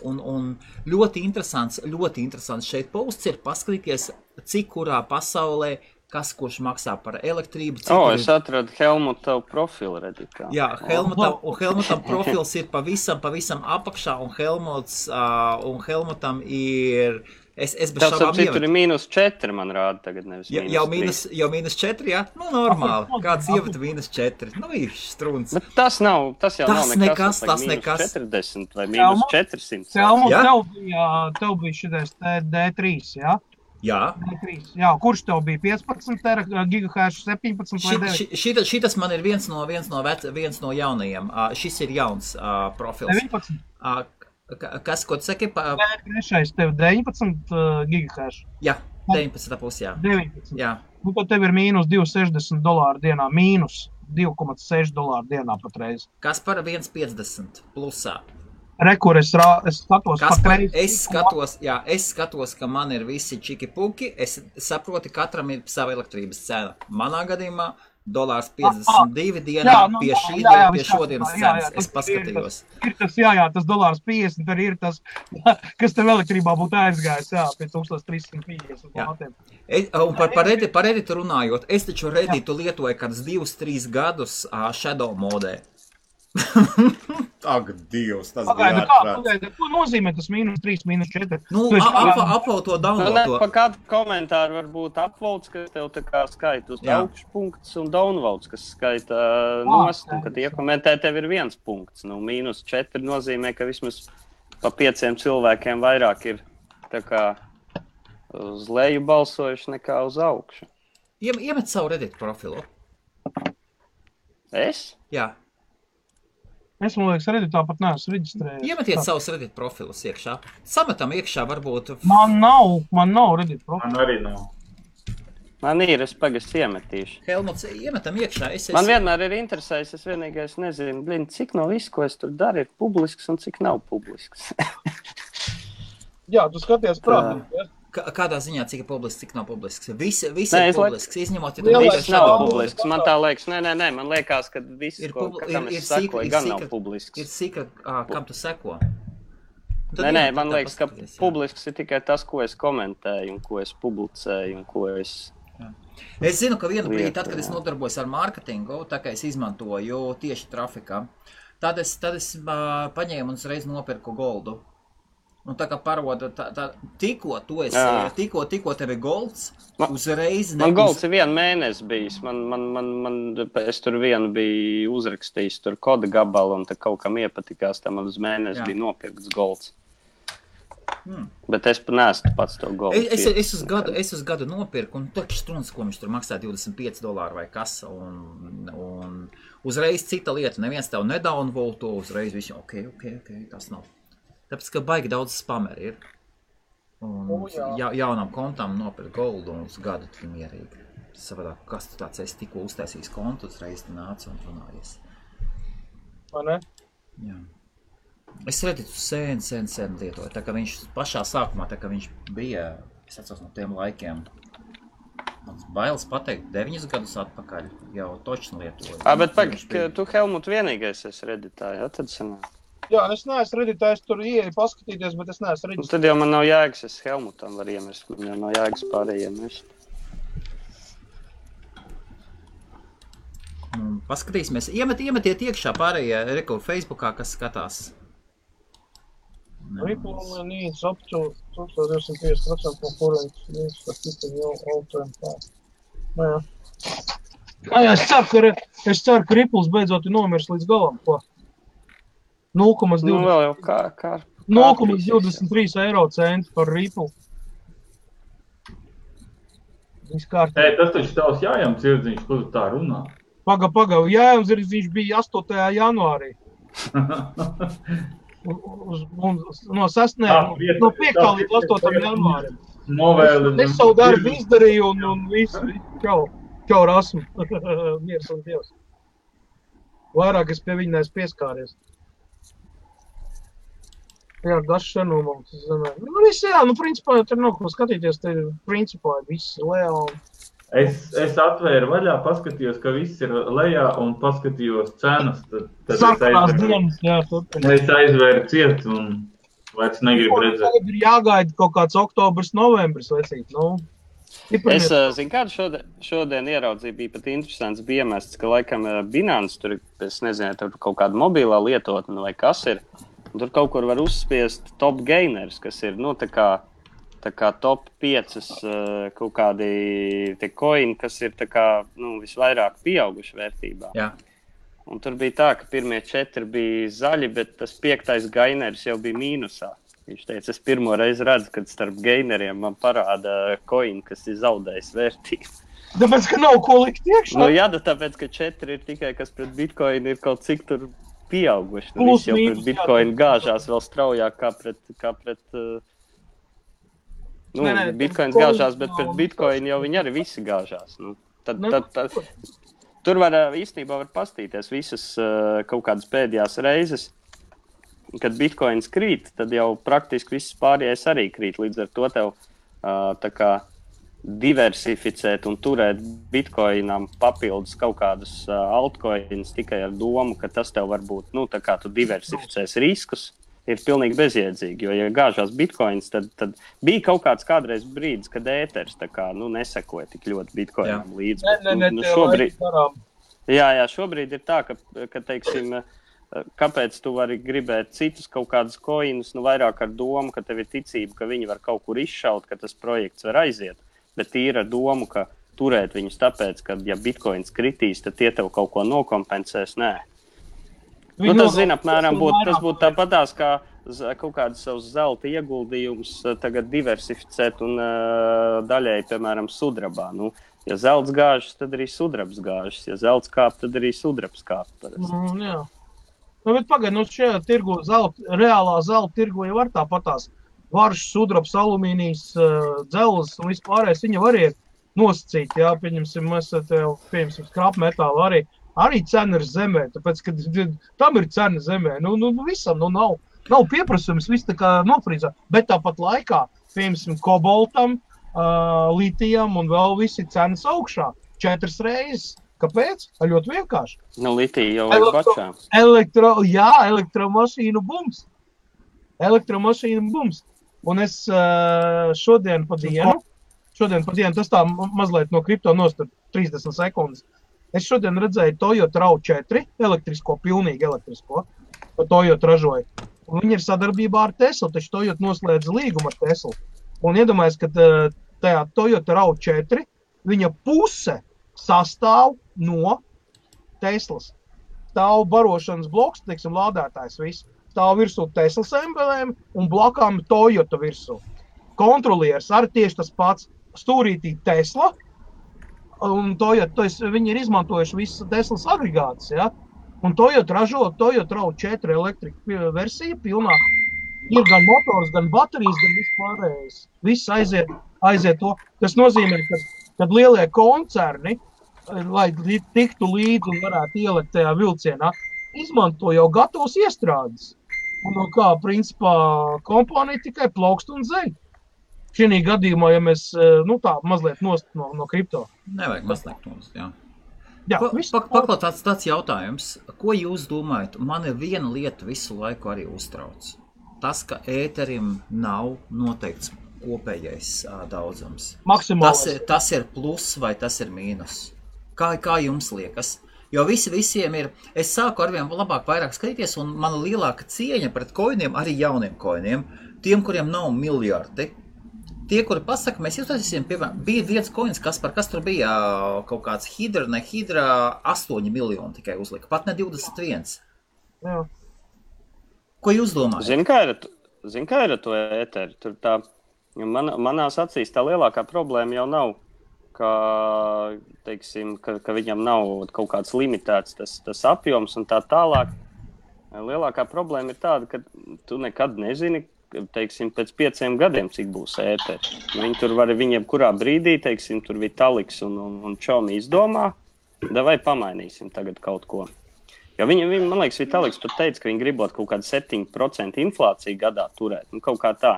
Un ļoti interesants šeit posts ir paskatīties, cik kurā pasaulē, kurš maksā par elektrību. Es atradu Helmuta profilu Redditā. Jā, Helmutam profils ir pavisam apakšā, un Helmutam ir... Es bez šaubām ievedu. Tur ir -4, man rāda tagad, nevis -3. Jau -4, jā? Nu, normāli. Kāds ievada -4? Nu, ir strunts. Bet tas jau nav nekas. Tas nekas. -40 vai -400. Tev bija šitais D3, jā? Jā. Jā, kurš tev bija 15 gigahash, 17 vai 9? Šitas man ir viens no jaunajiem. Šis ir jauns profils. 19? Ko tu saki? Trešais tev 19 gigahash. Jā, 19,5, jā. 19. Jā. Nu, tad tev ir mīnus $260 dienā, mīnus $2,6 dienā patreiz. Kas par 1,50 plusā? Rekur, es skatos patreiz. Es skatos, ka man ir visi čiki-puki. Es saprotu, katram ir sava elektrības cena. Manā gadījumā $52 dienā pie šodienas cenas. Es paskatījos. Ir tas, tas $50, tur ir tas, kas tev elektrībā būtu aizgājis, pie 1350. Un par Redditu runājot, es taču Redditu lietoju kādus 2-3 gadus Shadow modē. Ak, Dievs, tas bija ārprāts. Ko nozīmē tas -3, -4? Nu, apvalda to download. Pa kādu komentāru var būt upvotes, kas tev tā kā skaita uz augšpunkts, un downvotes, kas skaita nost, un kad iekomentē tev ir 1 punkts. Nu, -4 nozīmē, ka vismaz pa 5 cilvēkiem vairāk ir tā kā uz leju balsojuši nekā uz augšu. Iemet savu Reddit profilu. Es? Jā. Es, man liekas, Redditā pat neesmu reģistrējies. Iemetiet savus Reddit profilus iekšā. Sametam iekšā varbūt... Man nav Reddit profilu. Man arī nav. Man ir, es pagastu iemetīšu. Helmuts, iemetam iekšā. Man vienmēr ir interesējis, es vienīgais nezinu, cik no visu, ko es tur daru, ir publisks un cik nav publisks. Jā, tu skaties prātīgi, ja? Kādā ziņā, cik ir publisks, cik nav publisks? Visi ir publisks, izņemot, ja tu viss nav publisks. Man tā liekas, nē, man liekas, ka viss, kam es sekoju, gan nav publisks. Ir sīkra, kam tu seko? Nē, man liekas, ka publisks ir tikai tas, ko es komentēju, un ko es publicēju, un ko es... Es zinu, ka vienu brīdi, tad, kad es nodarbojos ar mārketingu, tā kā es izmantoju tieši trafikā, tad es paņēmu un uzreiz nopirku goldu. Un tā kā paroda, tikko tev ir golds, uzreiz... Man golds ir 1 mēnesi bijis. Es tur vienu biju uzrakstījis, tur koda gabalu, un tā kaut kam iepatikās, tā man uz mēnesi bija nopirkts golds. Bet es neesmu pats to golfu. Es uz gadu nopirku, un tur strunds, ko viņš tur maksā $25 vai kas, un uzreiz cita lieta, neviens tev nedownvote to, uzreiz visu, ok, tas nav. Tāpēc, ka baigi daudz spameri ir. Un jaunām kontām nopirkt goldu un uz gadu tu mierīgi. Savādāk, kas tu tāds esi tikko uztaisījis kontu, uzreiz tu nāc un runājies. Vai ne? Jā. Es Redditu sen lietoju, tā kā viņš pašā sākumā, tā kā viņš bija, es atceros no tiem laikiem, mans bailes pateikt 9 gadus atpakaļ, jau točni lietoju. Bet tu, Helmut, vienīgais esi Redditā, jā, tad sanāk? Jā, es neesmu Redditā, es tur ieeju paskatīties, bet es neesmu Redditā. Tad jau man nav jēgas, es Helmutam var iemest, man jau nav jēgas pārējiem iemest. Paskatīsimies, iemetiet iekšā pārējie reku Facebookā, kas skatās. Ripple needs up to 1250% concurrent needs for keeping your all-time path. Jā, es ceru, ka Ripples beidzot ir nomirs līdz galam, ko? 0,23 eiro centi par Ripple. Viss kārtībā. Tas taču tavs Jājam Dzirdziņš, ko tu tā runā? Paga, Jājam Dzirdziņš bija 8. janvārī. No 5. līdz 8. janvārim. Es savu darbu izdarīju un visu, čau rasmu. Miers un Dievs. Vairāk es pie viņa neesmu pieskāries. Jā, dažs senumums, es domāju. Viss jā, principā, tur nav ko skatīties, te principā viss lejā un... Es atvēru vaļā, paskatījos, ka viss ir lejā un paskatījos cenas, tad Sakās dienas, jā, turpināt. Es aizvēru ciet un vairs negribu redzēt. Tagad ir jāgaida kaut kāds oktobrs, novembris, vecīt, Es zinu, kādu šodien ieraudzīju, bija pat interesants, bija iemests, ka laikam Binance tur, es nezinu, tur kaut kāda mobilā lietotne vai kas ir, un tur kaut kur var uzspiest top gainers, kas ir, tā kā top 5 kaut kādi te coini, kas ir tā kā, visvairāk pieauguši vērtībā. Jā. Un tur bija tā, ka pirmie 4 bija zaļi, bet tas 5. gainers jau bija mīnusā. Viņš teica, es pirmo reizi redzu, kad starp gaineriem man parāda coini, kas ir zaudējis vērtību. Tāpēc, ka nav ko likt iekšā? Jā, tāpēc, ka 4 ir tikai, kas pret Bitcoin ir kaut cik tur pieauguši. Viss jau pret Bitcoin gāžās vēl straujāk kā pret Bitcoins gāžās, bet pret Bitcoin jau viņi arī visi gāžās. Tur īstenībā var pastīties visas kaut kādas pēdējās reizes, kad Bitcoins krīt, tad jau praktiski viss pārējais arī krīt. Līdz ar to tev tā kā diversificēt un turēt Bitcoinam papildus kaut kādus altcoins tikai ar domu, ka tas tev var būt, tā kā tu diversificēs riskus, ir pilnīgi bezjēdzīgi, jo, ja gāžās Bitcoins, tad bija kaut kāds kādreiz brīdis, kad ēters tā kā, nesekoja tik ļoti Bitcoinam līdzi. Šobrīd ir tā, ka teiksim, kāpēc tu vari gribēt citus kaut kādus coinus, vairāk ar domu, ka tev ir ticība, ka viņi var kaut kur izšaut, ka tas projekts var aiziet, bet tīri ar domu, ka turēt viņus tāpēc, ka ja Bitcoins kritīs, tad tie tev kaut ko nokompensēs, nē. Tas, apmēram, tas būtu tāpatās, kā kaut kādas savus zelta ieguldījumus tagad diversificēt un daļēji, piemēram, sudrabā. Ja zelts gāžas, tad arī sudrabs gāžas. Ja zelts kāp, tad arī sudrabs kāp. Jā. Bet pagaid, šajā tirgu reālā zelta tirgu jau var tāpatās. Varš, sudrabs, alumīnijas, dzelzs un vispārējais, viņa var iet nosacīt, jā, pieņemsim, mēs pieņemsim skrapmetālu arī cena ir zemē, tāpēc, ka tam ir cena zemē, visam, nav pieprasījums, viss tā kā nofrīzā, bet tāpat laikā, pieņemsim, koboltam, litijam un vēl visi cenas augšā, 4 reizes. Kāpēc? Ļoti vienkārši. Litija jau ir bačā. Elektromašīnu bums. Un es šodien pa dienu, tas tā mazliet no kripto nostar 30 sekundes, es šodien redzēju Toyota RAV4, pilnīgi elektrisko, ko Toyota ražoja. Un viņi ir sadarbībā ar Tesla, taču Toyota noslēdza līgumu ar Tesla. Un iedomājies, ka tajā Toyota RAV4 viņa puse sastāv no Teslas. Stāv barošanas bloks, teiksim, lādētājs viss. stāv virsū Teslas embelēm un blakām Toyota virsū. Kontrolieris arī tieši tas pats stūrītī Tesla, un Toyota, viņi ir izmantojuši visas Teslas agregātas, ja? Un Toyota ražo Toyota RAV4 elektrika versija pilnā. Ir gan motors, gan baterijas, gan vispārējais. Viss aiziet to. Tas nozīmē, kad lielie koncerni, lai tiktu līdzi un varētu ielikt tajā vilcienā, izmanto jau gatavus iestrādes. Un no kā, principā, kompānija tikai plaukst un zeļ. Šī gadījumā, ja mēs, tā mazliet nost no kripto. Nevajag mazliet nost, jā. Jā, Paklaut tāds jautājums. Ko jūs domājat? Man ir viena lieta visu laiku arī uztrauc. Tas, ka ēterim nav noteikts kopējais daudzums. Maksimālais. Tas ir plus vai tas ir mīnus? Kā jums liekas? Jo visiem ir, es sāku arvien labāk vairāk skatīties, un mana lielāka cieņa pret koiniem, arī jauniem koiniem, tiem, kuriem nav miljardi. Tie, kuri pasaka, mēs iztaisīsim, piemēram, bija viens koins, kas tur bija kaut kāds hidra, 8 miljoni tikai uzlika, pat ne 21. Jā. Ko jūs domājat? Zini, kā ir ar to ēteri? Tur tā, manās acīs tā lielākā problēma jau nav, ka viņam nav kaut kāds limitēts tas apjoms un tā tālāk. Lielākā problēma ir tāda, ka tu nekad nezini, pēc 5 gadiem, cik būs ēteri. Viņi tur var viņiem kurā brīdī, tur Vitaliks un Čomi izdomā, vai pamainīsim tagad kaut ko. Jo viņi, man liekas, Vitaliks pat teica, ka viņi gribot kaut kādu 7% inflāciju gadā turēt. Kaut kā tā.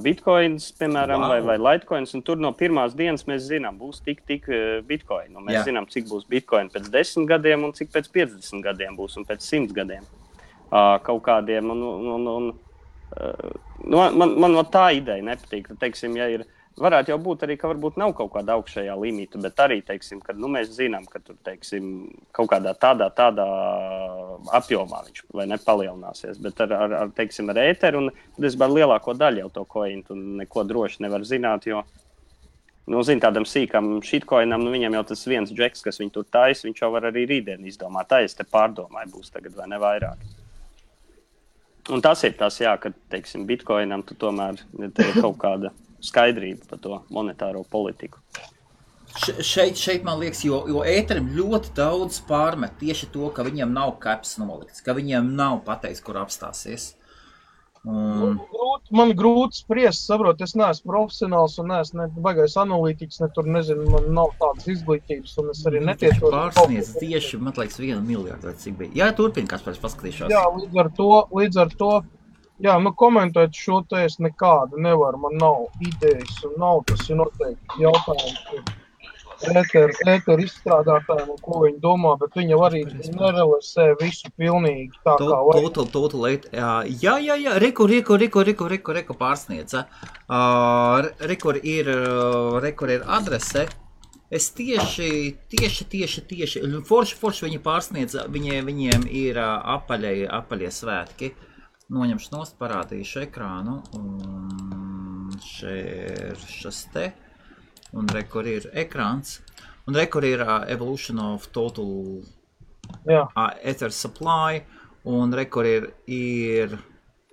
Bitcoins, piemēram, vai Litecoins, un tur no pirmās dienas mēs zinām, būs tik Bitcoin. Un mēs zinām, cik būs Bitcoin pēc 10 gadiem un cik pēc 50 gadiem būs un pēc 100 gadiem. Kaut kādiem. Man tā ideja nepatīk. Ja ir, varētu jau būt arī, ka varbūt nav kaut kāda augšējā limita, bet arī, ka mēs zinām, ka tur, kaut kādā tādā apjomā viņš vai nepalielināsies. Bet ar ēteru, un tad es varu lielāko daļu jau to koinu, un neko droši nevar zināt, jo, tādam sīkam shitcoinam, viņam jau tas viens džeks, kas viņu tur tais, viņš jau var arī rītdien izdomāt. Tā es te pārdomāju, būs tagad vai ne vairāk. Un tas ir tas, ka, Bitcoinam tu tomēr ir kaut kāda skaidrība par to monetāro politiku. Šeit man liekas, jo ēterim ļoti daudz pārmet tieši to, ka viņam nav caps nolikts, ka viņam nav pateikts, kur apstāsies. Man grūti spriest, saprot, es neesmu profesionāls un neesmu baigais analītiķis, tur nezinu, man nav tādas izglītības un es arī netiešos. Pārsniedz tieši, man liekas, 1 miljardu vai cik bija. Jā, turpin, Kaspars, paskatīšos. Jā, līdz ar to, jā, komentēt šo te es nekādu nevaru, man nav idejas un nav, tas ir noteikti jautājums ēteru izstrādātājiem un ko viņi domā, bet viņi arī nerealizē visu pilnīgi tā kā vajag. Total, jā, reku pārsniedza. Rekur ir adrese. Es tieši, forši viņi pārsniedza, viņiem ir apaļie svētki. Noņemšu nost, parādīšu ekrānu, un šis te. Un rekur ir ekrāns, un rekur ir evolution of total ether supply, un rekur ir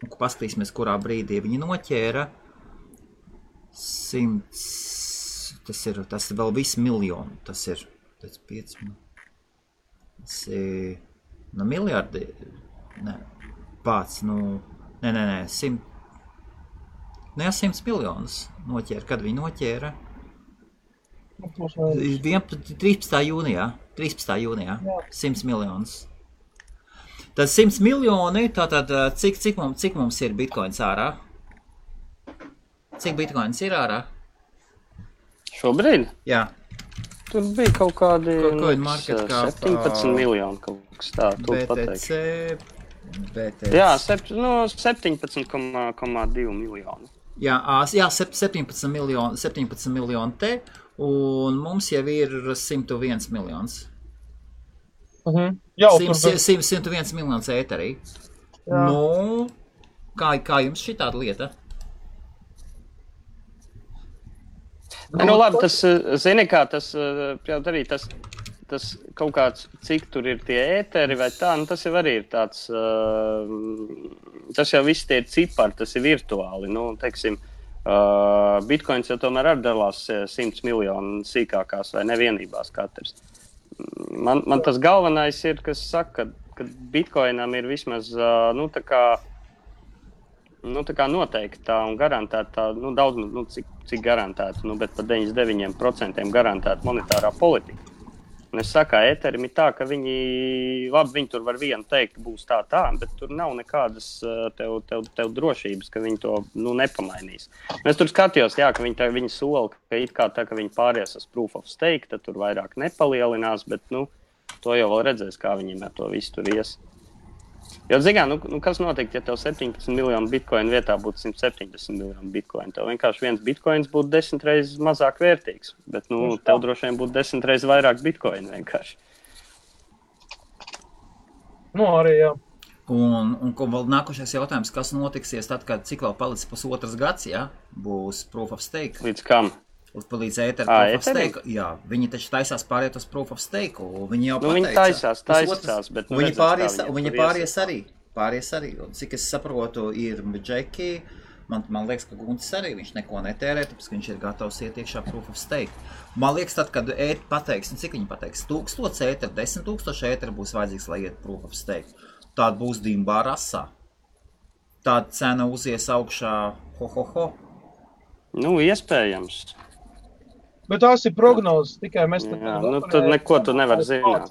paskatīsimies, kurā brīdī viņi noķēra 100, tas ir vēl viss miljonu, tas ir 5, tas ir, miljardi, pats, 100 miljonus noķēra, kad viņi noķēra? 13. jūnijā, 100 miljonus. Tad 100 miljoni, tātad cik mums ir bitcoins ārā? Cik bitcoins ir ārā? Šobrīd? Jā. Tur bija kaut kādi 17 miljoni kaut kas tā, BTC. Jā, 17,2 miljoni. Jā, 17 miljoni te. Un mums jau ir 101 miljons. 101 miljons ēterī. Kā jums šī tāda lieta? Labi, tas, zini kā, tas tas kaut kāds, cik tur ir tie ēteri vai tā, nu tas jau arī ir tāds, tas jau viss tie ir cipari, tas ir virtuāli, nu, teiksim, Bitcoins jau tomēr arī dalās 100 miljonu sīkākās vai nevienībās katrs. Man tas galvenais ir, kas saka, ka Bitcoinam ir vismaz, tā kā noteiktā un garantētā, daudz, cik garantēta, bet par 99% garantēta monetārā politika. Un es saku, ēterim ir tā, ka viņi tur var vienu teikt, būs tā, bet tur nav nekādas tev drošības, ka viņi to, nepamainīs. Es tur skatījos, jā, ka viņi sola, ka it kā tā, ka viņi pāries uz proof of stake, tad tur vairāk nepalielinās, bet, to jau vēl redzēs, kā viņiem ar to visu tur ies. Jo, kas notiek, ja tev 17 miljonu bitcoinu vietā būtu 170 miljonu bitcoinu? Tev vienkārši viens bitcoins būtu 10 reizes mazāk vērtīgs, bet, tev droši vien būtu 10 reizes vairāk bitcoinu vienkārši. Arī, jā. Un vēl nākošais jautājums, kas notiksies tad, kad cik vēl palicis pusotras gads, ja? Būs proof of stake? Līdz kam? Līdz proof of stake. Jā, viņi taču taisās pāriet uz proof of stake, un viņi jau pateica. Viņi taisās, bet viņi pāries arī. Un cik es saprotu, ir Džeki, man liekas, ka Guntis arī, viņš neko netērē, tāpēc viņš ir gatavs iet iekšā proof of stake. Man liekas, tad, kad pateiks, cik viņi pateiks, 1000 ēteru, 10 000 ēteru būs vajadzīgs, lai iet proof of stake. Tāda būs dimbā rasā. Tāda cena uzies augšā, ho. Iespējams. Bet tās ir prognozes, tikai mēs tad neko tu nevar zināt.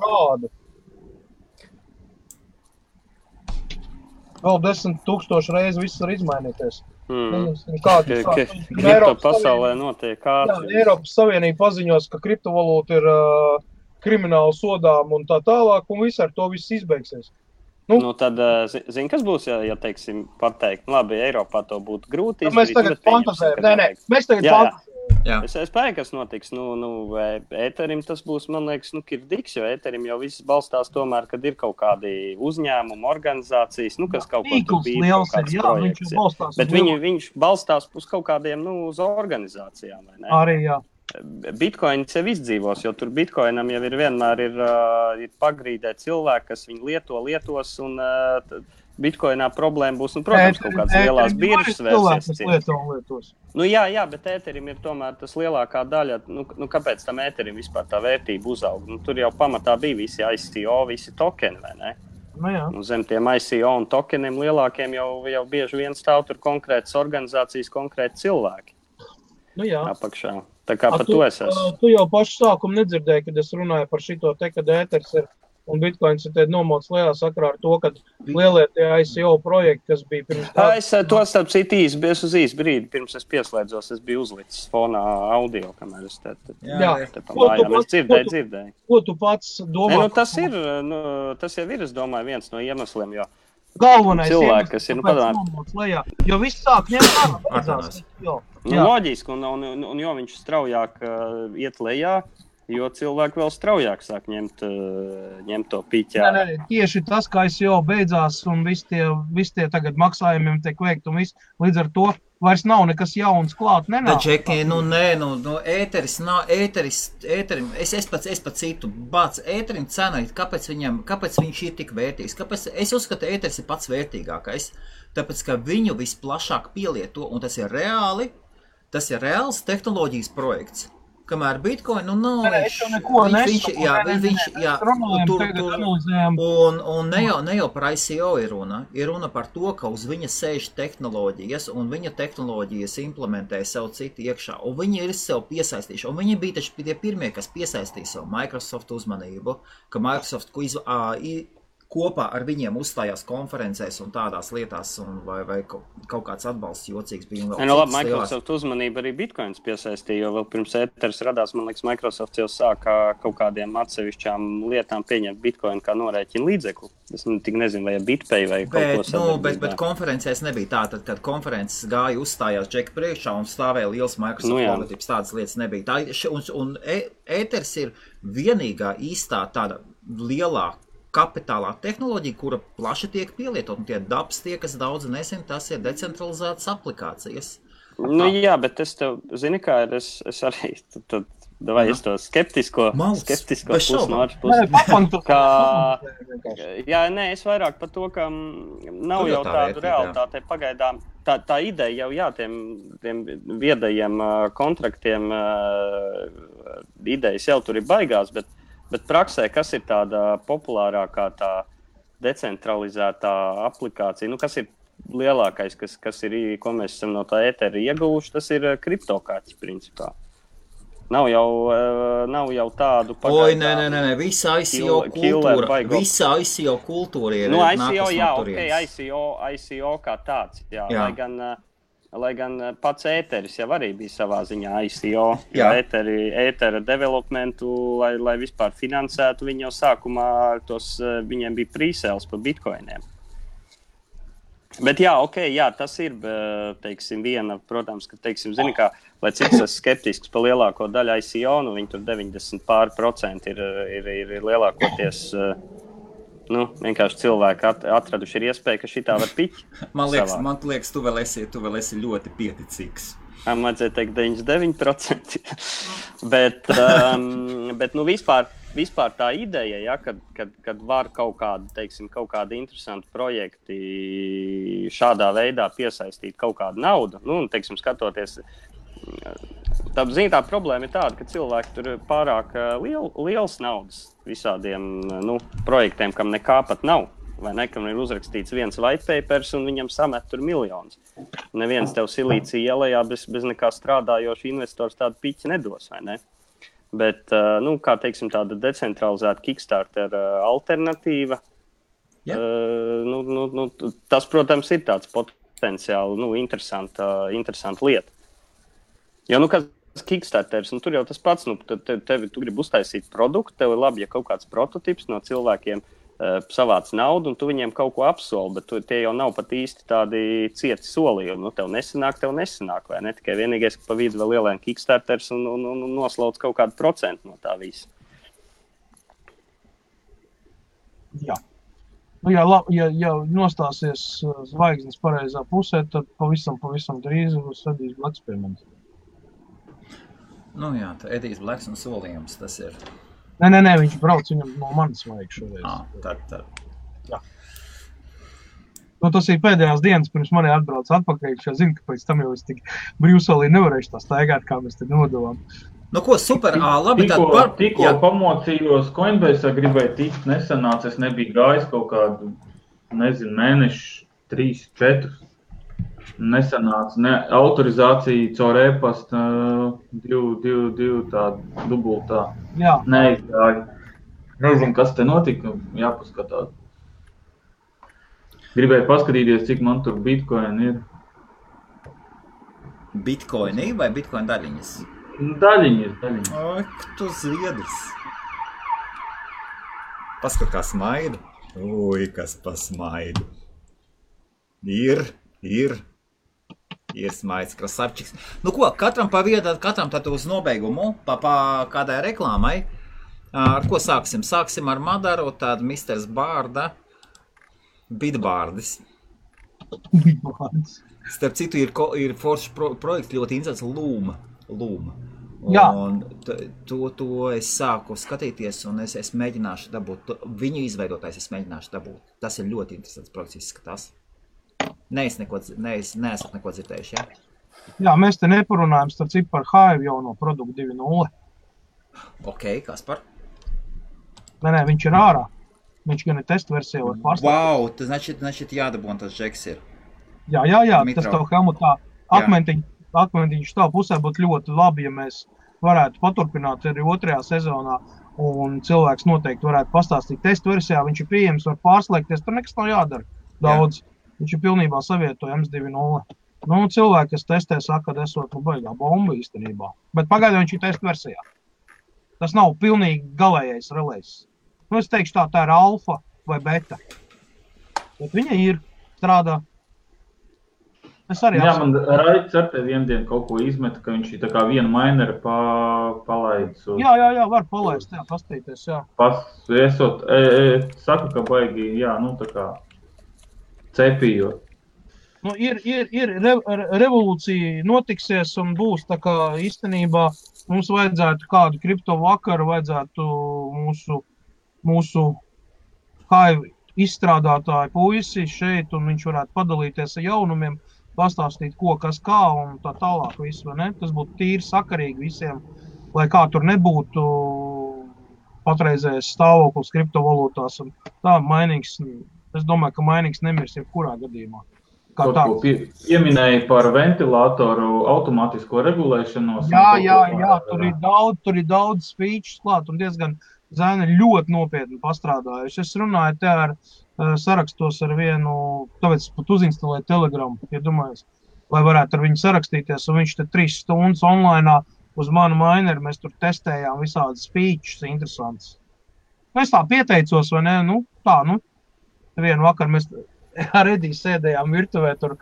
Vēl 10 000 reizes viss var izmainīties. Kripto pasaulē notiek ātri. Jā, Eiropas Savienība paziņos, ka kriptovalūta ir krimināli sodām un tā tālāk, un viss ar to viss izbeigsies. Tad, kas būs, ja teiksim, pateikt, labi, Eiropā to būtu grūti izdarīt. Mēs tagad fantazējam. Mēs tagad fantazējam. Es spēju, kas notiks. Ēterim tas būs, man liekas, kirdiks, jo ēterim jau viss balstās tomēr, kad ir kaut kādi uzņēmumi, organizācijas, kas kaut ko tur bija, kaut kāds projekts. Bet viņš balstās uz kaut kādiem, uz organizācijām, vai ne? Arī, jā. Bitcoin sev izdzīvos, jo tur Bitcoinam jau vienmēr ir pagrīdē cilvēki, kas viņu lietos, un Bitcoinā problēma būs, protams, kaut kādas lielās biržas vērsies. Jā, bet ēterim ir tomēr tas lielākā daļa, kāpēc tam ēterim vispār tā vērtība uzaug? Tur jau pamatā bija visi ICO, visi tokeni, vai ne? Zem tiem ICO un tokeniem lielākiem jau bieži vien stāv tur konkrētas organizācijas, konkrēti cilvēki. Apakšā. Tā kā par to es esmu. Tu jau pašu sākumu nedzirdēji, kad es runāju par šito te, kad ēters ir un Bitcoins ir nomots lielā sakrā ar to, ka lielie tie ICO projekti, kas bija pirms tā... Es to starp citu īsi brīdi, pirms es pieslēdzos, es biju uzlicis fonā audio, kamēr es te pamājām. Es dzirdēju. Ko tu pats domā? Tas jau ir, es domāju, viens no iemesliem, jo galvenais cilvēki, kas ir nomots lejā, jo viss sāk ņemt beidzās. Loģiski, un jo viņš straujāk iet lejā, jo cilvēki vēl straujāk sāk ņemt to piķā. Nē, tieši tas, kā ICO beidzās un visi tie tagad maksājumiem tiek veikt un viss, līdz ar to vairs nav nekas jauns klāt, nenāk. Džeki, ēterim, es pats citu, ēterim cena, kāpēc viņš ir tik vērtīgs? Es uzskatu, ēteris ir pats vērtīgākais, tāpēc, ka viņu visplašāk pielieto, un tas ir reāls tehnoloģijas projekts. Kamēr Bitcoin, nav un ne jau par ICO ir runa par to, ka uz viņa sēž tehnoloģijas, un viņa tehnoloģijas implementē sev citu iekšā, un viņi ir sev piesaistījuši, un viņi bija taču tie pirmie, kas piesaistīja sev Microsoft uzmanību, ka Microsoft kopā ar viņiem uzstājās konferencēs un tādās lietās, vai kaut kāds atbalsts jocīgs bija. Microsoft uzmanība arī Bitcoins piesaistīja, jo vēl pirms ēteris radās, man liekas, Microsoft jau sāka kaut kādiem atsevišķām lietām pieņemt Bitcoin kā norēķina līdzekli. Es tik nezinu, vai BitPay vai kaut ko sadarbībā. Bet konferencēs nebija tā, tad, kad konferences gāja uzstājās Džeka priekšā un stāvēja liels Microsoft logotipes, tādas lietas nebija. Un ēteris ir vienīgā īstā tāda lielā kapitālā tehnoloģija, kura plaši tiek pielietot, un tie dabs tie, kas daudz nezin, tas ir decentralizētas aplikācijas. Jā, bet es tev, zini kā ir, es arī, tad Davai, es to skeptisko pusi no otras puses. Es vairāk par to, ka nav jau tādu realitāti pagaidām. Tā ideja jau, tiem viedajiem kontraktiem idejas jau tur ir baigās, bet praksē, kas ir tāda populārākā tā decentralizētā aplikācija, kas ir lielākais, kas ir, ko mēs esam no tā ētera ieguvuši, tas ir kriptokārtas principā. Nav jau tādu pagaidām. Nē, visa ICO kultūra ir ICO kā tāds, jā. Lai gan pats ēteris jau arī bija savā ziņā ICO, ētera developmentu, lai vispār finansētu, viņi jau sākumā viņiem bija pre-sales pa bitcoiniem. Bet tas ir, teiksim, viena, protams, ka, teiksim, zini, kā, lai cik es skeptisks par lielāko daļu ICO, viņi tur 90% ir lielākoties, vienkārši cilvēki atraduši ir iespēja, ka šitā var piķi. Man liekas, tu vēl esi ļoti pieticīgs. Man vajadzēja teikt 99%. bet vispār tā ideja, kad var kaut kādi interesanti projekti šādā veidā piesaistīt kaut kādu naudu, teiksim, skatoties, tā problēma ir tāda, ka cilvēki tur pārāk liels naudas visādiem projektiem, kam nekā pat nav. Vai ne, kam ir uzrakstīts viens white papers un viņam samet tur miljonus. Neviens tev silīcija ielējā bez nekā strādājoša investors tādu piķi nedos, vai ne? Bet, kā teiksim, tāda decentralizēta Kickstarter alternatīva, tas, protams, ir tāds potenciāli, interesanta lieta. Jo, kas Kickstarters, tur jau tas pats, tu gribi uztaisīt produktu, tev ir labi, ja kaut kāds prototips no cilvēkiem savāc naudu, un tu viņiem kaut ko apsoli, bet tie jau nav pat īsti tādi cieti solījumi. Tev nesanāk, vai ne? Tikai vienīgais, ka pa vidu vēl ielēn Kickstarters un noslauc kaut kādu procentu no tā visa. Jā. Ja nostāsies zvaigznes pareizā pusē, tad pavisam drīz būs Edijs Blaks pie manis. Edijs Blaks un solījums, tas ir... Nē, viņš brauc, viņam no manis vajag šoreiz. Tad. Jā. Tas ir pēdējās dienas, pirms mani atbrauc atpakaļ, jo zinu, ka pēc tam jau es tik brīvsolī nevarēšu tā staigāt, kā mēs te nodavām. Super, labi, Tikko pamocījos Coinbase, gribēju tikt, nesanāca, es nebiju gājis kaut kādu, mēnešu, 3, 4. Nesanāca, autorizācija caur e-pasta, 2 tāda dubultā. Jā. Neizgāja. Nezinu, kas te notika, jāpaskatās. Gribēju paskatīties, cik man tur bitcoin ir. Bitcoini vai bitcoin daļiņas? Daļiņas. Oi, tu zviedrs. Paskat, kā smaida. Ui, kas pasmaida. Ir smaids, krasavčiks. Katram pa vietu, katram tad uz nobeigumu, pa kādai reklāmai. Ar ko sāksim? Sāksim ar Madaru, tādu Misters Bārda, Bitbārdis. Starp citu, ir foršs projekts ļoti interesants Lūma. Un to es sāku skatīties, un es mēģināšu dabūt, viņu izveidotājs es mēģināšu dabūt. Tas ir ļoti interesants projekts, izskatās. Neesat neko dzirdējuši, jā? Jā, mēs te neparunājam starp citu par Hive jau no produktu 2.0. Ok, kas par? Nē, viņš ir ārā. Viņš gan ir testu versija var pārstāvēt. Wow, tas значит jādabūn tas džeks ir. Jā, Mitro. Tas tev Helmutā akmentiņš tā pusē būtu ļoti labi, ja mēs varētu paturpināt arī 2. sezonā, un cilvēks noteikti varētu pastāstīt testu versijā, viņš ir pieejams, var pārslēgties, tur nekas nav jādara daudz. Viņš ir pilnībā savietojams 2.0. Cilvēki, kas testē, saka, ka esot baigā bomba īstenībā. Bet pagaidām viņš ir testu versijā. Tas nav pilnīgi galējais relēs. Es teikšu tā ir alfa vai beta. Bet viņa ir strādā. Es arī man Raits ar te vienu dienu kaut ko izmeta, ka viņš ir tā kā vienu maineri palaidis. Jā, var palaist, pastīties, jā. Saku, ka baigi, tā kā cepījot. Nu, ir revolūcija notiksies un būs tā kā īstenībā mums vajadzētu kādu kripto vakaru, vajadzētu mūsu kā izstrādātāju puisi šeit, un viņš varētu padalīties ar jaunumiem, pastāstīt, ko, kas, kā, un tā tālāk visu, vai ne? Tas būtu tīri sakarīgi visiem, lai kā tur nebūtu patreizējais stāvoklis kriptovalūtās, un tā mainīgs, es domāju, ka mainīgs nemirs jebkurā gadījumā. Kaut ko pieminēja par ventilātoru automātisko regulēšanos. Jā, tur ir daudz features klāt, un diezgan Zēna ļoti nopietni pastrādājuši. Es runāju te ar sarakstos ar vienu, tāpēc pat uzinstalēju Telegramu, iedomājies, lai varētu ar viņu sarakstīties, un viņš te 3 stundas online uz manu mineru, mēs tur testējām visādas features interesants. Es tā pieteicos, vai ne? Vienu vakaru mēs ar Ediju sēdējām virtuvē tur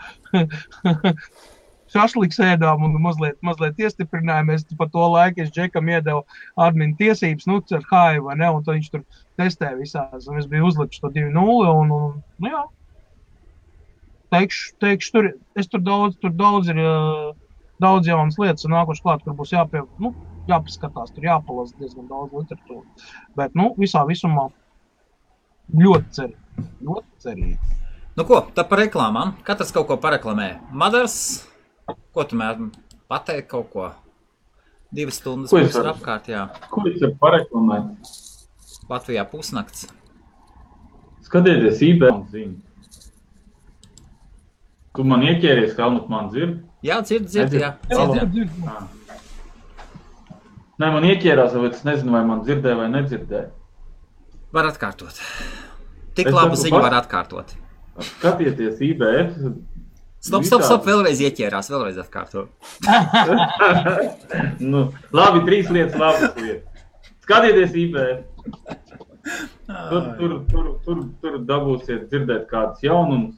šašliks ēdām un mazliet iestiprinājāmies. Pa to laiku es Džekam iedevu admin tiesības, ar Haivu, vai ne, un tad viņš tur testē visās, un es biju uzlicis to 2.0, un jā. Teikšu, tur daudz ir daudz jaunas lietas, un nākoši klāt, kur būs jāpaskatās, tur jāpalasa diezgan daudz literatūru. Bet, visā visumā ļoti cerīgi. Nu ko, tad par reklāmām. Katrs kaut ko pareklamē. Madars, ko tu mēr pateikt kaut ko? 2 stundas būs ar apkārt, jā. Ko es varu pareklamēt? Latvijā pusnakts. Skatieties eBay un ziņu. Tu man ieķēries, ka Helmut man dzird? Jā, dzird, jā. Nē, man ieķērās, bet es nezinu, vai man dzirdēja vai nedzirdēja. Var atkārtot. Tik labu ziņu var atkārtot. Skatieties eBay. Stop, vēlreiz ieķērās, vēlreiz atkārto. Labi, 3 lietas. Skatieties eBay. Tur dabūsiet dzirdēt kādus jaunumus,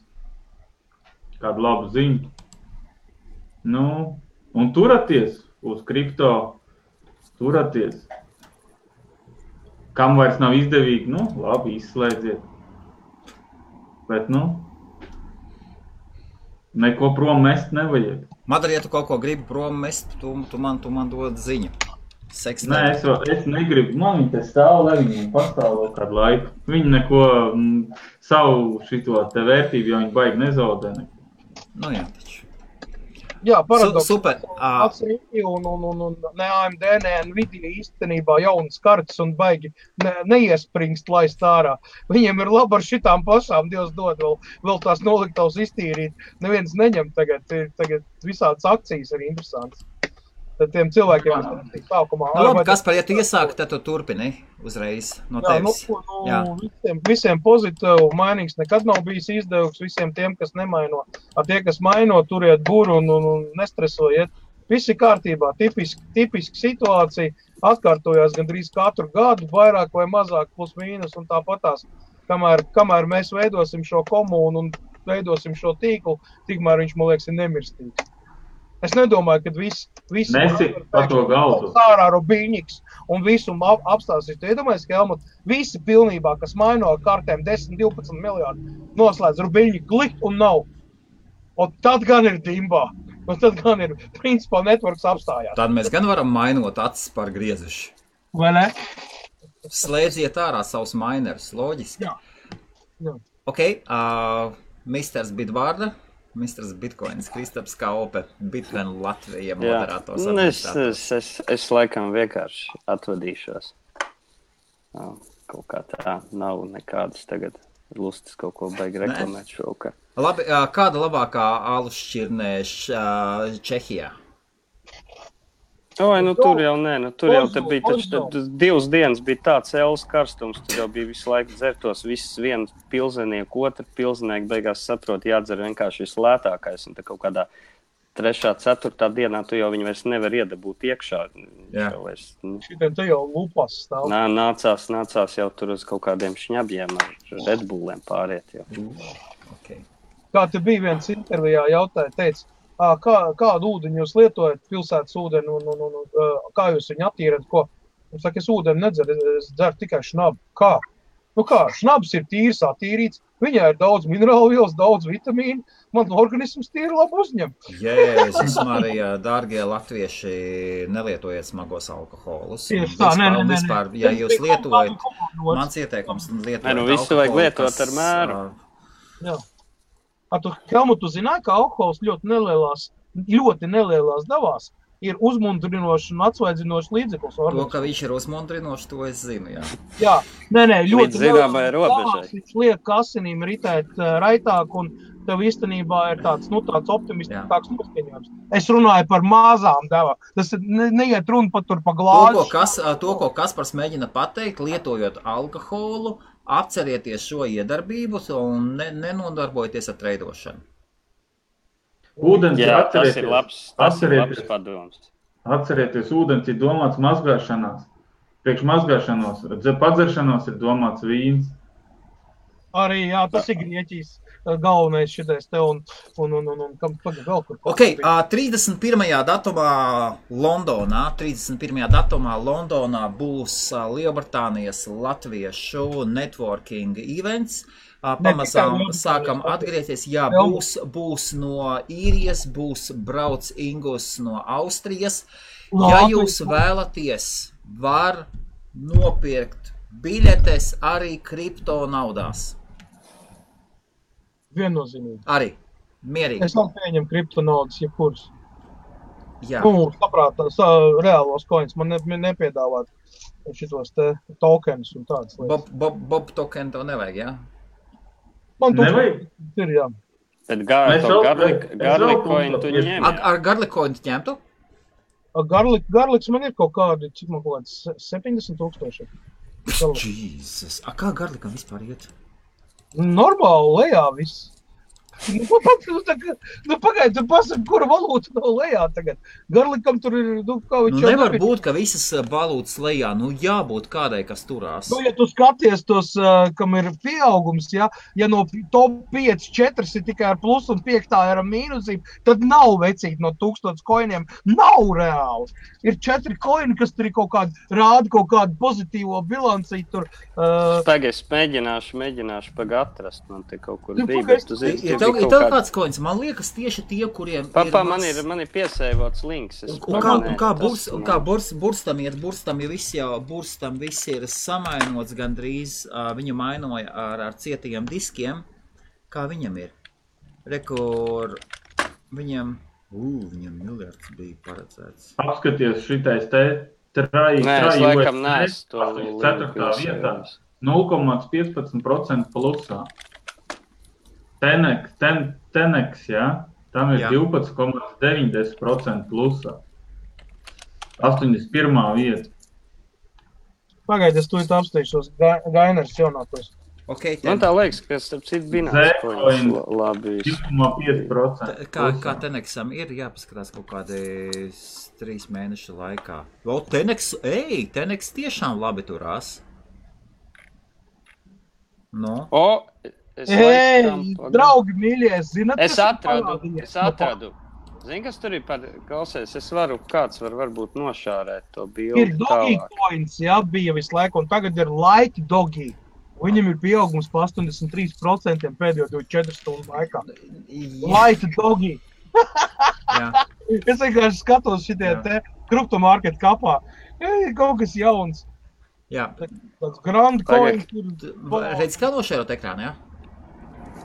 kādu labu ziņu. Un turaties uz kripto, turaties. Kam vairs nav izdevīgi, labi, izslēdziet. Bet, neko prom mest nevajag. Madara, ja tu kaut ko gribi prom mest, tu man dod ziņu. Nē, es negribu. Man viņi te stāv, lai viņi pastāv vēl kādu laiku. Viņi neko savu šito te vērtību, jo viņi baigi nezaudē neko. Jā, taču. Jā, paradoks. Super. Pats Rīki un ne AMD, ne Nvidia īstenībā jaunas kartas un baigi neiespringst laist ārā. Viņiem ir labi ar šitām pašām, Dievs dod vēl tās noliktavas iztīrīt. Neviens neņem tagad visādas akcijas ir interesants. Tad tiem cilvēkiem ir sākumā. Labi, Kaspar, ja tu iesāki, tad tu turpini uzreiz no tevis. Visiem pozitīvu mainīgs nekad nav bijis izdevums visiem tiem, kas nemaino. Ar tie, kas maino, turiet buru un nestresojiet. Visi kārtībā, tipiski situācija, atkārtojās gandrīz katru gadu, vairāk vai mazāk, plus mīnus un tāpatās. Kamēr mēs veidosim šo komunu un veidosim šo tīklu, tikmēr viņš, man liekas, ir nemirstīgi. Es nedomāju, ka visi Nesi pa to galdu. Sārā Robiņiks un visu apstāsīs. Tu iedomājies, ka Helmut visi pilnībā, kas maino kartēm 10-12 miljārdu, noslēdz Robiņiku klikt un nav. Un tad gan ir dimbā. Un tad gan ir, principā, networks apstājās. Tad mēs gan varam mainot acis par griezuši. Vai ne? Slēdziet ārā savus minerus, loģiski. Jā. Ok, Misters Bitvārda. Misters Bitcoins, Kristaps Kaupe, Bitcoin Latvija moderators. Es laikam vienkārši atvadīšos. Kaut kā tā nav nekādas tagad lustas kaut ko baigi reklamēt šovakar. Labi, kāda labākā alus šķirnē Čehijā? Tur jau nē, tur jau te bija taču 2 dienas bija tāds elas karstums, tur jau bija visu laiku dzertos, viss viens pilzenieku, otru pilzenieku beigās saprot, jādzer vienkārši vislētākais, un te kaut kādā 3., 4. dienā tu jau viņu vairs nevar iedabūt iekšā. Jā. Šitiem te jau lupas stāv. Nācās jau tur uz kaut kādiem šņabjiem ar Red Bulliem pāriet jau. Okay. Kā te bija viens intervijā jautāja, teica, kādu ūdeņu jūs lietojat, pilsētas ūdeni, kā jūs viņu attīrat, ko? Es saku, es ūdeni nedzeru, es dzeru tikai šnabu. Kā? Nu kā, šnabs ir tīrs, attīrīts, viņā ir daudz minerālu vielas, daudz vitamīnu, man organisms tīri labi uzņem. Jēzus Marija, dārgie latvieši, nelietojiet smagos alkoholus. Tieši tā, vispār, ja jūs lietojat, mans ieteikums lietojat visu vajag lietot ar mēru. Jā. Helmut, tu zināji, ka alkohols ļoti nelielās devās ir uzmundrinošs un atsvaidzinošs līdzeklis. To, ka viņš ir uzmundrinošs, to es zinu, jā. Jā, ļoti zināmai robežai. Viņš liek asinīm ritēt raitāk, un tev īstenībā ir tāds optimistiskāks noskaņojums. Es runāju par mazām devām. Tas neiet runa pat tur pa glāzi. To, ko Kaspars mēģina pateikt, lietojot alkoholu, apcerieties šo iedarbību un nenodarbojieties ar treidošanu. Ūdens, tas ir labs padoms. Atcerieties, ūdens ir domāts mazgāšanās. Priekš mazgāšanos, padzeršanos ir domāts vīns. Arī, jā, tas ir Grieķijas galvenais šitais te un tagad vēl kur. Ok, 31. datumā Londonā būs Lielbritānijas latviešu networking events. Pamazām sākam atgriezties. Jā, būs no Īrijas, būs brauc Ingus no Austrijas. Ja jūs vēlaties, var nopirkt biļetes arī kripto naudās. Viennozīmīgi. Arī. Mierīgi. Es vēl pieņem kripto naudas, jebkuras. Jā. Saprātās, reālos coins man nepiedāvāt šitos te tokenus un tādas lietas. Bob token tev nevajag, jā? Man ir, jā. Tad garlic coin tu ņem. Ar garlic coin tu ņemtu? Garlics man ir kaut kādi, cik man kaut kāds 70,000. Jesus. Kā garlikam vispār iet? Normāli lejā viss. Pagaid, tu pasaki, kura valūta nav lejā tagad. Garlikam tur ir, kā viņš jau nevar būt, ka visas valūtas lejā, jābūt kādai, kas turās. Ja tu skaties tos, kam ir pieaugums, ja no top 5, 4 ir tikai ar plus un 5 ir ar mīnusīm, tad nav vecīt no 1000 koiniem, nav reāli. Ir 4 koini, kas tur ir rāda kaut kādu pozitīvo bilancī tur. Tagad es mēģināšu atrast, man te kaut kur bija, bet tu zini, ir tev kāds koins, man liekas tieši tie, kuriem man ir piesēvots links. Kā burstam iet, burstam viss ir samainots gandrīz, viņu mainoja ar cietajiem diskiem, kā viņam ir. Rekur, viņam miljards bija paredzēts. Apskaties šitais te trai es laikam neesmu to 4. vietā, 0,15% plusā. Tenex, jā, tam ir 12,90% plusā. 81. vieta. Pagaid, es to apsteigšos. Gainers jaunākos. Okay, man tā liekas, ka starp citu binās labi. 2,5%. Kā Tenexam ir jāpaskatās kaut kādi 3 mēnešu laikā. Tenex tiešām labi turās. No. Draugi mīļie, zināt, es atradu. Zini, kas tur ir klausies? Kāds varbūt nošārēt to bildi. Ir Doggy coins, jā, bija visu laiku, un tagad ir Like Doggy. Viņam ir pieaugums pa 83% pēdējo 24 stundu laikā. Like Doggy. Es vienkārši skatos šitie te kriptomarket kapā. Kaut kas jauns. Jā. Tāds Grand Coin. Redz, kā nošērot ekrānu, jā?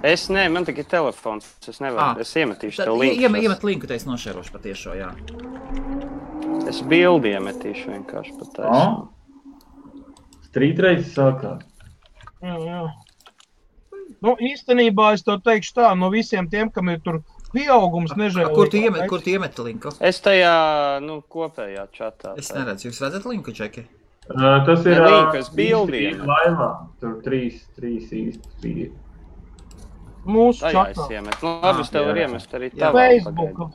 Es man tikai telefons. Es nevaru. Es iemetīšu tev linku. Iemet linku, te es nošērošu patiešo, jā. Es bildi iemetīšu vienkārši patiešo. Strītreizes sākās. Jā. Īstenībā es tev teikšu tā, no visiem tiem, kam ir tur pieaugums nežēlīgi. Kur tu iemet linku? Es tajā, kopējā čatā. Es neredzu. Jūs redzat linku, Čeki? Tas ir bildiem. Laivā. Tur 3 īsti. Mūsu čatā. Labi, es tev var iemest arī tā.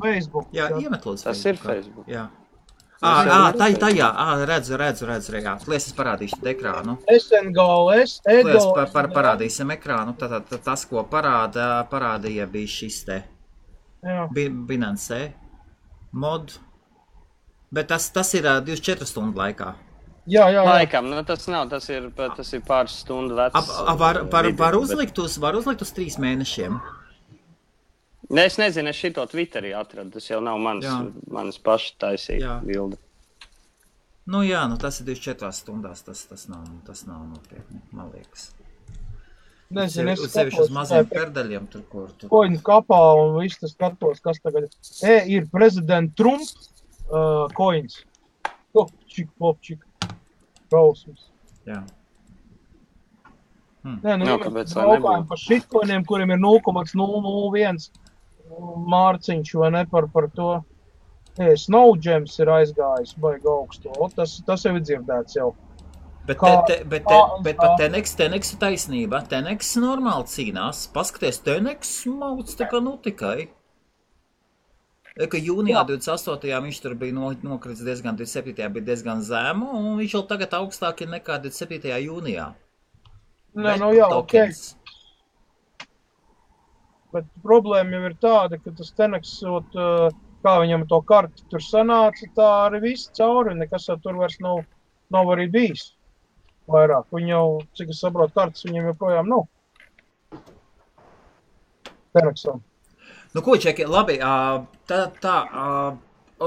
Facebook. Jā, iemet lūdzu. Tas ir Facebook. Jā. Tajā, redzu, jā. Lies, es parādīšu ekrānu. SNGLS, Lies, parādīsim ekrānu. Tas, ko parādīja, bija šis te. Binance mod. Bet tas ir 24 stundu laikā. Jā. Laikam, nu, tas ir pāris stundu vecs. Var uzlikt uz 3 mēnešiem? Ne, es nezinu, es šito Twitterī atradu. Tas jau nav manas paša taisīta bilde. Nu jā, tas ir 24 stundās. Tas nav nopietni, man liekas. Nezinu, es sevišķi uz maziem perdaļiem tur. Koņu kapā un viss tas skatos, kas tagad ir prezidenta Trump koņas. Popčik. Rausums. Jā. Nē, mēs braukājam par šitkoņiem, kuriem ir 0,001 mārciņš, vai ne, par to. Snowgems ir aizgājis, baigi augstu. Tas jau ir dzirdēts jau. Bet pat Teneks ir taisnība. Teneks normāli cīnās. Paskaties, Teneks mauc tā kā tikai. Ka jūnijā 28. viņš tur bija nokrits diezgan, 27. bija diezgan zemu, un viņš jau tagad augstāk ir nekā 27. jūnijā. Nē, jā, tokens. Bet problēma jau ir tāda, ka tas Teneks, kā viņam to karti tur sanāca, tā arī viss cauri, nekas jau tur vairs nav arī bijis. Vairāk. Viņi jau, cik es saprotu, kartas viņam joprojām nav. Teneksam. Nu, ko, Čeki, labi, ar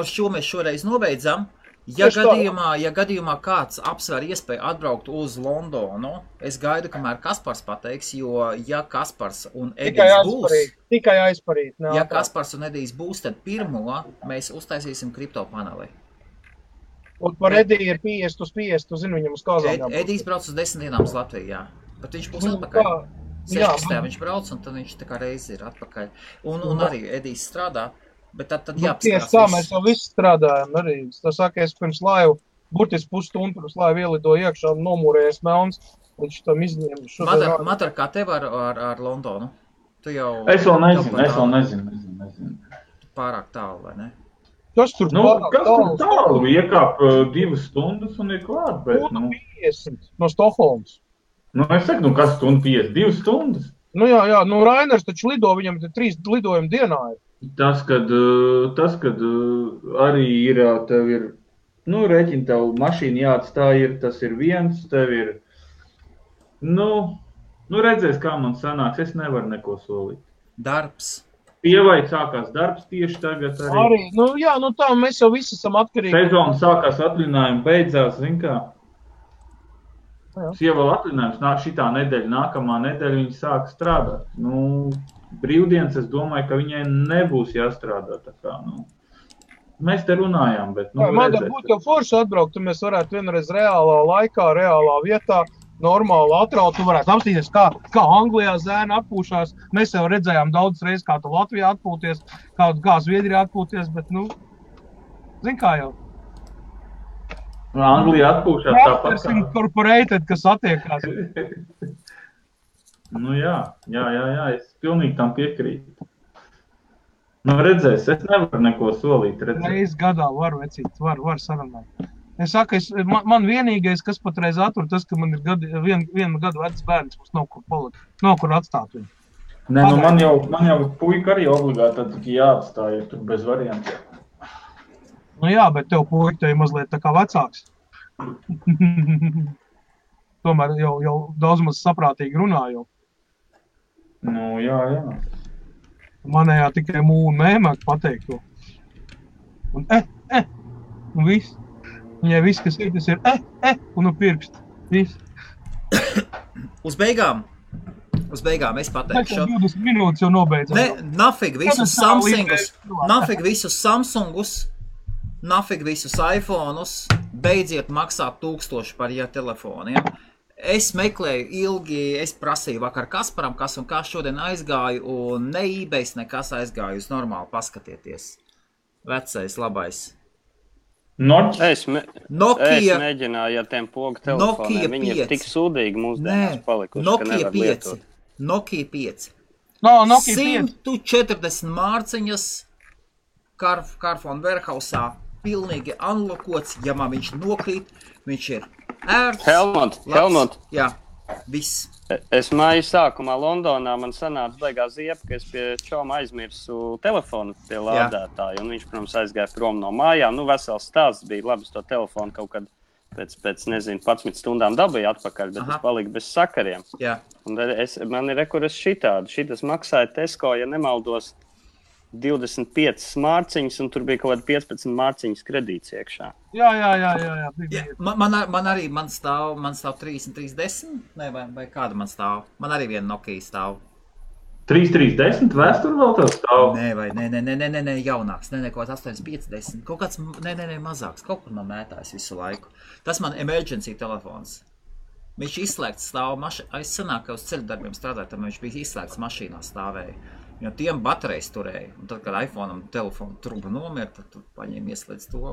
šo mēs šoreiz nobeidzam. Ja gadījumā kāds apsver iespēju atbraukt uz Londonu, es gaidu, kamēr Kaspars pateiks, jo ja Kaspars un Edijs būs... Tikai aizparīt. Ja Kaspars un Edijs būs, tad pirmo mēs uztaisīsim kripto paneli. Un par Ediju ir 50 uz 50, tu zini viņam uz kāzām. Edijs brauc uz 10 dienām uz Latviju, jā. Bet viņš būs atpakaļ. 16. viņš brauc, un tad viņš tā kā reizi ir atpakaļ. Un arī Edijs strādā, bet tad jāapskatās. Tieši tā, mēs jau visi strādājam arī. Tas saka, es pirms laivu, burtiski pusstundu pirms laivu ielidoju iekšā un nomūrējies melns. Viņš tam izņēma. Matar, kā tev ar Londonu? Tu jau... Es vēl nezinu. Pārāk tālu, vai ne? Kas tur tālu? Iekāp 2 stundas un ir klāt, bet... 50 no Stokholmas. Es saku, kas stundu 50? 2 stundas? Jā, Rainers taču lido, viņam 3 lidojumi dienā ir. Tas, kad arī tev ir, rēķini tev mašīna jāatstāj tas ir viens, tev ir, redzēs, kā man sanāks, es nevaru neko solīt. Darbs. Pievai sākās darbs tieši tagad arī. Tā, mēs jau visi esam atkarīgi. Sezona sākās, atlinājumi beidzās, zin kā. Sieva vēl atlinājums, šitā nedēļa, nākamā nedēļa viņa sāk strādāt. Brīvdienas, es domāju, ka viņai nebūs jāstrādā tā kā, Mēs te runājām, bet, Man būtu jau forši atbraukt, un mēs varētu vienreiz reālā laikā, reālā vietā, normāli atraut, tu varētu apstīties, kā Anglijā zēna atpūšās. Mēs jau redzējām daudz reizes, kā tu Latvijā atpūties, kā Zviedrijā atpūties, bet, zin kā jau. Anglijā atpūšās tāpat kā. Incorporated, kas attiekās. Jā, es pilnīgi tam piekrītu. Redzēs, es nevaru neko solīt. Reiz gadā var, vecīt, var sarunāt. Es saku, man vienīgais, kas patreiz attur, tas, ka man ir vienu gadu vecs bērns, mums nav kur palikt, nav kur atstāt viņu. Nē, man jau puika arī obligāti tikai jāatstāj, ja tur bez variantiem. Jā, bet tev puika tev mazliet tā kā vecāks. Tomēr jau daudz maz saprātīgi runā jau. Jā. Manējā tikai mūnu mēmāk pateikt to. Un un viss. Viņai viss, kas ir, tas ir un pirkst. Viss. Uz beigām es pateikšu. 20 minūtes jau nobeidzam. Nafig visus Samsungus, nafig visus iPhone'us, beidziet maksāt 1000 par telefoniem. Es meklēju ilgi, es prasīju vakar Kasparam, kas un kā šodien aizgāju, un ne eBays nekas aizgāju, uz normāli paskatieties. Vecais, labais. Es mēģināju ar tiem pogu telefoniem, viņi ir tik sūdīgi mūsdienās palikuši, ka nevar lietot. Nokia 5. Nokia 5. 140 mārciņas Carphone Warehousā, pilnīgi unlokots, ja man viņš nokrīt, viņš ir ērts. Helmut. Jā, viss. Es māju sākumā Londonā, man sanāca baigā ziepa, ka es pie čoma aizmirsu telefonu pie lādētāju, un viņš, protams, aizgāja prom no mājām. Vesels stāsts bija, labi, es to telefonu kaut kad pēc nezinu, 11 stundām dabūju atpakaļ, bet es paliku bez sakariem. Jā. Un man ir rekuras šitas maksāja Tesco, ja nemaldos, 25 mārciņas, un tur bija kaut kāda 15 mārciņas kredīts iekšā. Jā. Man stāv 3310, vai kāda man stāv? Man arī viena Nokia stāv. 3310 vēsturi vēl tev stāv? Nē, jaunāks, kaut kāds 850, kaut kāds, mazāks, kaut kur man mētājs visu laiku. Tas man emergency telefons. Viņš izslēgts stāv mašīnā, es sanāk, ka uz ceļu darbiem strādāju, tad viņš bija izslēgts mašīnā stāvēja. Jo tiem baterijas turēja, un tad, kad iPhone'am telefonu truba nomira, tad tu paņēmi ieslēdz to.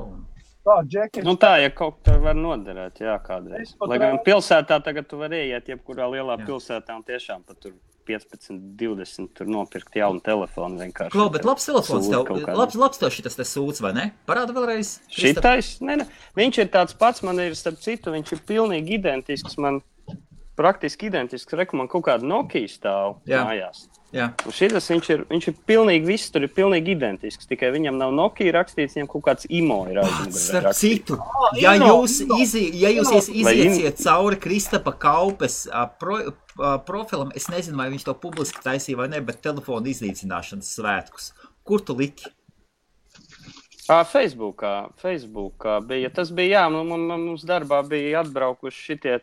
Tā, Džeki. Nu tā, ja kaut kā var noderēt, jā, kādreiz. Lai gan pilsētā tagad tu var ieiet, jebkurā lielā pilsētā, un tiešām pat tur 15, 20 tur nopirkt jaunu telefonu vienkārši. Klau, bet labs telefons tev, labs tev šitas te sūds, vai ne? Parāda vēlreiz. Šitais? Ne. Viņš ir tāds pats, man ir starp citu, viņš ir pilnīgi identisks, man praktiski identisks, man kaut kāda Nokia stāv mājās. Jā. Un šitas viņš ir pilnīgi viss, tur ir pilnīgi identisks, tikai viņam nav Nokia rakstīts, viņam kaut kāds IMO ir aizmugurē. Starp citu, ja jūs iziesiet cauri Kristapa Kaupes profilam, es nezinu, vai viņš to publiski taisīja vai ne, bet telefonu iznīcināšanas svētkus. Kur tu liki? Facebookā bija. Tas bija, mums darbā bija atbraukuši šitie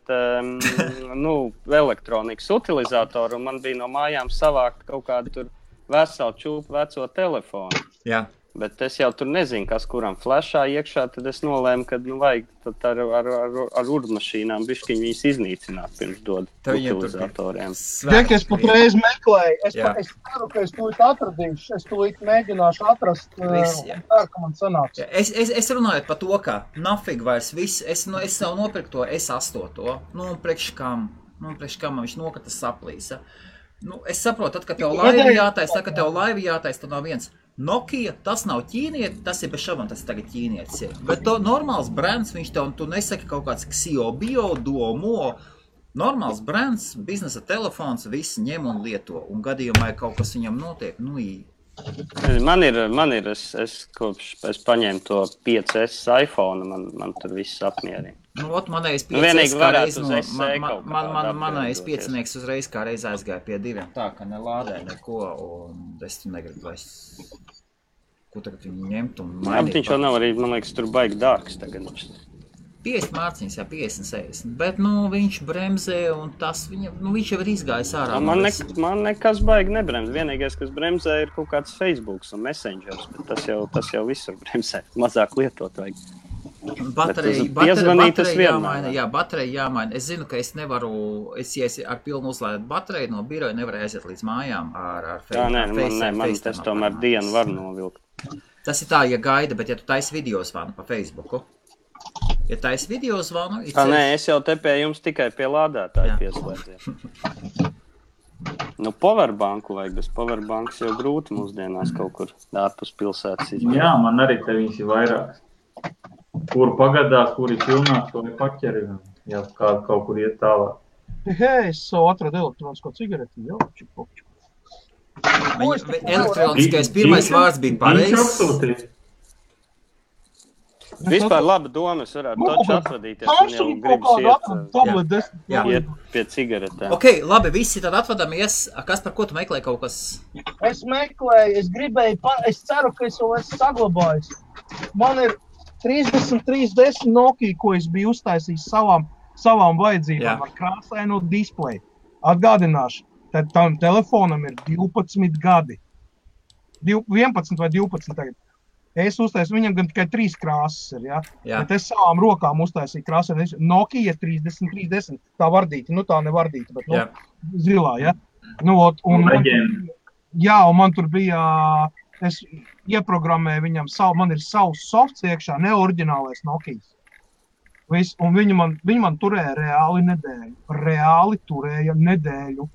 elektronikas utilizatori, un man bija no mājām savākt kaut kādu tur veselu čūpu veco telefonu. Jā. Bet es jau tur nezinu, kas kuram flashā iekšā, tad es nolēmu, ka vajag tad ar urmašīnām bišķiņ viņas iznīcināt pirms dod utilizatoriem. Tiek, es patreiz meklēju, es ceru, ka es tūlīt atradīšu, es tūlīt mēģināšu atrast, ceru, ka man sanāks. Es runāju par to, ka nafig vairs viss, es jau nopirku to S8, un priekš kam man viņš nokrita saplīsa. Es saprotu, tad, kad tev laivi jātais, tad nav viens. Nokia, tas nav ķīnieti, tas ir bez šaubām, tas tagad ķīnietis ir. Bet to normāls brands, viņš tev, tu nesaki kaut kāds Xiaomi, Duomo, normāls brands, biznesa telefons, visi ņem un lieto, un gadījumā, ja kaut kas viņam notiek, Man ir, es paņēmu to 5S iPhone, man tur viss apmierina. Manējais 5-nieks uzreiz kā reiz aizgāja pie 2, tā, ka nelādē neko, un es tu negribu vairs, ko tagad viņi ņemt un mainīt. Viņš jau nav arī, man liekas, tur baigi dārgs tagad. 50 mārciņas, 50-60, bet, viņš bremzē, un tas viņš jau ir izgājis ārā. Man nekas baigi nebremz. Vienīgais, kas bremzē, ir kaut kāds Facebooks un Messengers, bet tas jau visur bremzē. Mazāk lietot vajag. Baterija jāmaina. Es zinu, ka es nevaru, ja ar pilnu uzlādēt bateriju no biroja, nevaru aiziet līdz mājām ar man tas tomēr dienu var novilkt. Tas ir tā, ja gaida, bet ja tu taisi video zvanu pa Facebooku, ja taisi video zvanu... Nē, es jau te pie jums tikai pie lādētāja pieslēdzies. Powerbanku vajag, bez powerbanks jau grūti mūsdienās kaut kur ārpus pilsētas izmēr. Jā, man arī te viņas ir vairākas. Kur pagadās, kur ir pilnāks, to ir paķeri, ja kaut kur iet tālāk. Hei, es savu atradu elektronisko cigareti, jau čipopču. Elektroniskais pirmais vārds bija pareizs. Vispār laba doma, es varētu taču atvadīties, un jau gribas iet pie cigaretēm. Ok, labi, visi tad atvadamies. Kas par ko tu meklēji kaut kas? Es meklēju, es ceru, ka es vēl esmu saglabājis. Man ir 3310 Nokia, ko es biju uztaisījis savām vajadzībām ar krāsaino displeju. Atgādināšu, tad tam telefonam ir 12 gadi. 11 vai 12 tagad. Es uztaisīju, viņam gan tikai 3 krāsas ir, bet es savām rokām uztaisīju krāsaino Nokia 3310. Tā vardīta, tā nevardīta, bet zilā, un man tur bija... Es ieprogrammēju viņam man ir savs softs iekšā, ne oriģinālais Nokijas. Un viņi man turēja reāli turēja nedēļu.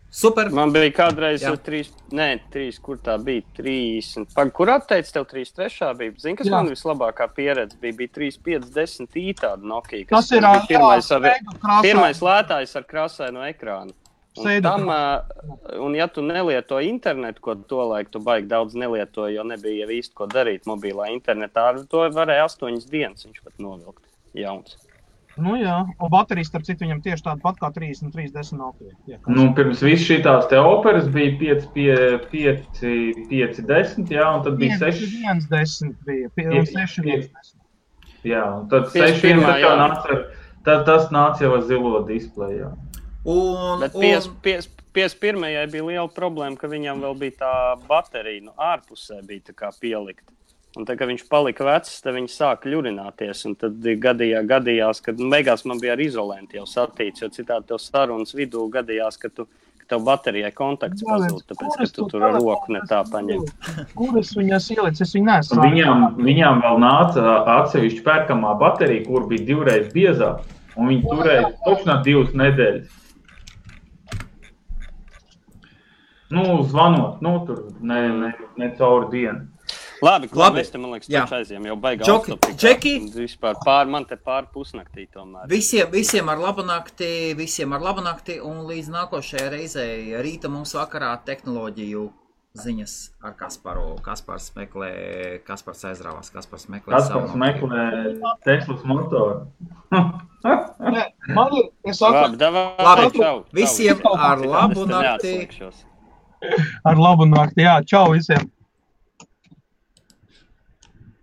Super. Man bija kādreiz 3, kur tā bija, 30. Kur atteic tev 3.3. bija? Zini, kas man vislabākā pieredze bija 3.5.10 tāda Nokia, kas bija pirmais lētājs ar krāsaino ekrānu. Un ja tu nelieto internetu, ko tolaik tu baigi daudz nelietoji, jo nebija jau īsti ko darīt mobilā internetā, to varēja 8 dienas viņš pat novilkt jauns. Nu jā, un baterijas, starp citu, viņam tieši tāda pat kā 3310 Nokia. Nu, pirms viss šitās te operas bija 510, jā, un tad bija 6. 110 bija, un 610. Jā, un tad 6, tas nāca jau ar zilo displeju, jā. Bet 51. bija liela problēma, ka viņam vēl bija tā baterija, ārpusē bija tā kā pielikta. Un tad, kad viņš palika vecs, tad viņi sāka ļurināties, un tad gadījās, kad beigās man bija ar izolenti jau satīts, jo citādi tev sarunas vidū gadījās, ka tev baterijai kontakts pazūd, tāpēc, ka tu tur ar roku ne tā paņem. Kuras viņas ielic, es viņu nesu. Viņām vēl nāca atsevišķi pērkamā baterija, kur bija 2 reizes biezāk, un viņi turēja točnā 2 nedēļas. Nu, zvanot, tur ne cauri dienu. Labi, mēs te, man liekas, taču aizjām jau baigā Džeki, man te pār pusnaktī tomēr. Visiem ar labu nakti, un līdz nākošajai reizei rīta mums vakarā tehnoloģiju ziņas ar Kasparu. Kaspars aizrāvās, Kaspars meklē Teslas motoru. Labi, visiem ar labu nakti. Ar labu nakti, jā, čau visiem.